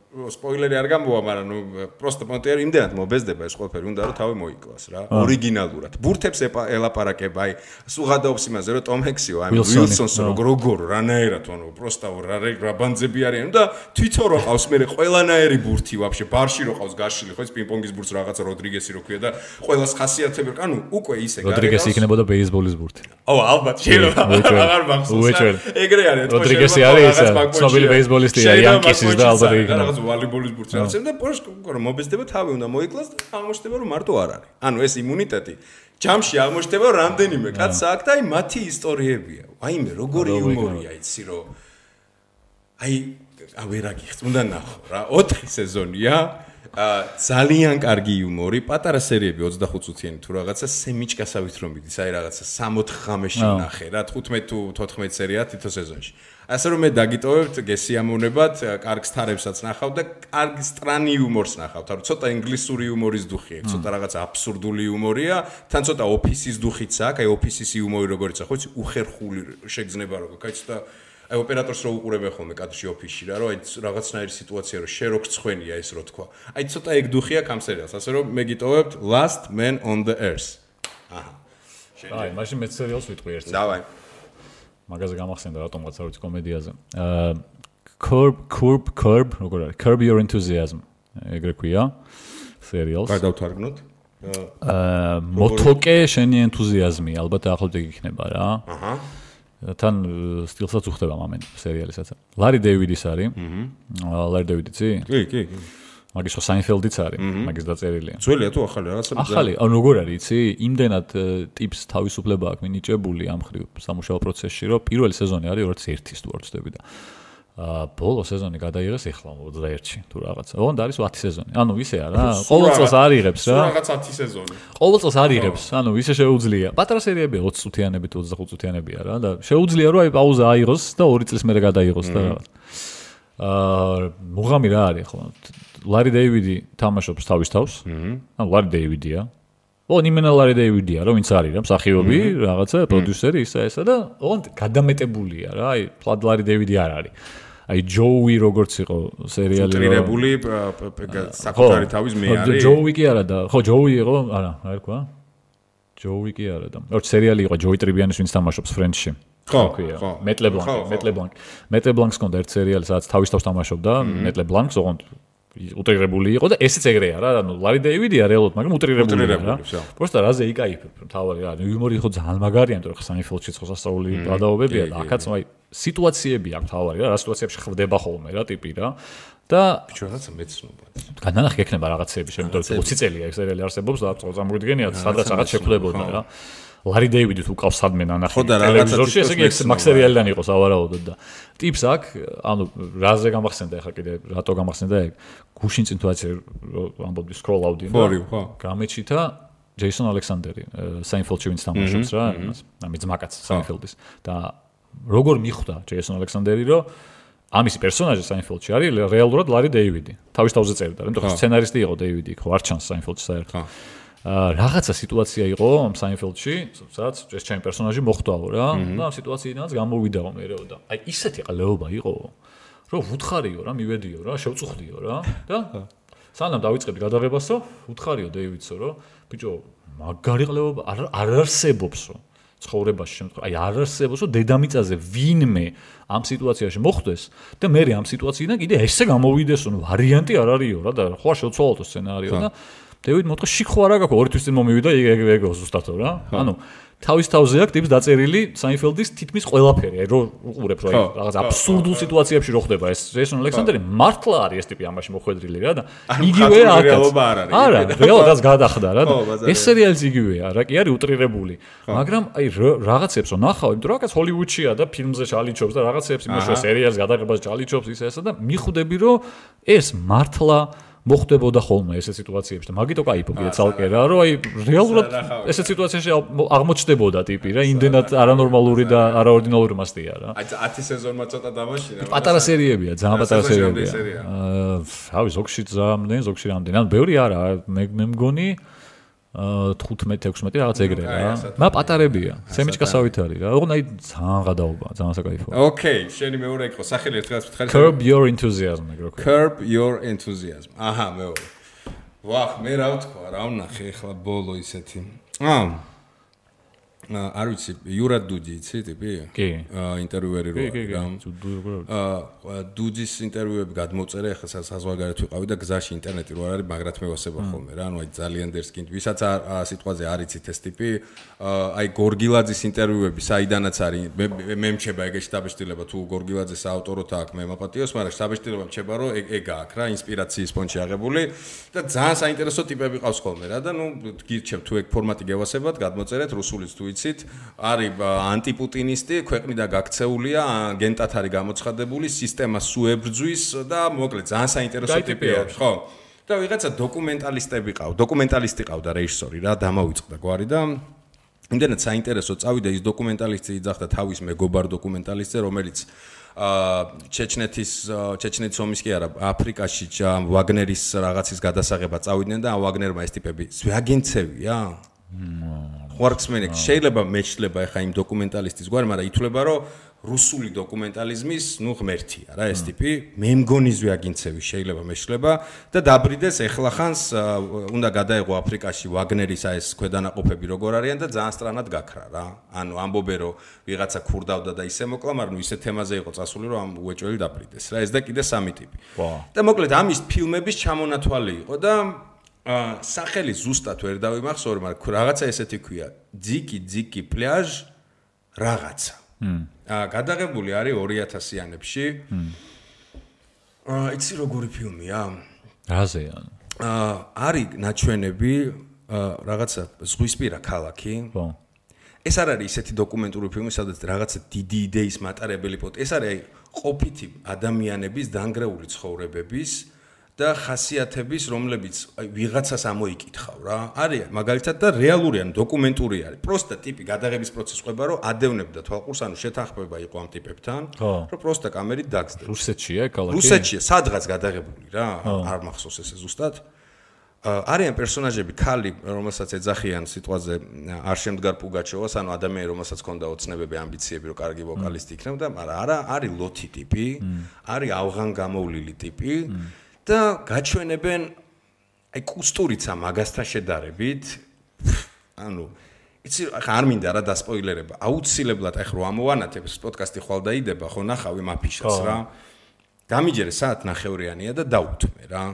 სპოილერი არ გამბოა, მაგრამ ნუ პროსტა მონტერი იმდენად მობეზდება ეს ყველაფერი უნდა რომ თავი მოიკლას რა ორიგინალურად ბურთებს ელაპარაკება აი სუღადაობს იმაზე რომ ტომ ჰექსიო აი უილსონსო როგორ რანაერად ანუ პროსტა რა ბანძები არიან და თვითონ რო ყავს მე ყველანაირი ბურთი ვაფშე ბარში რო ყავს გაშილი ხო ეს პინგ-პონგის ბურთს რაღაცა როდრიგესი რო ქვია და ყველას ხასიათები ანუ უკვე ისე გარეგავს როდრიგესი იქნებოდა ბეისბოლის ბურთი ო ალბათ შეიძლება აღარ მახსოვს ეგრე არის როდრიგესი არის ცნობილი ბეისბოლისტია იანკისის და ალბათ იქნება ვალიბოლის ბურთს რაღაცა და პორშკო რომ მობეზდება თავი უნდა მოიკლას და აღმოჩნდება რომ მარტო არ არის. ანუ ეს იმუნიტეტი ჯამში აღმოჩნდება რომ რამდენიმე კაცს აქვს და აი მათი ისტორიებია. აიმე როგორი იუმორია იცი რომ აი ვერ აგიხს უნდა ნახო რა 4 სეზონია ძალიან კარგი იუმორი, პატარა სერიები 25 წუთიანი თუ რაღაცა სემიჭკასავით რომ მიდის, აი რაღაცა 6-4 ღამეში ნახე რა 15 თუ 14 სერია თითო სეზონში. ასე რომ მე დაგიტოვებთ გესიამოვნებად, კარგ სტარებსაც ნახავ და კარგ სტრანი იუმორს ნახავთ. ანუ ცოტა ინგლისური იუმორის დუხი აქვს, ცოტა რაღაცა აბსურდული იუმორია, თან ცოტა ოფისის დუხიც აქვს, აი ოფისის იუმორი როგორიც ხო იცი, უხერხული შეგრძნება როგორ, აი ცოტა აი ოპერატორს რო უყურებენ ხოლმე კადრში ოფისში რა, რომ აი რაღაცნაირი სიტუაცია რო შე რო გწხვენია ეს რო თქვა. აი ცოტა ეგ დუხია კამ სერიალს, ასე რომ მე გიტოვებთ Last Man on the Earth. აჰა. აი, მაშინ მე სერიალს ვიტყვი ერთს. დავაი. მაგაზე გამახსენდა რატომღაც არ ვიცი კომედიაზე. Curb, როგორ არის? Curb Your Enthusiasm. ეგრე ქვია სერიალს. გადავთარგმნოთ. მოთოკე შენი ენთუზიაზმი, ალბათ ახლობთ ეგ იქნება რა. აჰა. თან სტილსაც უხდება მომენტ სერიალისაც. ლარი დეივიდის არის. ლარი დეივიდიცი? კი. მაგის ხო საინფელდიც არის, მაგის დაწერილია. ძველია თუ ახალი რაღაცა? ახალი, ანუ როგორ არის, იცი? იმდენად ტიპს თავისუფლება აქვს მინიჭებული ამ ხრივ სამუშაო პროცესში, რომ პირველი სეზონი არის 2001-ის თუ არ ვცდები და ბოლო სეზონი გადაიღეს ეხლა 21-ში თუ რაღაცა. ოღონდ არის 10 სეზონი. ანუ ისე არა, ყოველ წელს არ იღებს რა. რაღაც 10 სეზონი. ყოველ წელს არ იღებს, ანუ ისე შეუძლია. პატარა სერიებია 20 წუთიანები თუ 25 წუთიანებია რა და შეუძლია რომ აი პაუზა აიღოს და 2 წლის მერე გადაიღოს და რაღაც. მუღამი რა არის ხო? ლარი დეივიდი თამაშობს თავის თავს. ანუ ლარი დეივიდია. ნიმენა ლარი დეივიდია, რომ ვინც არის რა, მსახიობი, რაღაცა, პროდიუსერი, ისა და ოღონდ გადამეტებულია რა, აი, ფლად ლარი დეივიდი არ არის. აი ჯოუი როგორც იყო სერიალი უტრირებული საკუთარი თავის მე არის ჯოუი კი არა და ხო ჯოუი იყო არა რა თქვა ჯოუი კი არა და როგორც სერიალი იყო ჯოი ტრიბიანის ვინც თამაშობს ფრენდში ხო მეტლე ბლანკს კონდა ერთ სერიალი სადაც თავის თავს თამაშობდა მეტლე ბლანკს ოღონდ უტრირებული იყო და ესეც ეგრეა რა ანუ ლარი დეივიდია რეალურად მაგრამ უტრირებული რა პროსტა რაზე იკაიფებ თავარი რა იუმორი ხო ძალიან მაგარია იმიტომ რომ საინფელდში ხო სასწაული გადაობებია და აქაც აი სიტუაციები აქვს თავარი რა სიტუაციებში ხდება ხოლმე რა ტიპი რა და ბიჭო რაღაცა მეცნობა განანახი ექნება რაღაცეები შემიძლია 20 წელია ეს სერიალი არსებობს და წამოგიდგენიათ სადღაც რაღაც შეფლებოდა რა ლარი დეივიდი თუ ყავს სადმე ნანახი ტელევიზორში ესე იგი მაგ სერიალიდან იყო სავარაუდოდ და ტიპს აქ ანუ რაზე გამახსენდა ახლა კიდე რატო გამახსენდა ეგ გუშინ წინ თუ ასე ამბობდი სკროლ აუდინო გამეჩითა ჯეისონ ალექსანდერი საინფელდში ვინც თამაშობს რა ამის ძმაკაც საინფელდის და როგორ მიხვდა ჯეისონ ალექსანდერი რომ ამის პერსონაჟი საინფელდში არის რეალურად ლარი დეივიდი თავის თავზე წერდა იმიტომ რომ სცენარისტი იყო დეივიდი ხო არ ჩანს საინფელდში საერთოდ რაღაცა სიტუაცია იყო ამ საინფელდში, სადაც ეს ჩემი პერსონაჟი მოხვდაო რა და ამ სიტუაციიდანაც გამოვიდაო მეეო და აი ისეთი ყლეობა იყო, რომ ვუთხარიო რა, მივედიო რა, შევწუხდიო რა და სანამ დავიწყებდი გადაღებასო, ვუთხარიო დეივიდსო, რომ ბიჭო, მაგარი ყლეობა არ არსებობსო ცხოვრებაში შემთხვევაში, აი არ არსებობსო დედამიწაზე ვინმე ამ სიტუაციაში მოხვდეს და მე ამ სიტუაციიდან კიდე ესე გამოვიდესო, ვარიანტი არ არისო რა და ხო შევცვალოთ სცენარიო და დევიდ მოთხრა შიქო არა გაქვს ორი თვის წინ მომივიდა ეგ ზუსტათო რა ანუ თავის თავზე აქვს ტიპს დაწერილი საინფელდის თითქმის ყველაფერი აი რო უყურებ რა რაღაც აბსურდულ სიტუაციებში რო ხდება ეს ჯეისონ ალექსანდერი მართლა არის ეს ტიპი ამაში მოხვედრილი რა და იგივე არა რეალადაც გადახდა რა ეს სერიალიც იგივეა რა კი არის უტრირებული მაგრამ აი რაღაცებს რო ნახავ იმიტომ რომ რაღაც ჰოლივუდშია და ფილმზე ჩალიჩობს და რაღაცებს იმუშავე სერიალს გადაღებას ჩალიჩობს ისე და მიხვდები რომ ეს მართლა მოხდებოდა ხოლმე ესე სიტუაციებში და მაგიტო кайფობია ცალკე რა რომ აი რეალურად ესე სიტუაციაში აღმოჩნდებოდა ტიპი რა იმდენად არანორმალური და არაორდინალური მასტია რა აი 10 სეზონმა ცოტა დამაშინა პატარა სერიებია ძალიან პატარა სერიებია რავი ზოგში ძალიან ზოგში რამდენი ანუ ბევრი არა მე მგონი 15-16 რაღაც ეგრე რა. მა პატარებია. სემიჩკასავით არის რა. ოღონდ აი ძალიან გადაობა, ძალიან საკაიფოა. ოკეი, შენი მეორე იყო სახელი ერთხელაც ვთხარი. Curb your enthusiasm ეგრე. Curb your enthusiasm. აჰა, მეორე. ვახ, მე რა ვთქვა, რა ვნახე ახლა ბოლო ისეთი. არ ვიცი, იურა დუდი იცი ტიპი? კი. ინტერვიუერი რა. დუდის ინტერვიუები გადმოწერე, ახლა საზღვარგარეთ ვიყავი და გზაში ინტერნეტი რო არ არის, მაგრად მევასება ხოლმე რა. ანუ აი ძალიან დერსკინდ, ვისაც სიტყვაზე არ იცით ეს ტიპი, აი გორგილაძის ინტერვიუები საიდანაც არის, მე მჩება ეგეში დაბეჭდილება თუ გორგილაძეს აავტოროთ აქვს მე მაპატიოს, მაგრამ დაბეჭდილება მჩება რომ ეგ აქვს რა, ინსპირაციის ფონში აღებული და ძალიან საინტერესო ტიპები ყავს ხოლმე რა და ნუ გირჩევთ თუ ეგ ფორმატი გევასებათ, გადმოწერეთ რუსულიც თუ არის ანტიპუტინისტი, ქვეყნიდან გაქცეულია, აგენტად არის გამოცხადებული, სისტემას უებრძვის და მოკლედ ძალიან საინტერესო ტიპია, ხო? და ვიღაცა დოკუმენტალისტი ყავდა რეჟისორი რა, დამავიწყდა გვარი და იმდენად საინტერესო წავიდა ის დოკუმენტალისტი იძახდა თავის მეგობარ დოკუმენტალისტზე, რომელიც ჩეჩნეთის ომის კი არა, აფრიკაში ვაგნერის რაღაცის გადასაღება წავიდნენ და ვაგნერმა ეს ტიპები ზვიაგენცევია? ხوارკსმენი შეიძლება მეჩლება ახლა იმ დოკუმენტალისტის გვარი, მაგრამ ითვლება რომ რუსული დოკუმენტალიზმის ნუ ღმერთია რა ეს ტიპი, მე მგონი ზვიაგინცევი შეიძლება მეჩლება და დაბრიდეს ეხლახანს უნდა გადაეღო აფრიკაში ვაგნერის ეს ქვედანაყოფები როგორ არიან და ძალიან სწრანად გაქრა რა. ანუ ამბობენ რომ ვიღაცა ქურდავდა და ისე მოკლა, მაგრამ ნუ ისე თემაზე იყო წასული რომ ამ უეჭველი დაბრიდეს რა. ეს და კიდე სამი ტიპი. და მოკლედ ამის ფილმების ჩამონათვალი იყო და სახელი ზუსტად ვერ დავიმახსოვრე, მაგრამ რაღაცა ესეთი ქვია. ძიკი პლაჟ რაღაცა. გადაღებული არის 2000-იანებში. იცი როგორი ფილმია? რაზეა? არის ნაჩვენები რაღაცა ზღვისპირა ქალაქი. ხო. ეს არ არის ისეთი დოკუმენტური ფილმი, სადაც რაღაცა დიდი იდეის მატარებელი ეს არის ყოფითი ადამიანების დანგრეული ცხოვრებების და ხასიათების, რომლებიც ვიღაცას ამოიკითხავ რა. არის მაგალითად და რეალური ან დოკუმენტური არის. პროსტა ტიპი გადაღების პროცესს ყვება, რომ ადევნებდა თვალყურს, ანუ შეთანხმება იყო ამ ტიპებთან, რომ პროსტა კამერით დაგზდებს. რუსეთშია ქალაქი? რუსეთშია, სადღაც გადაღებული რა. არ მახსოვს ესე ზუსტად. არიან პერსონაჟები ქალი, რომელსაც ეძახიან სიტყვაზე არ შემდგარ პუგაჩოვას, ანუ ადამიანი, რომელსაც ჰქონდა ოცნებები, ამბიციები, რომ კარგი ვოკალისტი იქნებოდა, მაგრამ არა, არის ლოთი ტიპი, არის ავღან გამოვლილი ტიპი და გაჩვენებენ აი კუსტურიცა მაგასთან შედარებით, ანუ იცი ხა არ მინდა რა დასპოილერება. აუცილებლად ახ რო ამოვანათებ ეს პოდკასტი ხვალ დაიდება, ხო ნახავი მაფიშას რა. გამიჯერე საათ ნახევრიანია და დაუთმე რა.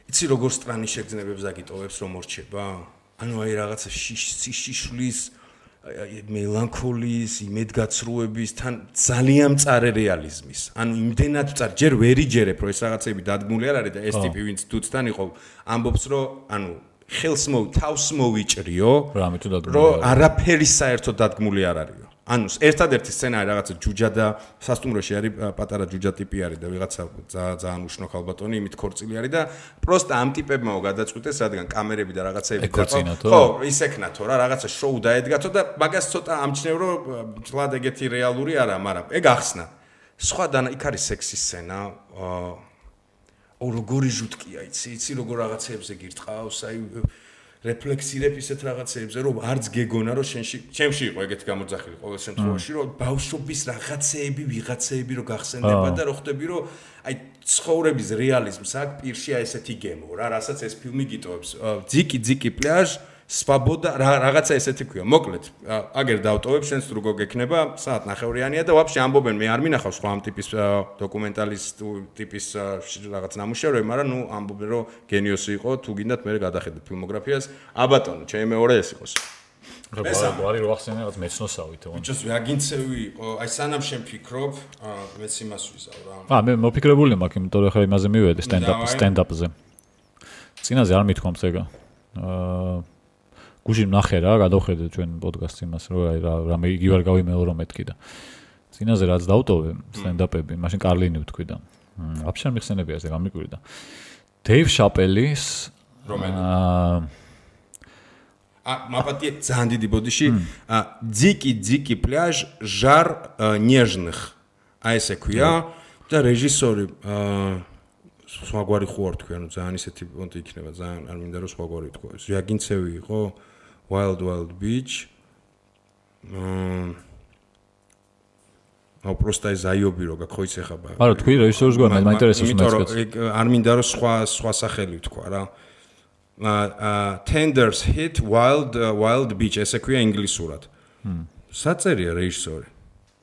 იცი როგორ სტრანის შეგრძნებებს აგიტოვებს რომ მორჩება? ანუ აი რაღაცა შიშლის მელანქოლიის, იმედგაცრუების თან ძალიან მწარე რეალიზმის. ანუ იმდენად მწარე, ჯერ ვერ იჯერებ რომ ეს რაღაცები დადგმული არ არის და ეს ტიპი ვინც თუცთან იყო, ამბობს რომ ანუ ხელს თავს მოვიჭრიო, რომ არაფერი საერთოდ დადგმული არ არისო. ანუ ერთადერთი სცენარი რაღაცა ჯუჯა და სასტუმროში არის პატარა ჯუჯა ტიპი არის და ვიღაცა ძალიან უშნო ქალბატონი იმით ქორწილი არის და პროსტა ამ ტიპებმაო გადაწყვიტეს, რადგან კამერები და რაღაცეები ხო, ისექნათო რა, რაღაცა შოუ დაედგათო და მაგას ცოტა ამჩნევ რომ წლად ეგეთი რეალური არა, მაგრამ ეგ ახსნა. სხვა და იქ არის სექსის სცენა, როგორი ჟუტკია, იცი როგორ რაღაცეებზე გირტყავს, აი რეფლექსირებ ისეთ რაღაცეებზე, რომ არც გეგონა, რომ ჩემში იყო ეგეთი გამოძახილი ყოველ შემთხვევაში, რომ ბავშვობის რაღაცეები, ვიღაცეები რო გახსენდება და რო ხვდები, რომ აი ცხოვრების რეალიზმს აქ პირში აი ესეთი გემო რა, რასაც ეს ფილმი გიტოვებს. ძიკი პლაჟ, სვაბოდა, რაღაცა ესეთი ქვია. მოკლედ, აგერ დავტოვებ, შენს როგორ გექნება, საათ ნახევრიანია და ვაფშე ამბობენ, მე არ მინახავს სხვა ამ ტიპის დოკუმენტალისტ ტიპის რაღაც ნამუშევრები, მაგრამ ნუ ამბობენ, რომ გენიოსი იყო, თუ გინდათ მე გადახედეთ ფილმოგრაფიას. აბატონო, ჩემი მეორე ეს იყოს. არის რო ახსენე რაღაც მეცნოსავით. ბიჭოს ვაგინცევი იყო, აი სანამ შენ ფიქრობ, მეც იმას ვიზავ რა. მე მოფიქრებული მაქვს, იმიტომ რომ ხა იმაზე მივედი სტენდაპზე. წინაზე არ მithქვამს ეგა. გუში ნახე რა, გადავხედე ჩვენ პოდკასტს იმას, რომ აი რამე იგი ვარ გავიმეორო მეთქი და წინაზე რაც დავტოვე სტენდაპები, მაშინ კარლინი ვთქვი და ვაფშე არ მიხსენებია ეს გამიკვირდა. დეივ შაპელის მაპატია ძალიან დიდი ბოდიში, ძიკი პლაჟ ჟარ ნეჟных. აი ესე ქვია და რეჟისორი სხვაგვარი ხო არ თქვი, ანუ ძალიან ისეთი პონტი იქნება, ძალიან არ მინდა რომ სხვაგვარი თქვა. ზვიაგინცევი იყო Wild Beach. просто ზაიობი რო გაქოიცე ხაბა. არა, თქვი რეჟისორს გვარ, მაინტერესებს მეც. არ მინდა რომ სხვა სახელი ვთქვა რა. Tenders hit Wild Beach, ესე ქვია ინგლისურად. საწერია რეჟისორი.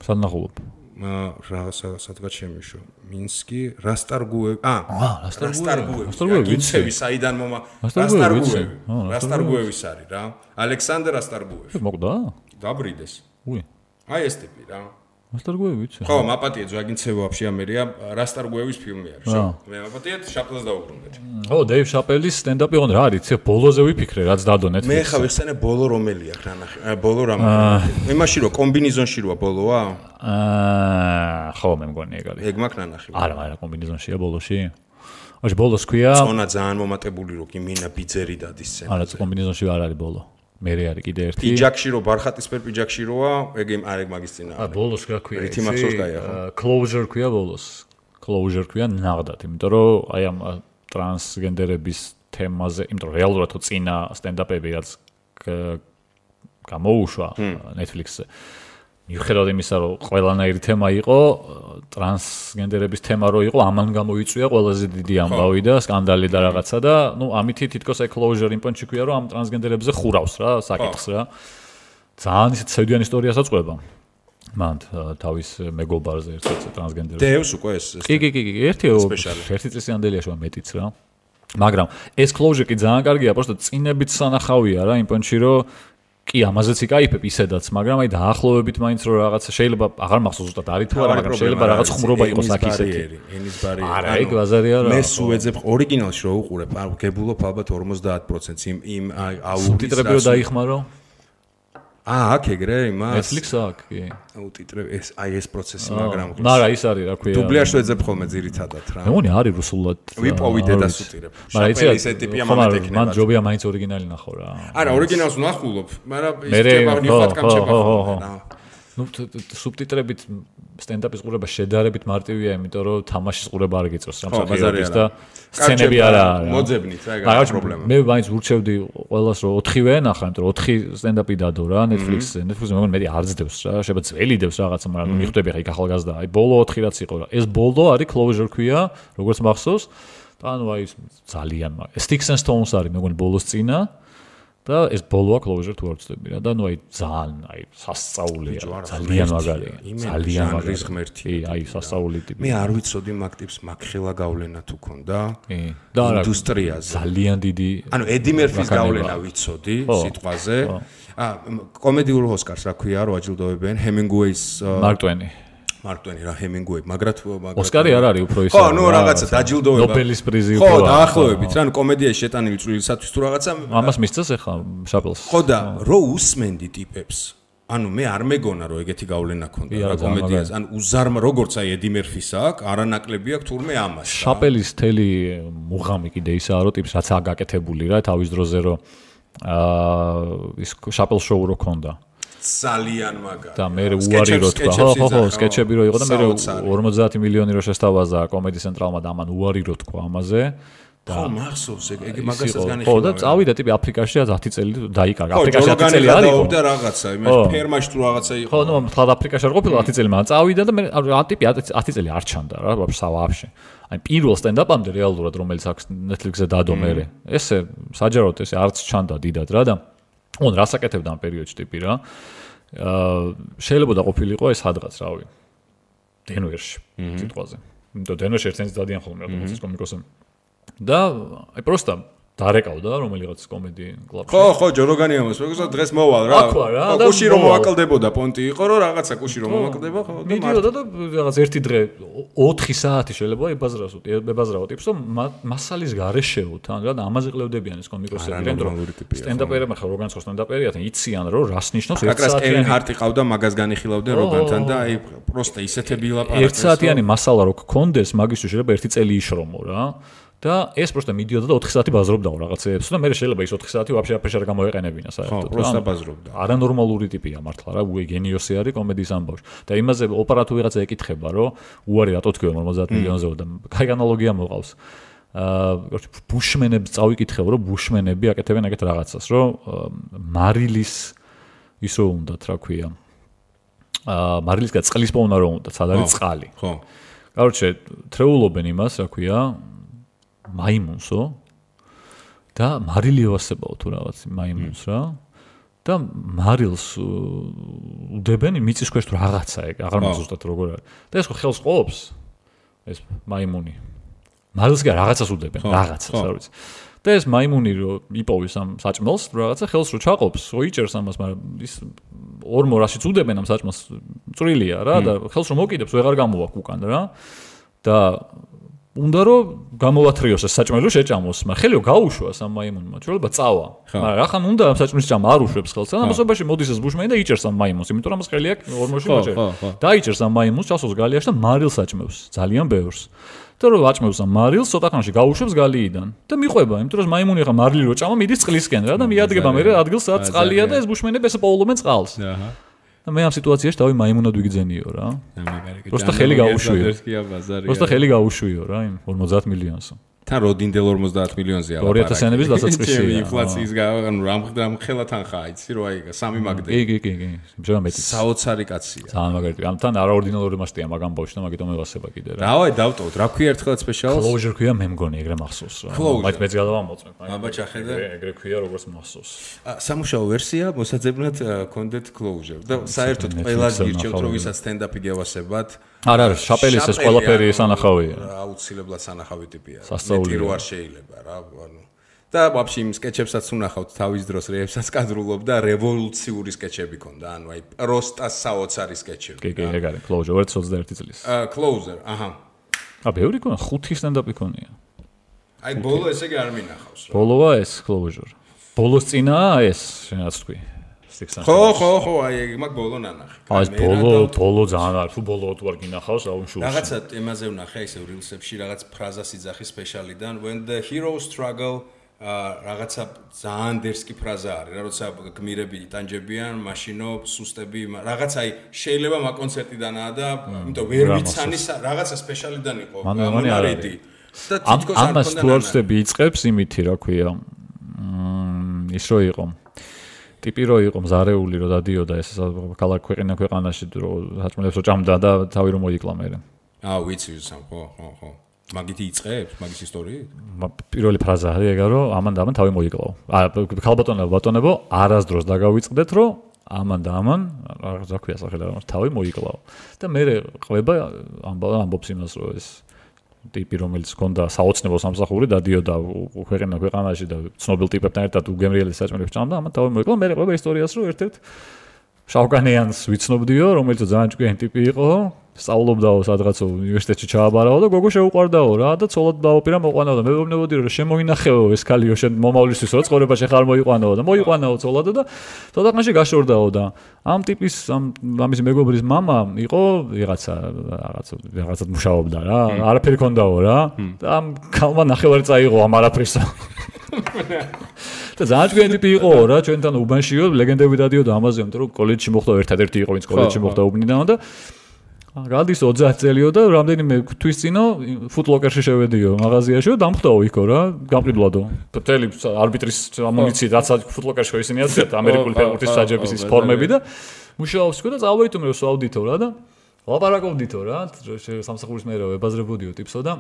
სანახულობ. სადღაც შემიშო მინსკი რასტარგუევი რასტარგუევი საიდან მომა რასტარგუევის არის რა ალექსანდრ რასტარგუევი მოკვდა დაბრიდეს აი ეს ტიპი რა რასტარგუევი ვიცი ხო მაპატია ზვაგინცევი ვაფშე ამერია რასტარგუევის ფილმი არის რა მე მაპატია შაპელს დაუბრუნდეთ ო დეივ შაპელის სტენდაპი ოღონდ რა არის ცე ბოლოზე ვიფიქრე რაც დადო Netflix-ზე მე ხა ვიხსენე ბოლო რომელია რა ნახე ბოლო რამე იმაში რო კომბინიზონში როა ბოლოა ხო მე მგონი ეგ არის ეგ მაქვს ნანახი არა კომბინიზონშია ბოლოში ოღონდ ბოლოს ქვია წონა ძალიან მომატებული რო კი მინა ბიძერი დადის სცენა არა კომბინიზონში არ არის ბოლო მე არის კიდე ერთი პიჯაკში რო ბარხატისფერ პიჯაკში როა ეგ მაგის წინა არა ბოლოს რა ქვია რითი მახსოვს გაია ხო closure ქვია ბოლოს closure ქვია ნაღდათ იმიტომ რომ აი ამ ტრანსგენდერების თემაზე იმიტომ რომ რეალურად თუ წინა სტენდაპები რაც გამოუშვა Netflix-ზე მიუხედავად იმისა რომ ყველანაირი თემა იყო ტრანსგენდერების თემა რო იყო ამან გამოიწვია ყველაზე დიდი ამბავი და სკანდალი და რაღაცა და ნუ ამითი თითქოს აი closure იმპონჩი ქვია რომ ამ ტრანსგენდერებზე ხურავს რა საკითხს რა ძალიან ისეთ ცევდიან ისტორიასაც ყვება მან თავის მეგობარზე ერთ-ერთ ტრანსგენდერს დევს უკვე ეს კი ერთი წლისამდელია შუა მეტიც რა მაგრამ ეს closure კი ძალიან კარგია просто წინებით სანახავია რა იმპონჩი რომ კი ამაზეც იკაიფებ ისედაც მაგრამ აი დაახლოებით მაინც რომ რაღაცა შეიძლება აღარ მახსოვს ზუსტად არის თუ არა მაგრამ შეიძლება რაღაც ხუმრობა იყოს აქ ისეთი ენის ბარიერი არა ეგ ბაზარია რა მე სუეძებ ორიგინალში რო უყურებ გებულობ ალბათ 50% იმ აუდიტს სუბტიტრები დაიხმარო აქ ეგრე იმას Netflix-ს აქ კი აუდიტრები ეს აი ეს პროცესი მაგრამ მაგრამ ის არის რა ქვია დუბლიაჟს ვეძებ ხოლმე ძირითადად რა მე მგონი არის რუსულად ვიპოვიდე და სუტირებ შაპელი ესე ტიპია მომეთექნება მან ჯობია მაინც ორიგინალი ნახო რა არა ორიგინალს ნახულობ მაგრამ ის ჩება ნიხატკამ ჩება რა ნუ სუბტიტრებით სტენდაპის ყურება შედარებით მარტივია, იმიტომ რომ თამაშის ყურება არ გიწევს რამ საფრთხეების და სცენები არა მოძებნით რა ეგ პრობლემა. მე მაინც ურჩევდი ყველას რომ 4-ვე ენახა, იმიტომ რომ 4 სტენდაპი დადო რა Netflix-ზე. Netflix-ზე მეგონი მეტი არ ძდევს რა, შეიძლება ძველი დევს რაღაცა, მაგრამ მიხვდები ხა იქ ახალგაზრდა. აი ბოლო 4 რაც იყო რა. ეს ბოლო არის Closure ქვია, როგორც მახსოვს. და ანუ აი ძალიან Sticks and Stones არის მეგონი ბოლოს წინა. და ეს ბოლოა Closure თუ არ ვწდები რა და ნუ აი ძალიან აი სასწაულია ძალიან მაგარია ძალიან მაგარი ღმერთი აი სასწაული ტიპი მე არ ვიცოდი მაგ ტიპს მაგხელა გავლენა თუ ქონდა და ინდუსტრიაზე ძალიან დიდი ანუ ედი მერფის გავლენა ვიცოდი სიტყვაზე კომედიურ ოსკარს რა ქვია რო აჯილდოებენ ჰემინგუეის მარკ ტვენი რა ჰემინგუეი მაგრად ოსკარი არ არის უფრო ის ხო ნუ რაღაცა დაჯილდოება ნობელის პრიზი უფრო ხო დაახლოებით რა ნუ კომედიაში შეტანილი წვლილისათვის თუ რაღაცა ამას მისცეს ახლა შაპელს ხო და რო უსმენდი ტიპებს ანუ მე არ მეგონა რომ ეგეთი გავლენა ქონდა რა კომედიაზე ანუ უზარმა როგორც აი ედი მერფის აქვს არანაკლები აქვს თურმე ამას შაპელის თელი მუღამი კიდე ისაა რომ ტიპს რაც აგაკეთებული რა თავის დროზე რომ ის შაპელ შოუ რო ქონდა ძალიან მაგარი. და მე უარი რო თქვა. ხო, სკეჩები რო იყო და მე 50 მილიონი რო შესთავაზა კომედი ცენტრალმა და ამან უარი რო თქვა ამაზე. ხო, მახსოვს ეგ მაგასაც განიხილავ. ხო, და წავიდა ტიპი აფრიკაში 10 წელი დაიკარგა. აფრიკაში 10 წელი არ იყო. და რაღაცა, იმას ფერმაში თუ რაღაცა იყო. ხო, ნუ თლად აფრიკაში არ ყოფილა 10 წელი, მაგრამ წავიდა და მე ტიპი 10 წელი არ ჩანდა რა, ვაფშე. აი პირველ სტენდაპამდე რეალურად რომელიც აქვს Netflix-ზე დადო მერე. ესე საჯაროდ ესე არც ჩანდა დიდად რა და on რას აკეთებდა ამ პერიოდში ტიპი რა. შეიძლება და ყოფილიყო ეს სადღაც რავი. დენვერში სიტყვაზე. იმიტომ დენვერში ერთენს დადიან ხოლმე ავტომატის კომიკოსები. და აი პროსტა დარეკავდა რომელიღაც კომედი კლუბში. ხო, ჯოროგანი ამას, მეგონა დღეს მოვალ რა. კუში რომ მოაკლდებოდა პონტი იყო, რომ რაღაცა კუში რომ მოაკლდება, ხო და მიდიოდა და რაღაც ერთი დღე 4 საათი შეიძლება ებაზრაო ტიპს, რომ მასალის გარეშეო თან რა და ამაზე ყლევდებიან ეს კომიკოსები, რომ სტენდაპერები ხარ როგანს ხო სტენდაპერია თან იციან რომ რას ნიშნავს 1 საათიანი. კევინ ჰარტი ყავდა მაგას განიხილავდნენ როგანთან და აი პროსტა ისეთები ლაპარაკეს. 1 საათიანი მასალა რო გქონდეს, მაგისთვის შეიძლება 1 წელი იშრომო რა. და ეს პროსტა მიდიოდა და 4 საათი ბაზრობდაო რაღაცეებს და მე შეიძლება ის 4 საათი ვაფშე აფეშარ გამოეყენებინა საერთოდ. ხო, პროსტა ბაზრობდა. არანორმალური ტიპია მართლა რა, გენიოსი არის კომედიის ამბავში. და იმაზე ოპერატუ ვიღაცა ეკითხება, რომ უარი რატო თქვია 50 მილიონზე და კაი ანალოგია მოყავს. короче, ბუშმენებს წავიკითხებ, რომ ბუშმენები აკეთებენ ეგეთ რაღაცას, რომ მარილის ისო უნდათ, რა ქვია. მარილისგან წყლის პოვნა რომ უნდათ, სად არის წყალი. ხო. короче, თრეულობენ იმას, რა ქვია. მაიმუნსო და მარილი ევასებაო თუ რაღაც მაიმუნს რა და მარილს უდებენ მიწის ქვეშ თუ რაღაცა ეგ აღარ მახსოვსდათ როგორ არის და ეს ხო ხელს ყოფს ეს მაიმუნი მარილს კი რაღაცას უდებენ რაღაცას არ ვიცი და ეს მაიმუნი რო იპოვის ამ საჭმელს რაღაცა ხელს რო ჩაყოფს ოიჭერს ამას მაგრამ ის ორ მორაშიც უდებენ ამ საჭმელს წვრილია რა და ხელს რო მოკიდებს ვეღარ გამოვა უკან რა და უნდა რომ გამოვათრიოს ეს საჭმელი შეჭამოს, მაგრამ ხელიო გაუშვას ამ მაიმუნმა, შეიძლება წავა. მაგრამ რახან უნდა ამ საჭმლის ჭამა არ უშვებს ხელს, და ამასობაში მოდის ეს ბუშმენი და იჭერს ამ მაიმუნს, იმიტომ რომ ეს ხელი აქვს ორმოში მოჭერა. დაიჭერს ამ მაიმუნს, ჩასოს გალიაში და მარილს აჭმევს, ძალიან ბევრს. და რომ აჭმევს ამ მარილს, ცოტა ხანში გაუშვებს გალიიდან და მიყვება, იმიტომ რომ მაიმუნი ხა მარილი რო ჭამა, მიდის წყლისკენ რა და მიადგება მე ადგილს სადაც წყალია და ეს ბუშმენები ესე პოულობენ წყალს. აჰა. და მე ამ სიტუაციაში დავი მაიმუნად ვიგძენიო რა. პროსტა ხელი გაუშვიო. პროსტა ხელი გაუშვიო რა იმ 50 მილიონს. თან როდინდელ 50 მილიონზე არა. 2000-იანების დასაწყისია. ინფლაციის რამ ხელა თანხა იცი რო აი 3 მაგდე. კი. შეიძლება მეტი. საოცარი კაცია. ძალიან მაგარი. ამ თან არაორდინალური მასტია მაგ ამბავში და მაგიტომ ევასება კიდე რა. დავაი დავტოვოთ. რა ქვია ერთხელ სპეციალს? Closure ქვია მე მგონი ეგრე მახსოვს რა. მაინც მეც გადავამოწმე. აბა ჩახედე. ეგრე ქვია როგორც მახსოვს. სამუშაო ვერსია მოსაძებნად კონდენტ Closure და საერთოდ ყველა გირჩევთ რომ ვისაც სტენდაპი გევასებათ. არა, შაპელის ეს ყველაფერი სანახავია. აუცილებლად სანახავი ტიპია. სასწაულია. რო არ შეიძლება რა, ანუ და ვაფშე იმ სკეჩებსაც უნახავთ თავის დროს რეებსაც კადრულობ და რევოლუციური სკეჩები ქონდა, ანუ აი პროსტა საოცარი სკეჩები. კი, ეგ არის Closure 21 წლის. Closure, აჰა. ბევრი ქონა, 5 სტენდაპი ქონია. აი ბოლო ესე კი არ მინახავს რა. ბოლოა ეს Closure. ბოლოს წინაა ეს, შენაც თქვი. ხო, აი მაგ ბოლო ნანახი. ეს ბოლო ძალიან არ, თუ ბოლო თუ არ გინახავს, რა უმშულს. რაღაცა თემაზე ვნახე ისე rilsებში, რაღაც ფრაზას იძახი სპეციალიდან when the heroes struggle რაღაცა ძალიან დერსკი ფრაზა არის, რა როცა გმირები იტანჯებიან, მაშინო სუსტები, რაღაცა აი შეიძლება მაგ კონცერტიდანაა და იმიტომ ვერ ვიცანი რაღაცა სპეციალიდან იყო მონარიდი. და თითქოს არ ამას თუ არ ვწდები იწყებს იმითი, რა ქვია. ის რო იყო. ტიპი რო იყო მზარეული რო დადიოდა ეს ქალაქ ქვეყანაში რო საჭმელებს რო ჭამდა და თავი რო მოიკლა მერე. ვიცი სამ ხო. მაგითი იწყებს, მაგის ისტორიით? პირველი ფრაზა არის ეგა რომ ამან თავი მოიკლაო. ბატონებო, არასდროს დაგავიწყდეთ რომ ამან რაღაცა ქვია სახელი რა თავი მოიკლაო. და მე ყვება ამბობს იმას რომ ეს ტიპი რომელიც ჰქონდა საოცნებო სამსახური დადიოდა ქვეყანაში და ცნობილ ტიპებთან ერთად უგემრიელი საჭმელებს ჭამდა, ამან თავი მოიკლაო. მე ყვება ისტორიას რომ ერთ-ერთ შავკანიანს ვიცნობდიო, რომელიც ძალიან ჭკვიანი ტიპი იყო. სწავლობდაო სადღაც უნივერსიტეტში ჩააბარაო და გოგო შეუყვარდაო რა და ცოლად დავაპირა მოყვანაო და მე ვეუბნებოდი რომ შემოინახეო ეს ქალიო შენ მომავლისთვის რო ცხოვრებაში ხარ მოიყვანაო და მოიყვანაო ცოლად და თოდაღანში გაშორდაო და ამ ტიპის ამის მეგობრის მამა იყო რაღაცად მუშაობდა რა არაფერი ქონდაო რა და ამ ქალმა ნახევარი წაიღო ამ არაფრისა და ძალიან ჭკვიანი ტიპი იყო რა ჩვენთან უბანშიო ლეგენდები დადიოდა ამაზე რომ კოლეჯში მოხდა ერთადერთი იყო ვინც კოლეჯში მოხდა უბნიდან და გადის 30 წელიო და რამდენიმე თვის წინო ფუტლოკერში შევედიო მაღაზიაში და დამხვდაო იქო რა გამყიდვლადო მთელი არბიტრის ამუნიციით რაც ფუტლოკერში ხო ისინი აცდათ ამერიკული ფეხბურთის საჯების ის ფორმები და მუშაობს ხო და წავეიტუმე რომ სვავდითო რა და ლაპარაკობდითო რა სამსახურის მერე ვებაზრებოდიო ტიპსო და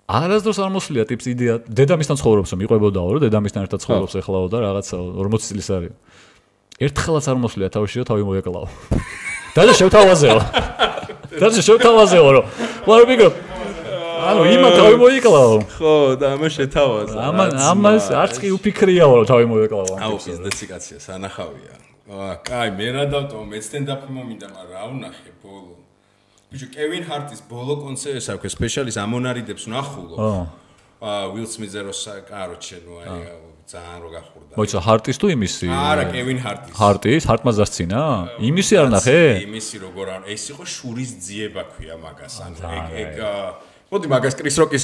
არასდროს არ მოსვლია ტიპს იდეა დედამისთან ცხოვრობს რომ იყვებოდაო რომ დედამისთან ერთად ცხოვრობს ეხლაო და რაღაცა 40 წლის არის ერთხელაც არ მოსვლია თავში რომ თავი მოეკლაო და შევთავაზეო რომ ვარბიგო ანუ იმა თავი მოიკლაო ხო და ამას შეთავაზა ამას არც კი უფიქრიაო რომ თავი მოეკლაო აუ ეს დეციკაცია სანახავია კაი მე რა დავტოვ მე სტენდაპი მომინდა მაგრამ რა ვნახე ბოლო ბიჭო კევინ ჰარტის ბოლო კონცერტს აქვს სპეციალის ამონარიდებს ვნახულო ვილ სმიზე რო კაროჩე ნუ აი ძალიან რო გახურდა. მოიცა ჰარტის თუ იმისი? არა, კევინ ჰარტის. ჰარტის? ჰარტმა დასცინა? იმისი არ ნახე? იმისი როგორ არ ეს იყო შურის ძიება ქვია მაგას. ანუ ეგ მოდი მაგას კრის როკის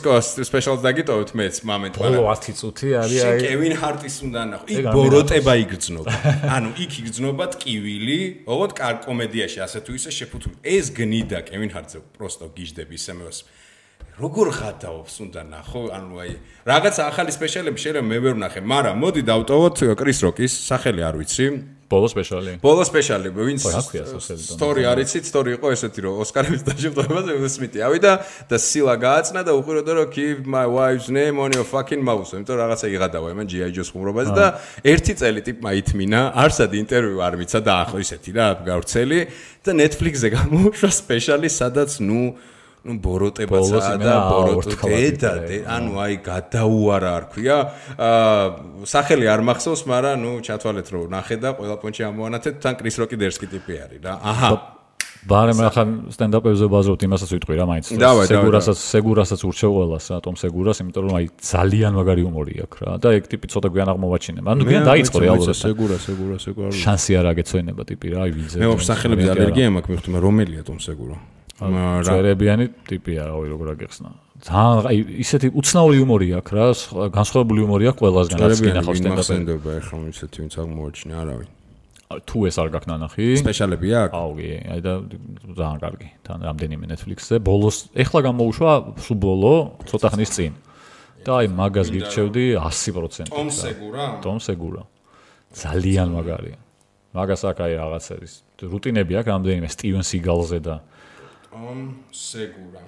სპეციალს დაგიტოვეთ მეც მომენტ მაგრამ ბოლო 10 წუთი არის აი კევინ ჰარტის უნდა ნახო. იქ ბოროტება იგრძნობა. ანუ იქ იგრძნობა ტკივილი, ოღონდ კარ კომედიაში ასე თუ ისე შეფუთული. ეს გნიდა კევინ ჰარტზე პროსტო გიждები ისემეს. როგორ ხათაობს უნდა ნახო ანუ აი რაღაც ახალი სპეციალები შეიძლება მე ვერ ვნახე მაგრამ მოდი დავტოვოთ კრის როკის სახელი არ ვიცი ბოლო სპეციალი ვინც სტორი არ იცით სტორი იყო ესეთი რომ ოსკარების დაჯილდოებაზე უილ სმითი ავიდა და სილა გააცნა და უყურებდა რომ keep my wife's name on your fucking mouth იმიტომ რაღაცა იღადავა იმან GI Joe-ს ხუმრობაზე და ერთი წელი ტიპმა ითმინა არსად ინტერვიუ არ მიცა და ახლა ისეთი რა გავრცელი და Netflix-ზე გამოუშვა სპეციალი სადაც ну ბოროტებაცა და ბოროტედა ანუ აი გადაუარა არ ქვია სახელი არ მახსოვს მაგრამ ну ჩათვალეთ რომ ნახე და ყველა პონჩი ამოვანათეთ თან კრის როკი დერსკი ტიპი არის რა აჰა ბარემ ახლა სტენდაპებზე ვაზრობთ იმასაც ვიტყვი რა მაინც სეგურასაც ურჩევ ყველას ატომ სეგურას იმიტომ რომ აი ძალიან მაგარი უმორი აქვს რა და ეგ ტიპი ცოტა გვიან აღმოვაჩინა ანუ გვიან დაიწყო რეალურად სეგურა შანსი არ აგეცვენება ტიპი რა აი ვიზე მე მოსახელებზე ალერგია მაქვს მივხვდი რომელია ტომ სეგურა წერებიანი ტიპია რავი როგორ აგეხსნა ძალიან აი ისეთი უცნაური იუმორი აქვს რა განსხვავებული იუმორი აქვს ყველასგან რაც კინახავს სტენდაპზე ეხლა ისეთი ვინც აღმოაჩინა არავინ თუ ეს არ გაქვს ნანახი სპეციალები აქვს აუ კი აი და ძალიან კარგი თან რამდენიმე Netflix-ზე ბოლოს ეხლა გამოუშვა სულ ბოლო ცოტა ხნის წინ და აი მაგას გირჩევდი 100% ტომ სეგურა ძალიან მაგარია მაგას აქ აი რაღაც არის რუტინები აქვს რამდენიმე სტივენ სიგალზე და სეგურა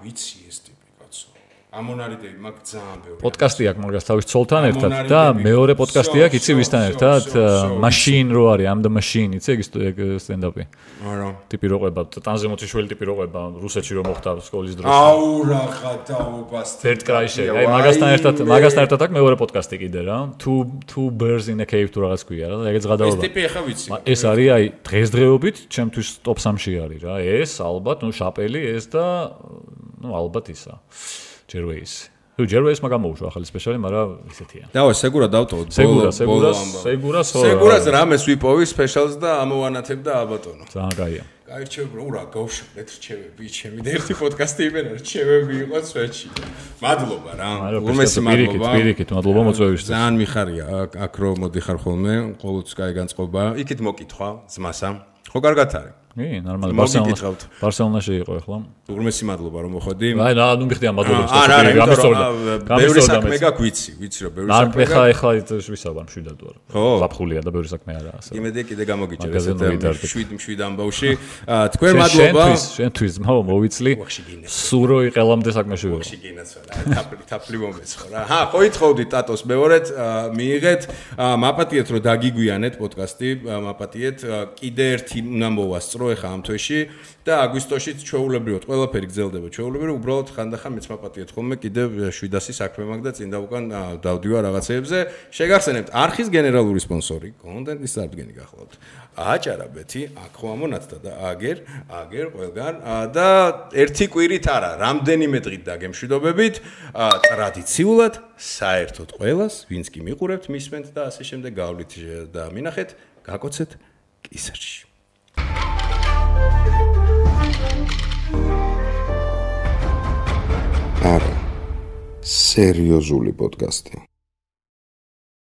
ვიცი ეს ტიპი კაცო ამონარიდები მაგ ძალიან ბევრი პოდკასტი აქვს მაგას თავის ცოლთან ერთად და მეორე პოდკასტი აქვს იცი ვისთან ერთად machine რო არის am the machine იცი ეგ სტენდაპი არა ტიპი რო ყვება ტანზე მოციშველი ტიპი რო ყვება რუსეთში რო მოხდა სკოლის დროს აუ რაღა დაობას ერთ კრაიში აი მაგასთან ერთად აქვს მეორე პოდკასტი კიდე რა two birds in a cave თუ რაღაც ქვია რა ეგეც გადავა ეს ტიპი ახლა ვიცი ეს არის აი დღესდღეობით ჩემთვის top 3-ში არის რა ეს ალბათ ნუ შაპელი ეს და ნუ ალბათ ისა ჯერვეის მაგამოუშვა ახალი სპეციალი, მაგრამ ისეთია. დავა სეგურა დავტოვოთ. სეგურას სეგურას რამეს ვიპოვი სპეციალს და ამოვანათებ და ალბატონო. ძალიან კაია. გაირჩევები რა გავშუქეთ რჩევები ჩემი და ერთი პოდკასტი იმენა რჩევები იყო სვეტში. მადლობა რა. უმეტესი მადლობა. პირიქით, მადლობა მოწვევისთვის. ძალიან მიხარია აქ რო მოდიხარ ხოლმე, ყოველთვის კაი განწყობა. იქით მოკითხვა ძმასა. ხო კარგად არის. კი, ნორმალი. ბარსელონაში იყო ახლა. უმეტესი მადლობა რომ მოხვედი. აი, ნუ მიხდი ამ მადლობას. ბევრი საქმე გაქვს, ვიცი რომ ბევრი საქმე გაქვს. ახლა ვისაუბრ მშვიდად ვარ. ზაფხულია და ბევრი საქმე არაა ასე. იმედია კიდე გამოგიჭერ ესეთ შვიდ ამბავში. თქვენ მადლობა. შენთვის მოვიცლი. სულ რო იყელამდე საქმეში ვიყო. ვახში გინაცვალა. თაფლი მომეცხო რა. ხო ითხოვდით ტატოს მეორედ მიიღეთ. მაპატიეთ რომ დაგიგვიანეთ პოდკასტი, მაპატიეთ. კიდე ერთი უნდა მოვასწრო ეხა ამ თვეში და აგვისტოშიც ჩვეულებრივად ყველაფერი გრძელდება ჩვეულებრივად უბრალოდ ხანდახან მეც მაპატიეთ ხოლმე კიდე 700 საქმე მაქვს და წინ და უკან დავდივარ რაღაცეებზე შეგახსენებთ არხის გენერალური სპონსორი კონტენტის წარდგენი გახლავთ აჭარაბეთი აქ ხო ამონათდა და აგერ ყველგან და ერთი კვირით არა რამდენიმე დღით დაგემშვიდობებით ტრადიციულად საერთოდ ყველას ვინც კი მიყურებთ მისმენთ და ასე შემდეგ გავლით და მინახეთ გაკოცეთ კისერში არა სერიოზული პოდკასტი